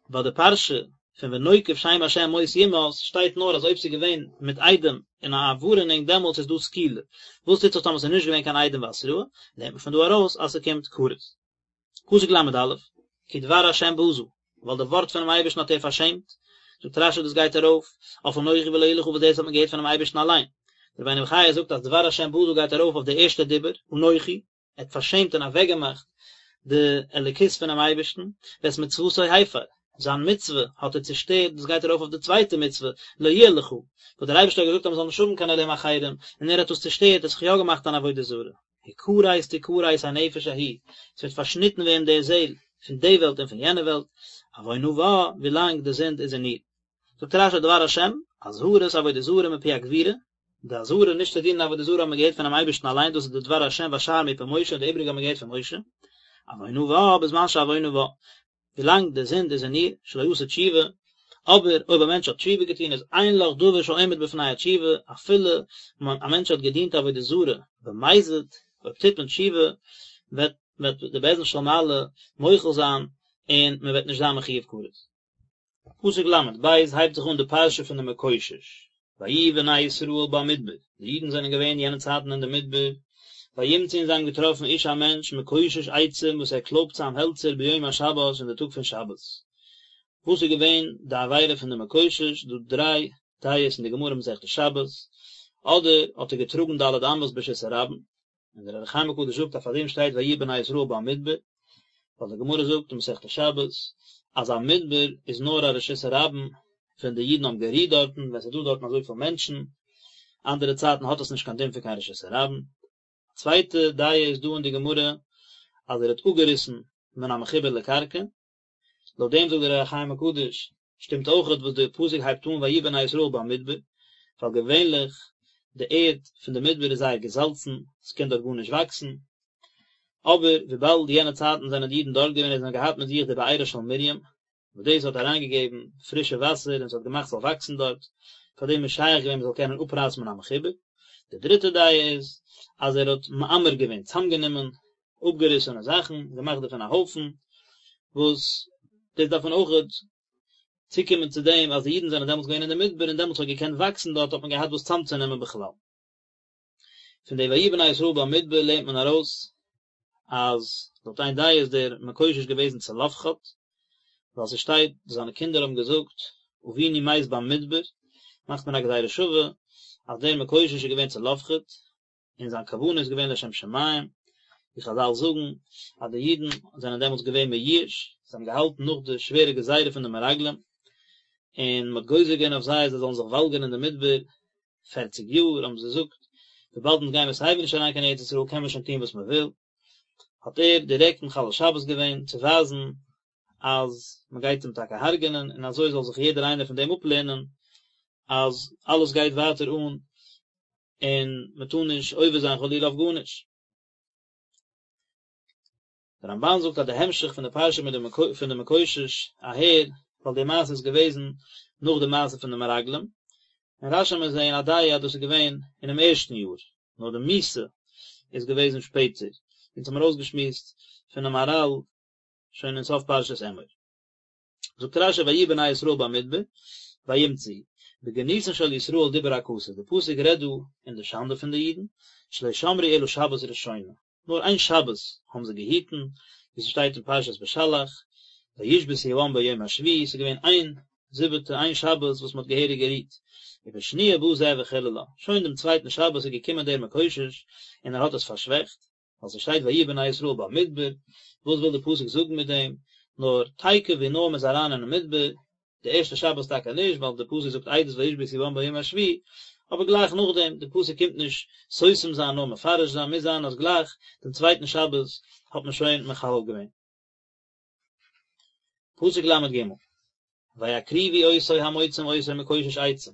ביי די פרשה פון ונוקב שם השם מות יומת שטייט נאר אז אויב ס'איז געווען מיט עדים און א ווארענונג דעמאלטס איז דא סקילה, וואס טוט זיך טאמער ס'איז נישט געווען קיין עדים והתראה, לערנט מען פון דא ארויס אז ס'קומט כרת. פסוק ל"א, כי דבר השם בזה, ווייל די ווארט פונעם אייבערשטן האט ער פארשעמט, זאגט רשי דאס גייט ארויף אויף אנכי ולא יהיה לך וואס דאס האט מען געהערט פונעם אייבערשטן אליין. דער רבינו בחיי זאגט אז דבר השם בזה גייט ארויף אויף די ערשטע דיבור, אנכי, ער האט פארשעמט און אוועקגעמאכט די אלוקות פונעם אייבערשטן, ואת מצוותו הפר, זיין מצוה האט ער צושטערט, דאס גייט ארויף אויף די צווייטע מצוה, לא יהיה לך, וואס דער אייבערשטער האט געזאגט אז מען זאל נישט האבן קיין אלהים אחרים, און ער האט דאס צושטערט, ער האט זיך יא געמאכט אן עבודה זרה. הכרת תכרת הנפש ההיא, עס וועט פארשניטן ווערן די זעל, פון די וועלט און פון יענע וועלט, עוונה בה, ווילאנג די זינד איז אין איר. זאגט רשי דבר השם, אזהרת עבודה זרה מפי הגבורה, די אזהרה נישט צו דינען עבודה זרה האט מען געהערט פונעם אייבערשטן אליין, דאס איז די דבר השם והשאר מפי משה און די איבריגע האט מען געהערט פון משה, עוונה בה בזמן שעוונה בה, ווילאנג די זינד איז אין איר, שלא עשה תשובה, אבער אויב א מענטש האט תשובה געטון איז אין לך דבר שעומד בפני התשובה, אפילו א מענטש האט געדינט עבודה זרה במזיד, אויב טוט מען תשובה וועט וועט די בית דין של מעלה מוחל זיין און מען וועט נישט זיין מחויב כרת. פסוק ל"ב הייבט זיך אן די פרשה פון די מקושש, ויהיו בני ישראל במדבר, די אידן זענען געווען יענע צייטן אין די מדבר, וימצאו און זיי האבן געטראפן איש א מענטש מקושש עצים וואס ער קלויבט צאם העלצער ביום השבת אין די טאג פון שבת. וואס איז געווען די עבירה פון די מקושש, דא דריי דעות אין די גמרא מסכת שבת, אדער האט ער געטראגן ד' אמות ברשות הרבים, און דער אור החיים הקדוש זאגט אז פאר דעם שטייט ויהיו בני ישראל במדבר, ווייל די גמרא זאגט אין מסכת שבת אז א מדבר איז נאר א רשות הרבים ווען די אידן האבן גערוהט דארטן, ווען ס'איז דא דארטן אזויפיל מענטשן, אנדערע צייטן האט עס נישט קיין דין פון קיין רשות הרבים. א צווייטע דעה איז דא אין די גמרא אז ער האט אפגעריסן מן המחובר לקרקע, לויט דעם זאגט דער אור החיים הקדוש, שטימט אויכעט וואס די פסוק הייבט אן ויהיו בני ישראל במדבר, ווייל געווענליך די ערד פון די מדבר איז זייער געזאלצן, עס קען דארט גארנישט וואקסן, אבער וויבאלד יענע צייטן זענען די אידן דארט געווען און זיי האבן געהאט מיט זיך די בארה של מרים, וואס דאס האט אריינגעגעבן פרישע וואסער און עס האט געמאכט ס'זאל וואקסן דארט, פאר דעם איז שייך געווען מ'זאל קענען אפרייסן מן המחובר. די דריטע דעה איז אז ער האט מעמר געווען, צאמגענומען אפגעריסענע זאכן, געמאכט דערפון א הויפן, וואס דאס דארף מען אויכעט צוקומען צו דעם אז די אידן זענען דעמאלטס געווען אין די מדבר און דעמאלטס האט געקענט וואקסן דארט האט מען געהאט וואס צאמצונעמען בכלל. פון די ויהיו בני ישראל במדבר לערנט מען ארויס אז לויט איין דעה איז דער מקושש געוועזן צלפחד, ווייל ס'שטייט זיינע קינדער האבן געזאגט אבינו מת במדבר, מאכט מען א גזירה שווה אז דער מקושש איז געווען צלפחד, און זיין כוונה איז געווען לשם שמים, ווי חזל זאגן אז די אידן זענען דעמאלטס געווען מיואש, זיי האבן געהאלטן נאך די שווערע גזירה פון די מרגלים, און מען האט גוזר געווען אויף זיי אז זיי זאלן זיך וואלגערן אין די מדבר פערציג יאר, האבן זיי געזאגט, וויבאלד אונז גייען מיר סייווי נישט אריין קיין ארץ ישראל קען מען שוין טון וואס מען וויל, האט ער דירעקט מחלל שבת געווען צו ווייזן אז מען גייט אים טאקע הרג'ענען, און אזוי זאל זיך יעדער איינער פון דעם אפלערנען אז אלעס גייט ווייטער אן און מען טאר נישט עובר זיין חלילה אויף גארנישט. דער רמבן זאגט אז די המשך פון די פרשה מיט די פון די מקושש אהער, ווייל די מעשה איז געוועזן נאך די מעשה פון די מרגלים, אין רשי מיר זעהן א דעה אז דאס איז געווען אינעם ערשטן יאר, נאר די מיתה איז געוועזן שפעטער, אונז האמיר אויסגעשמועסט פונעם מהרל שוין אין סוף פרשת אמור. זאגט רשי ויהיו בני ישראל במדבר וימצאו. בגנותן של ישראל דיבר הכתוב, די פסוק רעדט דא אין די שאנדע פון די אידן, שלא שמרו אלא שבת ראשונה, נאר איין שבת האבן זיי געהיטן, ווי ס'שטייט אין פרשת בשלח, וישבתו העם ביום השביעי, ס'איז געווען איין זיבעטע, איין שבת וואס מ'האט געהעריג גערוהט, ובשניה בא זה וחללה, שוין דעם צווייטן שבת איז געקומען דער מקושש און ער האט עס פארשוועכט, ווייל ס'שטייט ויהיו בני ישראל במדבר, וואס וויל די פסוק זאגן מיט דעם, נאר תיכף ווי נאר מ'איז אריין אינעם מדבר, די ערשטע שבת טאקע נישט ווייל די פסוק זאגט עדות וישבתו העם ביום השביעי, אבער גלייך נאכדעם, די פסוק קומט נישט סותם זיין נאר מפרש זיין, מוז זיין אז גלייך דעם צווייטן שבת האט מען שוין מחלל געווען. פסוק ל"ג, ויקריבו אותו המוצאים אותו מקושש עצים,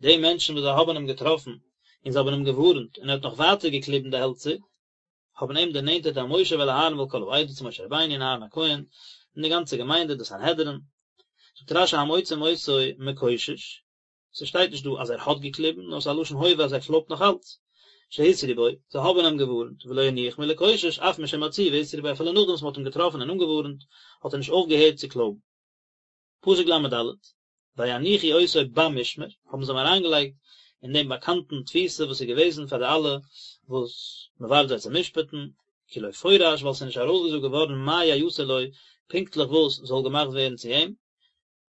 די מענטשן וואס זיי האבן אים געטראפן און זיי האבן אים געווארנט און ער האט נאך ווייטער געקליבן די העלצער, האבן אים דערנענטערט אל משה ואל אהרן ואל כל העדה צו משה רבינו און אהרן הכהן און די גאנצע געמיינדע די סנהדרין, זאגט רש"י המוצאים אותו מקושש, ס'שטייט נישט דא אז ער האט געקליבן, נאר ס'איז א לשון הווה אז ער קלויבט נאך אלץ. שהתרו בו, זיי האבן אים געווארנט, ולא הניח מלקושש, אף משמצאוהו והתרו בו, אפילו נאכדעם וואס מ'האט אים געטראפן און אנגעווארנט, האט ער נישט אויפגעהערט צו קלויבן. פסוק ל"ד, ויניחו אותו במשמר, האבן זיי אים אריינגעלייגט אין דעם באקאנטן תפיסה וואס איז געוועזן פאר די אלע וואס מ'ווארט זיי צו משפט'ן, כי לא פורש, ווייל ס'איז נישט ארויסגעזאגט געווארן מה יעשה לו, פונקטליך וואס זאל געמאכט ווערן צו אים,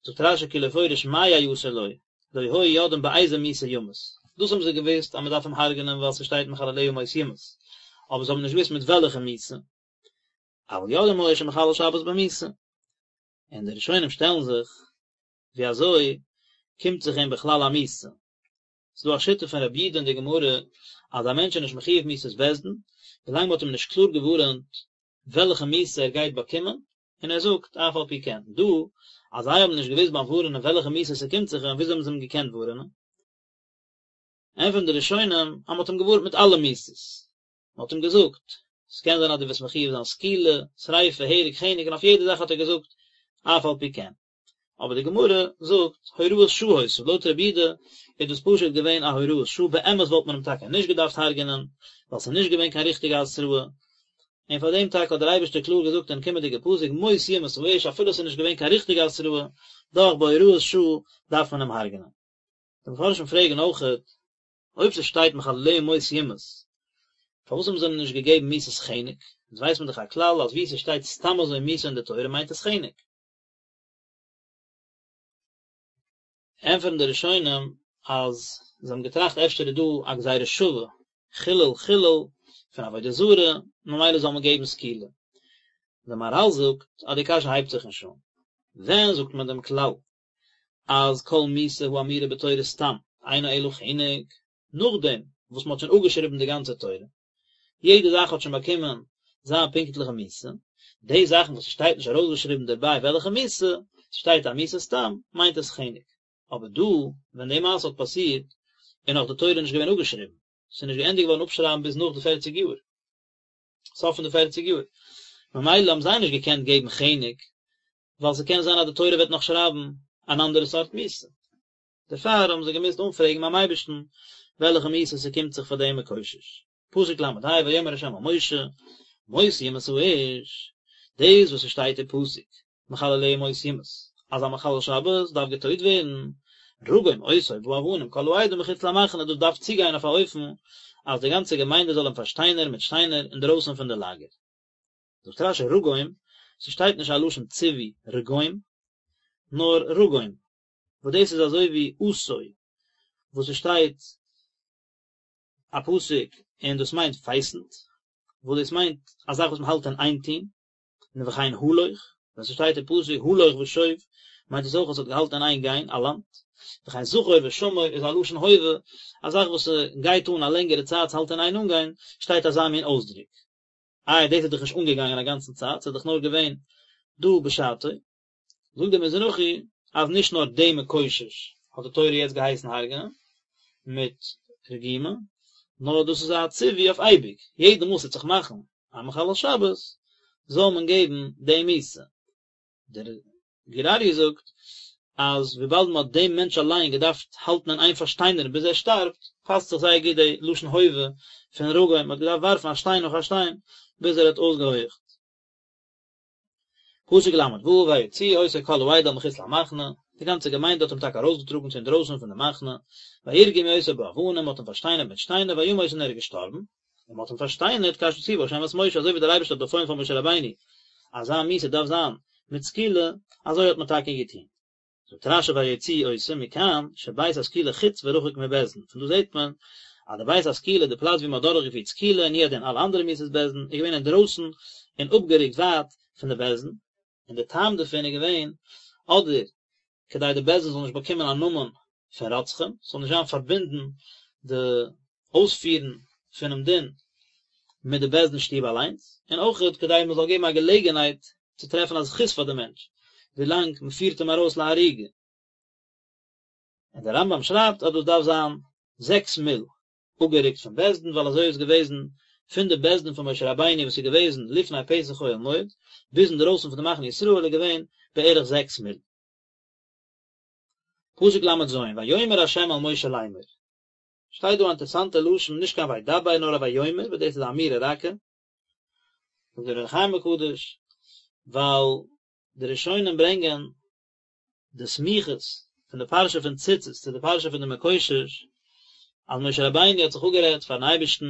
זאגט רש"י כי לא פורש מה יעשה לו, לא היו יודעים באיזה מיתה ימות. דאס האבן זיי געוואוסט אז מען דארף אים הרג'נען ווייל ס'שטייט מחלליה מות יומת, אבער זיי האבן נישט געוואוסט מיט וועלכע מיתה. אבל יודעים היו שמחלל שבת במיתה. און די ראשונים שטעלן זיך, ווי אזוי קומט זיך אים בכלל א מיתה? ס'איז דא א שיטה פון רבי יהודה אין די גמרא אז א מענטש איז נישט מחויב מיתת בית דין, ווילאנג מ'האט אים נישט קלאר געווארענט וועלכע מיתה ער גייט באקומען, און ער זאגט אף על פי כן, דא אז זיי האבן נישט געוואוסט ביים ווארענען וועלכע מיתה ס'קומט זיך אים, וויאזוי האבן זיי אים געקענט ווארענען? ענטפערן די ראשונים אז מ'האט אים געווארנט מיט אלע מיתות, מ'האט אים געזאגט, ס'קען זיין אז דו וועסט מחויב זיין סקילה, שריפה, הרג, חנק, און אויף יעדע זאך האט ער געזאגט אף על פי כן. אבער די גמרא זאגט הוראת שעה היתה, לויט רבי יהודה איז דאס פשוט געווען א הוראת שעה, באמת וואלט מען אים טאקע נישט געדארפט הרג'נען, ווייל ס'איז נישט געווען קיין ריכטיגע התראה, און פאר דעם טאקע האט דער אייבערשטער קלאר געזאגט אין קומענדיגע פסוק מות יומת האיש אפילו ס'איז נישט געווען קיין ריכטיגע התראה, דאך בהוראת שעה דארף מען אים הרג'נען. די מפרשים פרעגן אויכעט, אויב ס'שטייט מחלליה מות יומת, פארוואס האבן זיי אים נישט געגעבן מיתת חנק? אונז ווייסט מען דאך א כלל אז וואו ס'שטייט סתם אזוי מיתה אין די תורה מיינט עס חנק. ענטפערן די ראשונים אז זיי האבן געטראכט אפשר איז דא א גזירה שווה, חילול חילול פון עבודה זרה, ממילא זאל מען געבן סקילה. דער מהר"ל זאגט אז די קשיא הייבט זיך נישט אן. ווען זאגט מען דעם כלל אז כל מיתה האמורה בתורה סתם אינה אלא חנק, נאכדעם וואס מען האט שוין אפגעשריבן די גאנצע תורה, יעדע זאך האט שוין באקומען זיין פונקטליכע מיתה, די זאכן וואס ס'שטייט נישט ארויסגעשריבן דערביי וועלכע מיתה, ס'שטייט א מיתה סתם, מיינט עס חנק. אבער דא, ווען די מעשה האט פאסירט, איז נאך די תורה נישט געווען אפגעשריבן, ס'איז נישט געענדיגט געווארן אפשרייבן ביז נאך די פערציג יאר, סוף פון די פערציג יאר, ממילא האבן זיי נישט געקענט געבן חנק, ווייל ס'קען זיין אז די תורה וועט נאך שרייבן אן אנדערע סארט מיתה. דערפאר האבן זיי געמוזט אנפרעגן ביים אייבערשטן וועלכע מיתה ס'קומט זיך פאר דעם מקושש. פסוק ל"ה ויאמר ה' אל משה מות יומת האיש, דאס וואס ס'שטייט אין פסוק מחלליה מות יומת, אז א מחלל שבת דארף געטויט ווערן, רגום אותו באבנים כל העדה מחוץ למחנה, דאס דארף צוגיין אויף א אופן אז די גאנצע געמיינדע זאל אים פארשטיינערן מיט שטיינער אינדרויסן פון די לאגער. זאגט רש"י רגום, ס'שטייט נישט א לשון ציווי רגום, נאר רגום, וואס דאס איז אזוי ווי עשו וואס עס שטייט א פסוק און דאס מיינט פייסנט, וואס דאס מיינט א זאך וואס מען האלט אין איין טון, און וכן הלוך, ווען ס'שטייט אין פסוק הלוך ושוב מיינט עס אויך אז ס'האט געהאלטן אין איין גיין א לאנד, וכן זכור ושמור איז א לשון הווה, א זאך וואס ס'גייט אן א לענגערע צייט ס'האלט אין איין אנגיין, שטייט אזא מין אויסדרוק. איי דאס איז דאך נישט אנגעגאנגען א גאנצן צייט, ס'איז דאך נאר געווען דא בשעתו. זאגט דער מזרחי אז נישט נאר דעם מקושש האט די תורה יעצט געהייסן הרג'נען מיט רגימה, נאר דאס איז א ציווי אויף אייביג, יעדע מאל ס'וועט זיך מאכן א מחלל שבת זאל מען געבן די מיתה. דער גור אריה זאגט אז וויבאלד מען האט דעם מענטש אליין געדארפט האלטן אין איין פארשטיינערן ביז ער שטארבט, פאסט זיך זייער גוט די לשון הווה פון רגום, מען האט געדארפט ווארפן א שטיין נאך א שטיין ביז ער האט אויסגעהויעכט. פסוק ל"ו ויוציאו אותו כל העדה אל מחוץ למחנה. די גאנצע געמיינדע האט אים טאקע ארויסגעטראגן צו אינדרויסן פון די מחנה, וירגמו אותו באבנים, מען האט אים פארשטיינערט מיט שטיינער, וימת און ער איז געשטארבן, און מען האט אים פארשטיינערט כאשר ציווה ה' את משה, אזוי ווי דער אייבערשטער האט באפוילן פאר משה רבינו אז זיין מיתה דארף זיין מיט סקילה, אזוי האט מען טאקע געטון. זאגט רשי ויוציאו אותו מכאן שבית הסקילה חוץ ורחוק מבית דין, פון דא זעט מען אז די בית הסקילה, די פלאץ ווי מען האט דורכגעפירט סקילה און הוא הדין אלע אנדערע מיתות בית דין, איז געווען אינדרויסן און אפגערוקט ווייט פון די בית דין, און די טעם דערפון איז געווען אדער כדי די בית דין זאל נישט באקומען א נאמען פון רוצחים, ס'זאל נישט זיין פארבינדן די אויספירן פונעם דין מיט די בית דין שטוב אליינס, און אויכעט כדי מען זאל געבן א געלעגנהייט צו טרעפן א זכות פאר די מענטש, ווילאנג מען פירט אים ארויס להריגה. און דער רמב"ם שרייבט אז דאס דארף זיין זעקס מיל אפגערוקט פון בית דין, ווייל אזוי איז געוועזן פון די בית דין פון משה רבינו וואס איז געוועזן לפני פתח אוהל מועד, ביז אינדרויסן פון די מחנה ישראל איז געווען בערך זעקס מיל. פסוק ל"ז, ויאמר ה' אל משה לאמר. שטייט דא א אינטערסאנטע לשון, נישט קיין וידבר נאר א ויאמר, וואס דאס איז א אמירה רכה, זאגט דער אור החיים הקדוש, ווייל די ראשונים ברענגען די סמיכות פון די פרשה פון ציצית צו די פרשה פון די מקושש, אז משה רבינו האט זיך אפגערעדט פארן אייבערשטן,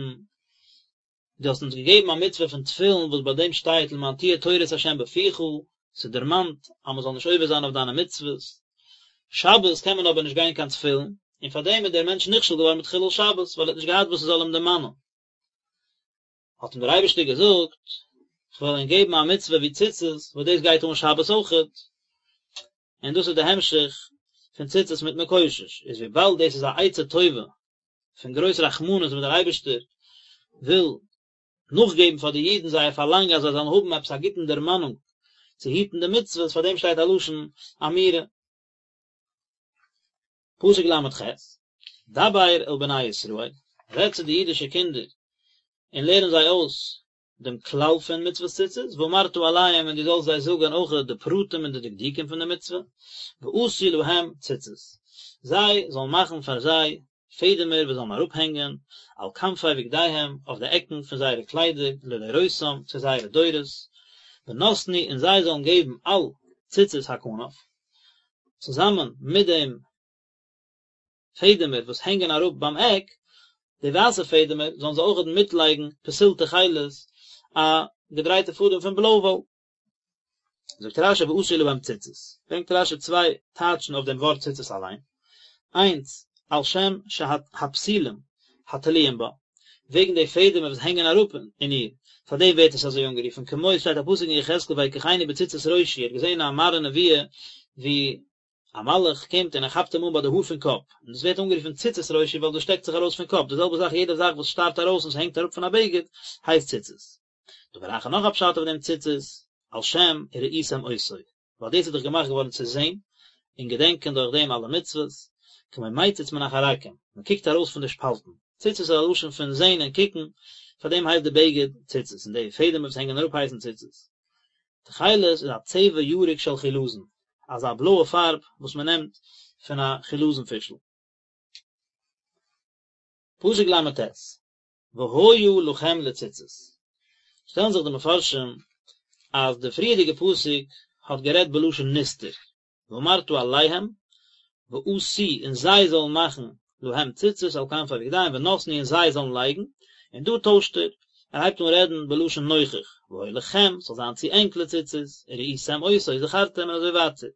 דו האסט אונז געגעבן א מצוה פון תפילין וואס ביי דעם שטייט למען תהיה תורת ה' בפיך, ס'דערמאנט אז מ'זאל נישט עובר זיין אויף דיינע מצוות. שבת קען מען אבער נישט גיין קיין תפילין, און פאר דעם איז דער מענטש נכשל געווארן מיט חילול שבת, ווייל ער האט נישט געהאט וואס ס'זאל אים דערמאנען. האט אים דער אייבערשטער געזאגט, כ'וועל ענק געבן א מצוה ווי ציצית, וואס דאס גייט אן שבת אויכעט, און דאס איז די המשך פון ציצית מיט מקושש, איז וויבאלד דאס איז א עצה טובה פון גרויס רחמנות וואס דער אייבערשטער וויל נאכגעבן פאר די אידן זייער פארלאנג אז זיי זאלן האבן עפעס א גוטן דערמאנונג צו היטן די מצוות, פאר דעם שטייט א לשון אמירה. פסוק ל"ח, דבר אל בני ישראל, רעד צו די אידישע קינדער און לערן זיי אויס דעם כלל פון מצוות ציצית, ואמרת אליהם און דו זאלסט זיי זאגן אויך די פרטים און די דקדוקים פון די מצוה, ועשו להם ציצית, זיי זאלן מאכן פאר זיי פעדעמער וואס זאלן אראפהענגען על כנפי בגדיהם, אויף די עקן פון זייערע קליידער, לדורותם, צו זייערע דורות, ונתנו און זיי זאלן געבן על ציצית הכנף, צוזאמען מיט דעם פעדעמער וואס הענגען אראפ ביים עק, די ווייסע פעדעמער, זאלן זיי אויכעט מיטלייגן פתיל תכלת, א געדרייטע פאדעם פון בלוי וואל. זאגט רשי ועשו להם ציצית, ברענגט רשי צוויי טייטשן אויף דעם ווארט ציצית אליין, איינס, על שם שהפתילים התלויים בה, וועגן די פעדעמער וואס הענגען אראפ אין איר, פאר דעם ווערט עס אזוי אנגערופן, כמו עס שטייט א פסוק אין יחזקאל ויקחני בציצית ראשי, ער האט געזען א מראה נבואה ווי א מלאך קומט און ער כאפט אים אן ביי די האר פון קאפ, און דאס ווערט אנגערופן ציצית ראשי ווייל דאס שטעקט זיך ארויס פון קאפ, די זעלבע זאך יעדע זאך וואס שטארט ארויס און ס'הענגט אראפ פון א בגד הייסט ציצית. דבר אחר נאך א פשט אויף דעם ציצית, על שם וראיתם אותו, ווייל דאס איז דאך געמאכט געווארן צו זען און געדענקען דורך דעם אלע מצוות, כמו מציץ מן החרכים, מען קוקט ארויס פון די שפאלטן, ציצית איז א לשון פון זען און קוקן, פאר דעם הייסט די בגד ציצית, און די פעדעמער וואס הענגען אראפ הייסן ציצית. תכלת איז א צבע ירוק של חילזון, אזא בלויע פארב וואס מען נעמט פון א חילזון פישל. פסוק ל"ט, והיה לכם לציצית. שטעלן זיך די מפרשים אז די פריערדיגע פסוק האט גערעדט בלשון נסתר, ואמרת אליהם, ועשו און זיי זאלן מאכן להם ציצית על כנפי בגדיהם ונתנו און זיי זאלן לייגן, און דא טוישט ער, ער הייבט אן רעדן בלשון נוכח, והיה לכם, ס'זאל זיין צו ענק לציצית, וראיתם אותו וזכרתם און אזוי ווייטער.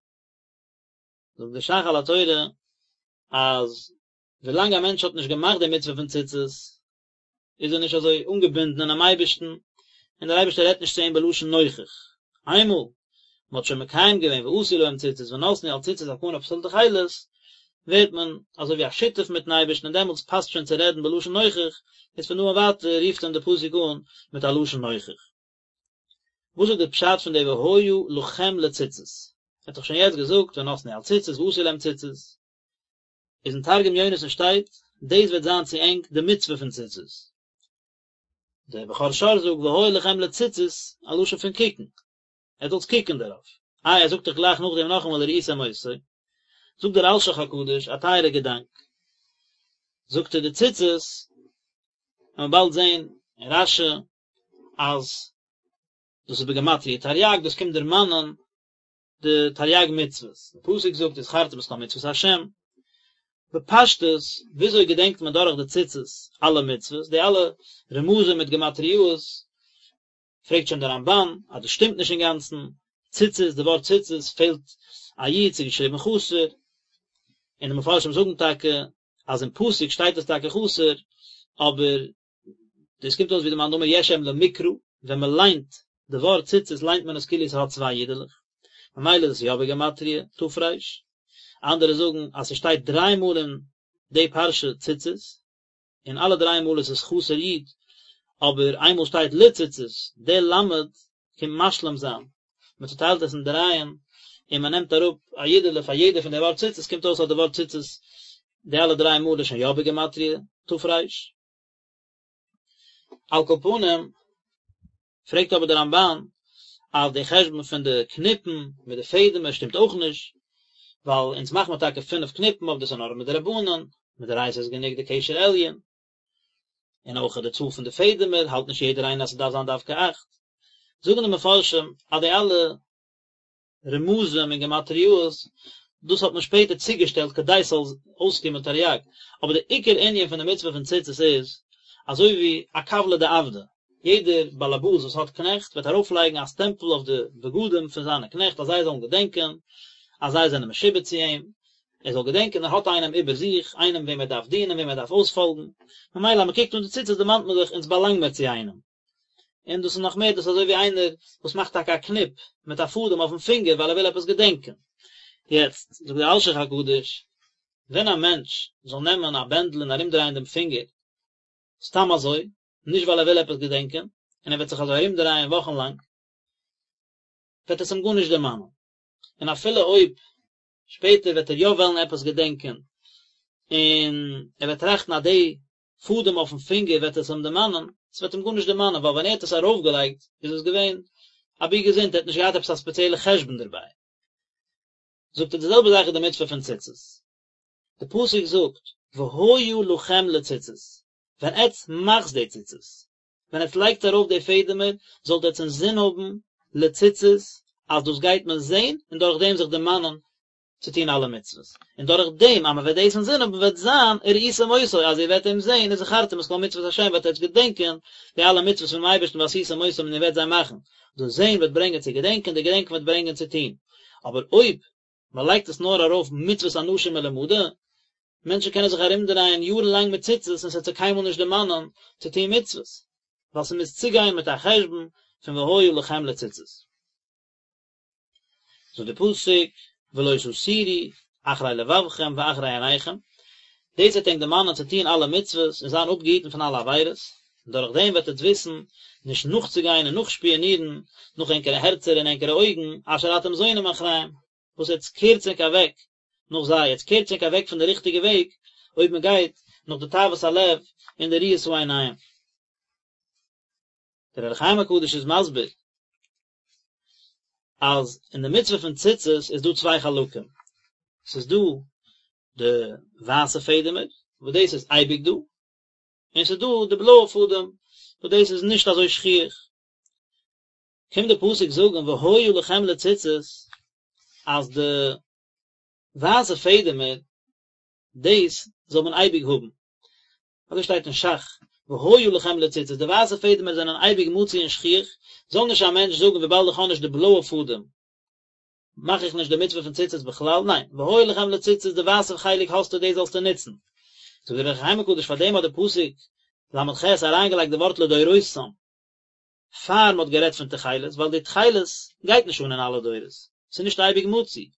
זאגט דער ש"ך על התורה אז ווילאנג א מענטש האט נישט געמאכט די מצוה פון ציצית, איז ער נישט אזוי אנגעבינדן אינעם אייבערשטן, און דער אייבערשטער רעדט נישט צו אים בלשון נוכח. איינמאל מען האט שוין מקיים געווען ועשו להם ציצית ונתנו על ציצית הכנף פתיל תכלת, ווערט מען אזוי ווי א שותף מיטן אייבערשטן און דעמאלטס פאסט שוין צו רעדן בלשון נוכח, איז פון דא און ווייטער רופט אים דער פסוק אן מיט א לשון נוכח. וואס איז די פשט פון די והיה לכם לציצית? ער האט דאך שוין יעצט געזאגט ונתנו על ציצית ועשו להם ציצית. איז אין תרגום יונתן שטייט, דאס וועט זיין צו ענק די מצוה פון ציצית. דער בכור שור זאגט והיה לכם לציצית, א לשון פון קוקן, עטס זאלטס קוקן דערויף. איי ער זאגט דאך גלייך נאכדעם נאכאמאל וראיתם אותו. זאגט דער אלשיך הקדוש א טייערע געדאנק, זאגט ער די ציצית, וועט מען באלד זען אין רש"י אז דאס איז בגימטריא תרי"ג, דאס קומט דערמאנען. די תריג מצוות, די פסוק זאגט וזכרתם את כל מצוות השם, בפשטות וויאזוי געדענקט מען דורך די ציצית אלע מצוות, די אלע רמזים מיט גמטריאות, פרעגט שוין דער רמבן אז דאס שטימט נישט אינגאנצן, ציצית, די ווארט ציצית פעלט א יוד, ס'איז געשריבן חסר, און די מפרשים זאגן טאקע אז אין פסוק שטייט עס טאקע חסר, אבער דאס קומט אויס ווי די מאן דאמר יש אם למקרא, ווען מען ליינט די ווארט ציצית ליינט מען עס כאילו עס האט צוויי יודעלעך, ממילא איז עס יא בגימטריא ת"ר, אנדערע זאגן אז ס'שטייט דריי מאל אין די פרשה ציצית, און אלע דריי מאל איז עס חסר יוד, אבער איינמאל שטייט לציצית, די למד קומט משלים זיין, מען צוטיילט עס אין דרייען, און מען נעמט אראפ א יודעלע פאר יעדע פון די ווארט ציצית, קומט אויס אז די ווארט ציצית די אלע דריי מאל איז שוין יא בגימטריא ת"ר. על כל פנים, פרעגט אבער דער רמבן אז די חשבון פון די קניפן מיט די פעדעמער שטימט אויך נישט, ווייל אונז מאכט מען טאקע פינף קניפן אבער דאס איז נאר מדרבנן, מדאורייתא איז גענוג די קשר עליון, און אויך די צאל פון די פעדעמער האלט נישט יעדער איינער אז ס'דארף זיין דווקא אכט. זאגן די מפרשים אז די אלע רמזים און גמטריאות, דאס האט מען שפעטער צוגעשטעלט כדי ס'זאל אויסקומען תריג, אבער די עיקר ענין פון די מצוה פון ציצית איז, אזוי ווי א כבלא דעבדא, יעדער באלעבאס וואס האט קנעכט וועט ארויפלייגן א סטעמפל אויף די בגדים פון זיינע קנעכט אז זיי זאלן געדענקען אז זיי זענען משועבד צו אים, ער זאל געדענקען ער האט איינעם איבער זיך, איינעם וועם ער דארף דינען, וועם ער דארף אויספאלגן, ממילא אז מען קוקט אן די ציצית דערמאנט מען זיך אונז באלאנג מיר צו איינעם. און דאס איז נאך מער, דאס איז אזוי ווי איינער וואס מאכט טאקע א קניפ מיט א פאדעם אויפן פינגער ווייל ער וויל עפעס געדענקען. יעצט, זאגט דער אלשיך הקדוש, ווען א מענטש זאל נעמען א בענדל און ארומדרייען דעם פינגער, סתם אזוי, נישט ווייל ער וויל עפעס געדענקען, און ער וועט זיך אזוי ארומדרייען וואכן לאנג, וועט עס אים גארנישט דערמאנען. און אפילו אויב שפעטער וועט ער יא וועלן עפעס געדענקען, און ער וועט טראכטן אז די פאדעם אויפן פינגער וועט עס אים דערמאנען, עס וועט אים גארנישט דערמאנען, ווייל ווען ער האט עס ארויפגעלייגט איז עס געווען אבי געזונט, ער האט נישט געהאט עפעס א ספעציעלע חשבון דערביי. זאגט ער די זעלבע זאך איז די מצוה פון ציצית. די פסוק זאגט והיה לכם לציצית, ווען עטץ מאכטס די ציצית, ווען עטץ לייגטס ארויף די פעדעמער, זאלט עטץ אינזין האבן לציצית אז דאס גייט מען זען און דורך דעם זיך דערמאנען צו טון אלע מצוות, און דורך דעם אז מען וועט דאס אינזין האבן וועט זיין וראיתם אותו אז איר וועט אים זען וזכרתם את כל מצוות השם וועט עטץ געדענקען די אלע מצוות פונעם אייבערשטן ועשיתם אותם און איר וועט זיי מאכן, דאס זען וועט ברענגען צו געדענקען, די געדענקען וועט ברענגען צו טון, אבער אויב מען לייגט עס נאר ארויף מצוות אנשים מלומדה, מענטשן קענען זיך ארומדרייען יארן לאנג מיט ציצית און ס'וועט זיי קיינמאל נישט דערמאנען צו טון מצוות, ווייל ס'מוז צוגיין מיט א חשבון פון והיה לכם לציצית. זאגט די פסוק ולא תתורו אחרי לבבכם ואחרי עיניכם, דאס וועט ענק דערמאנען צו טון אלע מצוות און זיין אפגעהיטן פון אלע עבירות, און דורך דעם וועט עטץ וויסן נישט נאכצוגיין און נאכשפיאנירן נאך ענקערע הערצער און ענקערע אויגן, אשר אתם זונים אחריהם, וואס עטץ קערטס ענק אוועק נאך זיי, עטץ קערטס ענק אוועק פון די ריכטיגע וועג, אויב מען גייט נאך די תאוות הלב און די ראיית העיניים. דער אור החיים הקדוש איז מסביר אז אין די מצוה פון ציצית איז דא צוויי חלקים, ס'איז דא די ווייסע פעדעמער וואס דאס איז אייביג דא, און ס'איז דא די בלויע פאדעם וואס דאס איז נישט אזוי שכיח. קומט די פסוק זאגן והיה לכם לציצית אז די ווייסע פעדעמער דאס זאל מען אייביג האבן, אזוי שטייט אין ש"ך, והיה לכם לציצית, די ווייסע פעדעמער זענען אייביג מצוי און שכיח, זאל נישט א מענטש זאגן וויבאלד איך האב נישט די בלויע פאדעם מאך איך נישט די מצוה פון ציצית בכלל, ניין, והיה לכם לציצית די ווייסע חלק האסטו דאס זאלסטו נוצן. זאגט דער אור החיים הקדוש פאר דעם האט די פסוק ל"ח אריינגעלייגט די ווארט לדורותם, פאר מ'האט גערעדט פון תכלת, ווייל די תכלת גייט נישט אן אין אלע דורות, ס'איז נישט אייביג מצוי.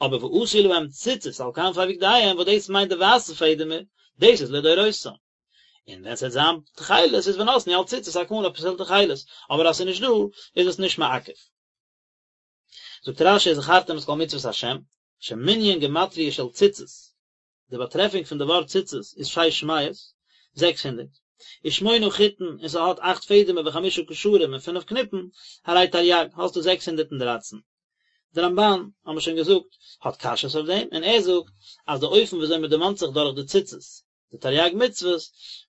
אבער ועשו להם ציצית על כנפי בגדיהם וואס דאס מיינט די ווייסע פעדעמער, דאס איז לדורותם. און ווען ס'וועט זיין תכלת איז ונתנו על ציצית הכנף פתיל תכלת, אבער אז ס'איז נישט דא איז עס נישט מעכב. זאגט רש"י וזכרתם את כל מצוות השם, שמנין גמטריא של ציצית, די באטרעפונג פון די ווארט ציצית איז שש מאות, 600, ושמונה חוטין און ס'האט אכט פעדעמער וחמשה קשרים און פינף קניפן, הרי תרי"ג, האסטו 613. די רמב"ן, האבן מיר שוין געזאגט, האט קשיות אויף דעם, און ער זאגט אז די אופן וויאזוי מען דערמאנט זיך דורך די ציצית, די תרי"ג מצוות,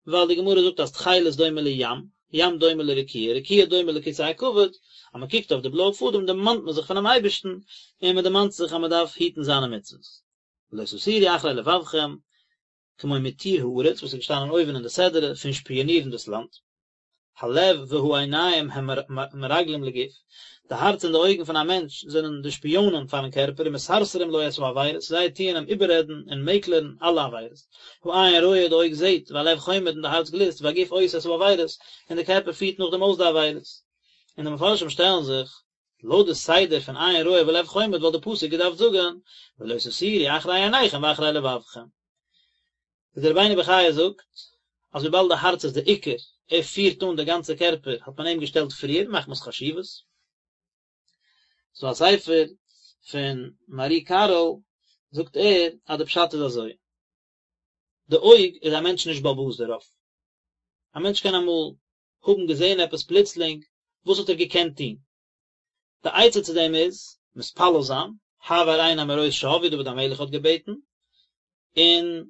ווייל די גמרא זאגט אז תכלת דומה לים, ים דומה לרקיע, רקיע דומה לכסא הכבוד, אז מען קוקט אויף די בלויע פאדעם דערמאנט מען זיך פונעם אייבערשטן, און מען דערמאנט זיך אז מען דארף היטן זיינע מצוות. ולא תתורו אחרי לבבכם, כמו מתור הארץ, וואס איז געשטאנען אויבן אין די סדרה פון שפיאנירן דאס לאנד. הלב והעיניים הם מרגלים לגוף, די הארץ און די אויגן פון א מענטש זענען די שפיאנען פארן קערפער ומסרסרים לו את העבירות, זיי טוען אים איבעררעדן און מעקלערן אלע עבירות. העין רואה, די אויג זעט, והלב חומד און די הארץ גליסט, והגוף עושה את העבירות, און די קערפער פירט נאכדעם אויס די עבירות. און די מפרשים שטעלן זיך, לויט די סדר פון עין רואה ולב חומד וואלט די פסוק געדארפט זאגן, ולא תתורו אחרי עיניכם ואחרי לבבכם. איז דער רבינו בחיי זאגט אז וויבאלד די הארץ איז די עיקר, ער פירט אן די גאנצע קערפער, האט מען אים געשטעלט פריער מחמת חשיבות. ס'דא א ספר פון מהר"י קארו זאגט ער אז די פשט איז אזוי, די אויג איז א מענטש נישט בעל הבית דערויף, א מענטש קען אמאל האבן געזען עפעס פלוצלינג, וואס האט ער געקענט טון? די עצה צו דעם איז, מתפלל זיין, העבר עיני מראות שוא, ווי דוד המלך האט געבעטן, און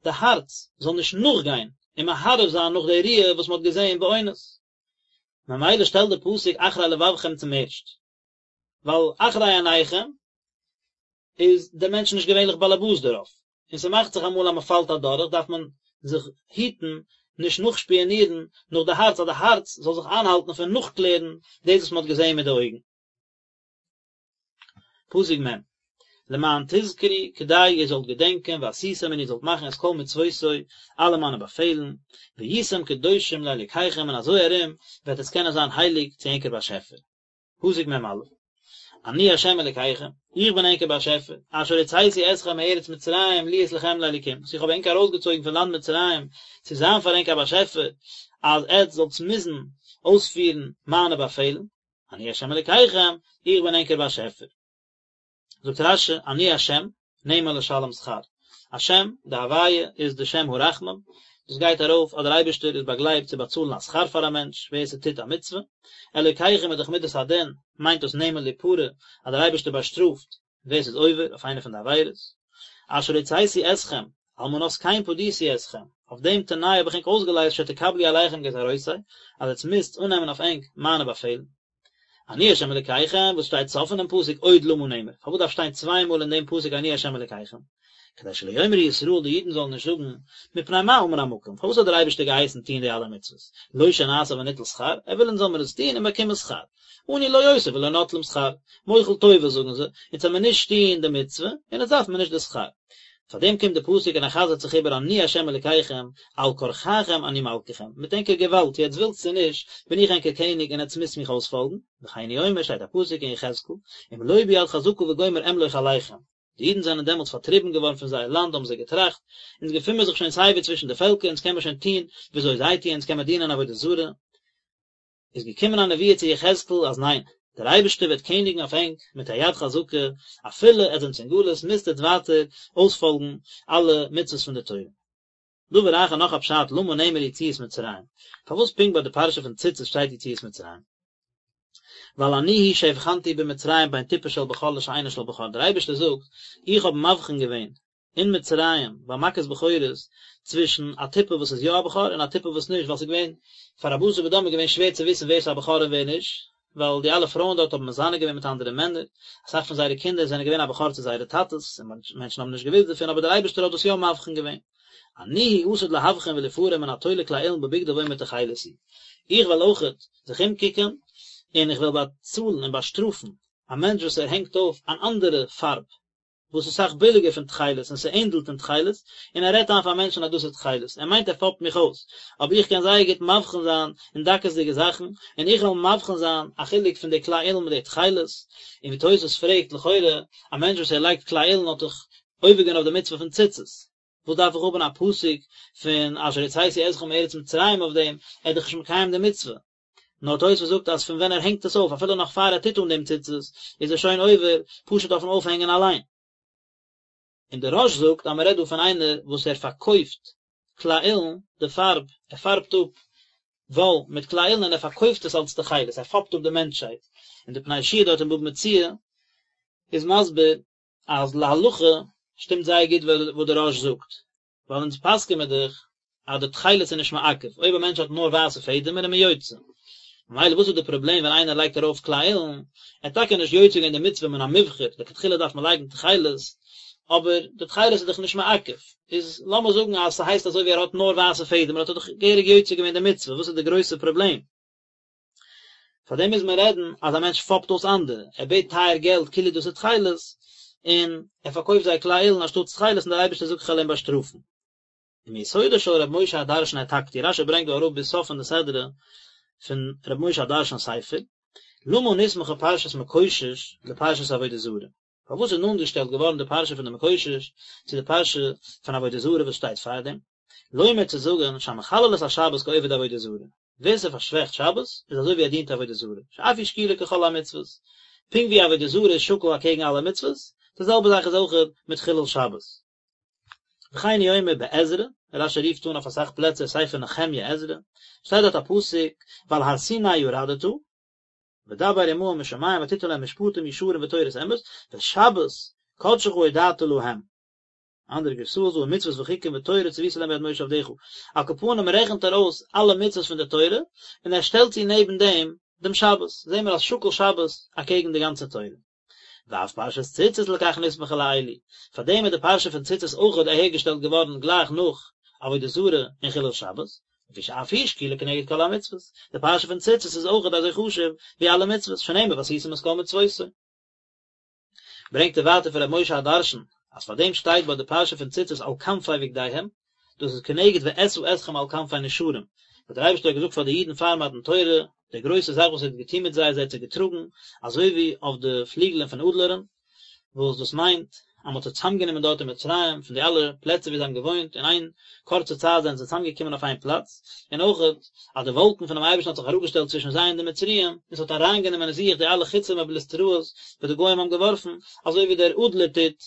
די הארץ זאל נישט נאכגיין און מהרהר זיין נאך די ראיה וואס מען האט געזען באונס. ממילא שטעלט די פסוק אחרי לבבכם צום ערשט, ווייל אחרי עיניכם איז דער מענטש נישט געווענליך באלעבאס דערויף, און ס'מאכט זיך אמאל אז מ'פאלט אדורך דארף מען זיך היטן נישט נאכשפיאנירן נאך די הארץ אז די הארץ זאל זיך איינהאלטן פון נאכקלערן דאס וואס מ'האט געזען מיט די אויגן. פסוק מ', למען תזכרו, כדי איר זאלט געדענקען, ועשיתם און איר זאלט מאכן את כל מצוותי, אלע מיינע באפעלן, והייתם קדושים לאלוקיכם און אזוי ארום וועט עס קענען זיין הייליג צו ענקער באשעפער. פסוק מ"א, אני ה' אלקיכם, איך בין ענקער באשעפער, אשר הוצאתי אתכם מארץ מצרים להיות לכם לאלקים, וואס איך האב ענק ארויסגעצויגן פון לאנד מצרים צו זיין פאר ענק א באשעפער, אז עטץ זאלטס מוזן אויספירן מיינע באפעלן, אני ה' אלקיכם, איך בין ענקער באשעפער. זאגט רש"י, אני השם, נאמן לשלם שכר. השם, די הוויה, איז די שם הרחמים, דאס גייט ארויף אז דער אייבערשטער איז באגלייבט צו באצאלן א שכר פאר א מענטש ווער ס'טוט א מצוה. אלוקיכם איז דאך מידת הדין, מיינט דאס נאמן ליפרע, אז דער אייבערשטער באשטראפט ווער ס'איז עובר אויף איינע פון די עבירות. אשר הוצאתי אתכם, על מנת כן פדיתי אתכם, אויף דעם תנאי האב איך ענק אויסגעלייזט שתקבלו עליכם גזירותי, אז עטס מוזט אננעמען אויף ענק מיינע באפעלן. אני ה' אלקיכם, וואס שטייט סוף פונעם פסוק עוד למה נאמר, פארוואס דארף שטיין צוויי מאל אין דעם פסוק אני ה' אלקיכם? כדי שלא יאמרו ישראל די אידן זאלן נישט זאגן, מפני מה אמר המקום, פארוואס האט דער אייבערשטער געהייסן טון די אלע מצוות, לא שנעשה וניטול שכר, ער וויל אונז זאל מיר עס טון און באקומען שכר, אנו לא עושים ולא נוטלים שכר, מוחל טובות זאגן זיי, אונז זאל מיר נישט טון די מצוה, און אונז דארף מיר נישט די שכר. פאר דעם קומט די פסוק און ער חזר'ט זיך איבער אני ה' אלקיכם, על כרחכם אני מלככם, מיט ענקער געוואלד, צו עטס ווילטס צו נישט, בין איך ענקער קעניג און עטס מוזט מיך אויספאלגן, וכן הוא אומר שטייט א פסוק אין יחזקאל, אם לא ביד חזקה וגומר אמלוך עליכם. די אידן זענען דעמאלטס פארטריבן געווארן פון זייער לאנד האבן זיי געטראכט, אונז געפין מיר זיך שוין סייווי צווישן די פעלקער, אונז קען מיר שוין טון וויאזוי זיי טוען, אונז קען מיר דינען עבודה זרה, איז געקומען א נבואה צו יחזקאל אז ניין, דער אייבערשטער וועט קעניגן אויף ענק מיט א יד חזקה, אפילו עטס זענטס אין גלות מוזט עטס ווייטער אויספאלגן אלע מצוות פון די תורה. דבר אחר נאך א פשט למה נאמר יציאת מצרים, פארוואס פונקט ביי די פרשה פון ציצית שטייט יציאת מצרים? ווייל אני הוא שהבחנתי במצרים בין טיפה של בכור לשאינה של בכור, דער אייבערשטער זאגט, איך האב מבחין געווען אין מצרים ביי מכת בכורות צווישן א טיפה וואס איז יא א בכור און א טיפה וואס נישט ווייל ס'איז געווען פאר א בשר ודם איז געווען שווער צו וויסן ווער ס'איז א בכור און ווער נישט ווייל די אלע פרויען דארט האבן מזנה געווען מיט אנדערע מענער אסאך פון זייערע קינדער זענען געווען א בכור צו זייערע טאטעס און מענטשן האבן נישט געוואוסט דערפון אבער דער אייבערשטער האט דאס יא מבחין געווען אני הוא עתיד להבחין וליפרע מן התולה כלי אילן בבגדו ואומר תכלת הוא איך וועל אויכעט זיך אומקוקען און איך וועל באצאלן און באשטראפן א מענטש וואס ער הענגט אויף אן אנדערע פארב וואס איז אסאך ביליגער פון תכלת און ס'ענדלט אין תכלת, און ער רעדט איין פאר מענטשן אז דאס איז תכלת, ער מיינט ער פאפט מיך אויס, אבער איך קען זייער גוט מבחין זיין אין דקות'דיגע זאכן, און איך וועל מבחין זיין א חילוק פון די כלי אילן מיט די תכלת, און ווי תוס' פרעגט, לכאורה, א מענטש וואס ער לייגט כלי אילן האט דאך עובר געווען אויף די מצוה פון ציצית, וואס דארף איך האבן א פסוק פון אשר הוצאתי אתכם מארץ מצרים אויף דעם, ער איז דאך נישט מקיים די מצוה. נאר תוספות זאגט אז פון ווען ער הענגט עס אויף אפילו נאך פאר ער טוט אן דעם ציצית איז ער שוין עובר פשוט אויפן אויפהענגען אליין. און דער רא"ש זאגט אז מען רעדט דא פון איינער וואס ער פארקויפט כלי אילן, די פארב, ער פארבט אפ וואל מיט כלי אילן און ער פארקויפט עס אלס תכלת, ער פאפט אפ די מענטשהייט. און די פני יהושע דארט אין בבא מציעא איז מסביר אז להלכה שטימט זייער גוט וואס דער רא"ש זאגט, ווייל אונז פסק'ען מיר דאך. אז די תכלת איז נישט מעכב, אויב א מענטש האט נאר ווייסע פעדעמער איז מען יוצא. ממילא וואס איז די פראבלעם ווען איינער לייגט ארויף כלי אילן, ער האט טאקע נישט יוצא געווען די מצוה מן המובחר, לכתחילה דארף מען לייגן תכלת, אבער די תכלת איז דאך נישט מעכב, איז לאמיר זאגן אז ס'הייסט אזוי ווי ער האט נאר ווייסע פעדעמער האט ער דאך געהעריג יוצא געווען די מצוה, וואס איז די גרויסע פראבלעם? פאר דעם מוז מען רעדן אז א מענטש פאפט אויס אנדערע, ער בעט טייער געלט כאילו דאס איז תכלת, און ער פארקויפט זיי כלי אילן אנשטאטס תכלת און דער אייבערשטער זאגט כ'על אים באשטראפן. ומיסודו של ר' משה הדרשן העתקתי, רשי ברענגט דא אראפ ביז סוף פון די סדרה פון ר' משה הדרשן'ס ספר, למה נסמכה פרשת מקושש לפרשת עבודה זרה? פארוואס איז נאנט געשטעלט געווארן די פרשה פון די מקושש צו די פרשה פון עבודה זרה וואס שטייט פארדעם? לומר צו זאגן שהמחלל את השבת כעובד עבודה זרה, ווער ס'פארשוועכט שבת איז אזוי ווי ער דינט עבודה זרה, שאף היא שקולה ככל המצוות, פונקט ווי עבודה זרה איז שקול אקעגן אלע מצוות, די זעלבע זאך איז אויך מיט חילול שבת. וכן הוא אומר בעזרא, רשי רופט אן אויף אסאך פלעצער ספר נחמיה עזרא, שטייט דארט א פסוק ועל הר סיני ירדת, ודבר עמהם משמים ותתן להם משפטים ישרים ותורת אמת, ואת שבת קדשך הודעת להם. אנדערע גרסאות דא ומצוות וחוקים ותורה צוית להם ביד משה עבדך. על כל פנים רעכנט ער אויס אלע מצוות פון די תורה, און ער שטעלט צו נעבן דעם דעם שבת, זעהן מיר אז שקול שבת אקעגן די גאנצע תורה. ואף פרשת ציצית לכך נסמכה לאלו, פאר דעם איז די פרשה פון ציצית אויכעט אהערגעשטעלט געווארן גלייך נאך עבודה זרה און חילול שבת, לפי שאף היא שקולה כנגד כל המצוות, די פרשה פון ציצית איז אויכעט אזוי חשוב ווי אלע מצוות, שנאמר ועשיתם את כל מצוותי. ברענגט ער ווייטער פון ר' משה הדרשן, אז פאר דעם שטייט ביי די פרשה פון ציצית על כנפי בגדיהם, דאס איז כנגד ואשא אתכם על כנפי נשרים, וואס דער אייבערשטער האט געזאגט פאר די אידן פאר מתן תורה, די גרויסע זאך וואס ער האט געטון מיט זיי אז ער האט זיי געטראגן אזוי ווי אויף די פליגלען פון אדלערן, וואס דאס מיינט אז מען האט זיי צוזאמגענומען דארט אין מצרים פון די אלע פלעצער ווי זיי האבן געוואוינט, אין איין קורצע צייט זענען זיי צוזאמגעקומען אויף איין פלאץ, און אויכעט אז די וואלקן פונעם אייבערשטן האט זיך אראפגעשטעלט צווישן זיי און די מצריים, און עס האט אריינגענומען אין זיך די אלע חיצים ובליסטראות וואס די גוים האבן געווארפן, אזוי ווי דער אדלער טוט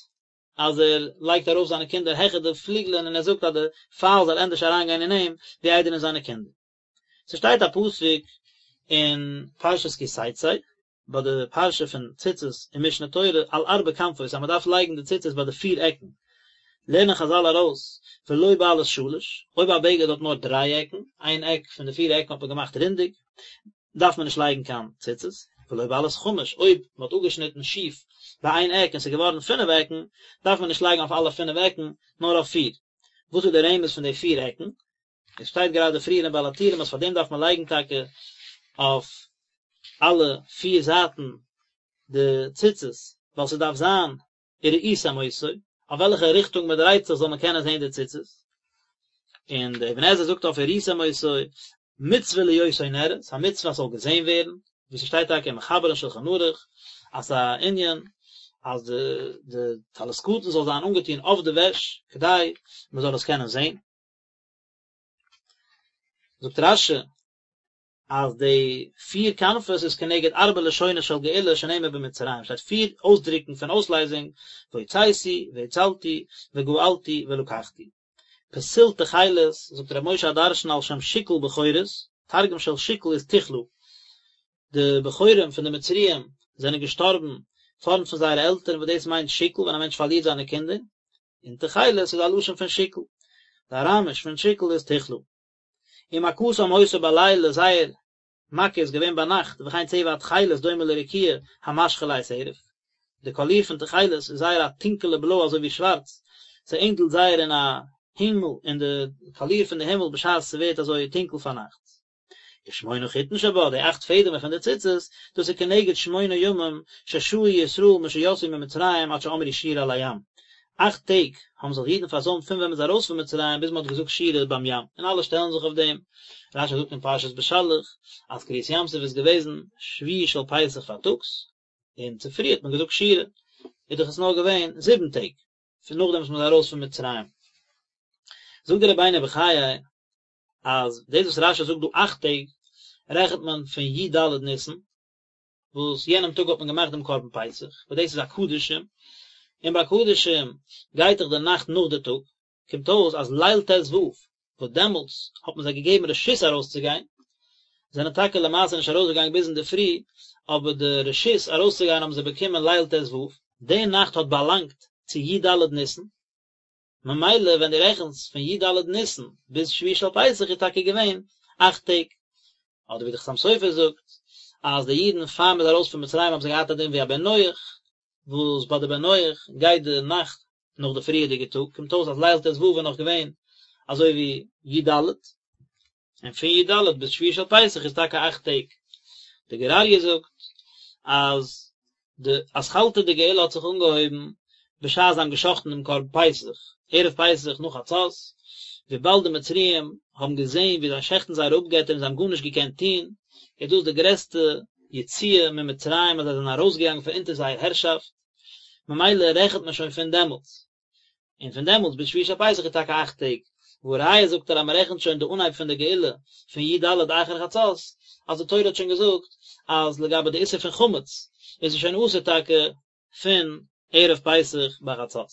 אז ער לייגט ארויף זיינע קינדער העכער די פליגלען און ער זאגט אז די פייל זאל ענדערש אריינגיין אין אים ווי איידער אין זיינע קינדער. ס'שטייט א פסוק אין פרשת כי תצא, ביי די פרשה פון ציצית אין משנה תורה על ארבע כנפות אז מ'דארף לייגן די ציצית ביי די פיר עקן, לערנען חזל ארויס ולא בעלת שלש, אויב א בגד האט נאר דריי עקן, איין עק פון די פיר עקן האט מען געמאכט רונדיג, דארף מען נישט לייגן קיין ציצית, ולא בעלת חמש, אויב מען האט אפגעשניטן שיף ביי איין עק און ס'איז געווארן פינף עקן, דארף מען נישט לייגן אויף אלע פינף עקן, נאר אויף פיר. וואס איז די רמז פון די פיר עקן? עס שטייט גראדע פריער אין בעל הטורים אז פאר דעם דארף מען לייגן טאקע אויף אלע פיר זייטן די ציצית, ווייל ס'דארף זיין וראיתם אותו, אויף וועלכע ריכטונג מען דרייט זיך זאל מען קענען זען די ציצית, און דער אבן עזרא זאגט אויף וראיתם אותו, מצוה להיותו נראה, ס'איז א מצוה אז ס'זאל געזען ווערן, ווי ס'שטייט טאקע אין מחבר אין שלחן ערוך, אז ס'איז א ענין אז די די טלית קטן זאל זיין אנגעטון אויף די וועש, כדי מען זאל עס קענען זען. זאגט רש"י אז די פיר כנפות איז כנגד ארבע לשונות של גאולה שנאמר במצרים, שטייט פיר אויסדרוקן פון אויסלייזונג, והוצאתי, והצלתי, וגאלתי, ולקחתי. פתיל תכלת, זאגט ר' משה הדרשן על שם שכול בכורות, תרגום של שכול איז תכלא, די בכורים פון די מצריים זענען געשטארבן פארנט פון זייערע עלטערן וואס דאס מיינט שכול ווען א מענטש פארלירט זיינע קינדער, און תכלת איז א לשון פון שכול, די אראמיש פון שכול איז תכלא. ומכתם היתה בלילה, זייער מכה איז געווען ביינאכט, וכן צבע התכלת דומה לרקיע המשחיר לעת ערב, די קאליר פון תכלת איז זייער א טונקעלע בלוי אזוי ווי שווארץ, ס'ענדלט זייער אין א הימל, אין די קאליר פון די הימל בשעת ס'ווערט אזוי טונקל פארנאכטס. ושמונה חוטין שבה, די אכט פעדעמער פון די ציצית, דאס איז כנגד שמונה ימים ששהו ישראל משיצאו ממצרים עד שאמרו שירה על הים. אכט טעג האבן זיך די אידן פארזוימט פון ווען מען איז ארויס פון מצרים ביז מען האט געזאגט שירה ביים ים, און אלע שטעלן זיך אויף דעם. רש"י זאגט אין פרשת בשלח אז קריעת ים סוף איז געוועזן שביעי של פסח פארטאגס, און צופרי האט מען געזאגט שירה, איז דאך עס נאר געווען זיבן טעג פון נאכדעם וואס מען איז ארויס פון מצרים. זאגט דער רבינו בחיי אז דאס וואס רש"י זאגט דא אכט טעג רעכנט מען פון י"ד ניסן, וואס יענעם טאג האט מען געמאכט דעם קרבן פסח, וואס דאס איז א קדשים, און ביי קדשים גייט דאך די נאכט נאך די טאג, קומט אויס אז ליל ט"ו, וואס דעמאלטס האט מען זיי געגעבן רשות ארויסצוגיין, זענען טאקע למעשה נישט ארויסגעגאנגען ביז אינדערפרי, אבער די רשות ארויסצוגיין האבן זיי באקומען ליל ט"ו, די נאכט האט באלאנגט צו י"ד ניסן. ממילא ווען דו רעכנסט פון י ד ניסן ביז שביעי של פסח איז טאקע געווען אכט טעג. אדער ווי די חתם סופר זאגט אז די אידן פאר מ'איז ארויס פון מצרים האבן זיי געהאט א דין ווי א בן נח, וואס ביי די בן נח גייט די נאכט נאך די פריערדיגע טאג, קומט אויס אז ליל ט ו איז נאך געווען אזוי ווי י ד, און פון י ד ביז שביעי של פסח איז טאקע אכט טעג. די גור אריה זאגט אז די אתחלתא דגאולה האט זיך אנגעהויבן בשעת זיי האבן גע'שחט'ן דעם קרבן פסח, ערב פסח נאך חצות, וויבאלד די מצריים האבן געזען ווי זיי שעכטן זייערע אפגעטער און זיי האבן גארנישט געקענט טון, איז דאס די גרעסטע יציאה ממצרים אז זיי זענען ארויסגעגאנגען פון אונטער זייער הערשאפט, ממילא רעכנט מען שוין פון דעמאלטס. און פון דעמאלטס ביז שביעי של פסח איז טאקע אכט טעג, והא ראיה זאגט ער אז מען רעכנט שוין די אנהייב פון די גאולה פון י ד אחר חצות, אז די תורה האט שוין געזאגט אז לגבי די איסור פון חמץ איז עס שוין אסור טאקע פון ערב פסח ביי חצות.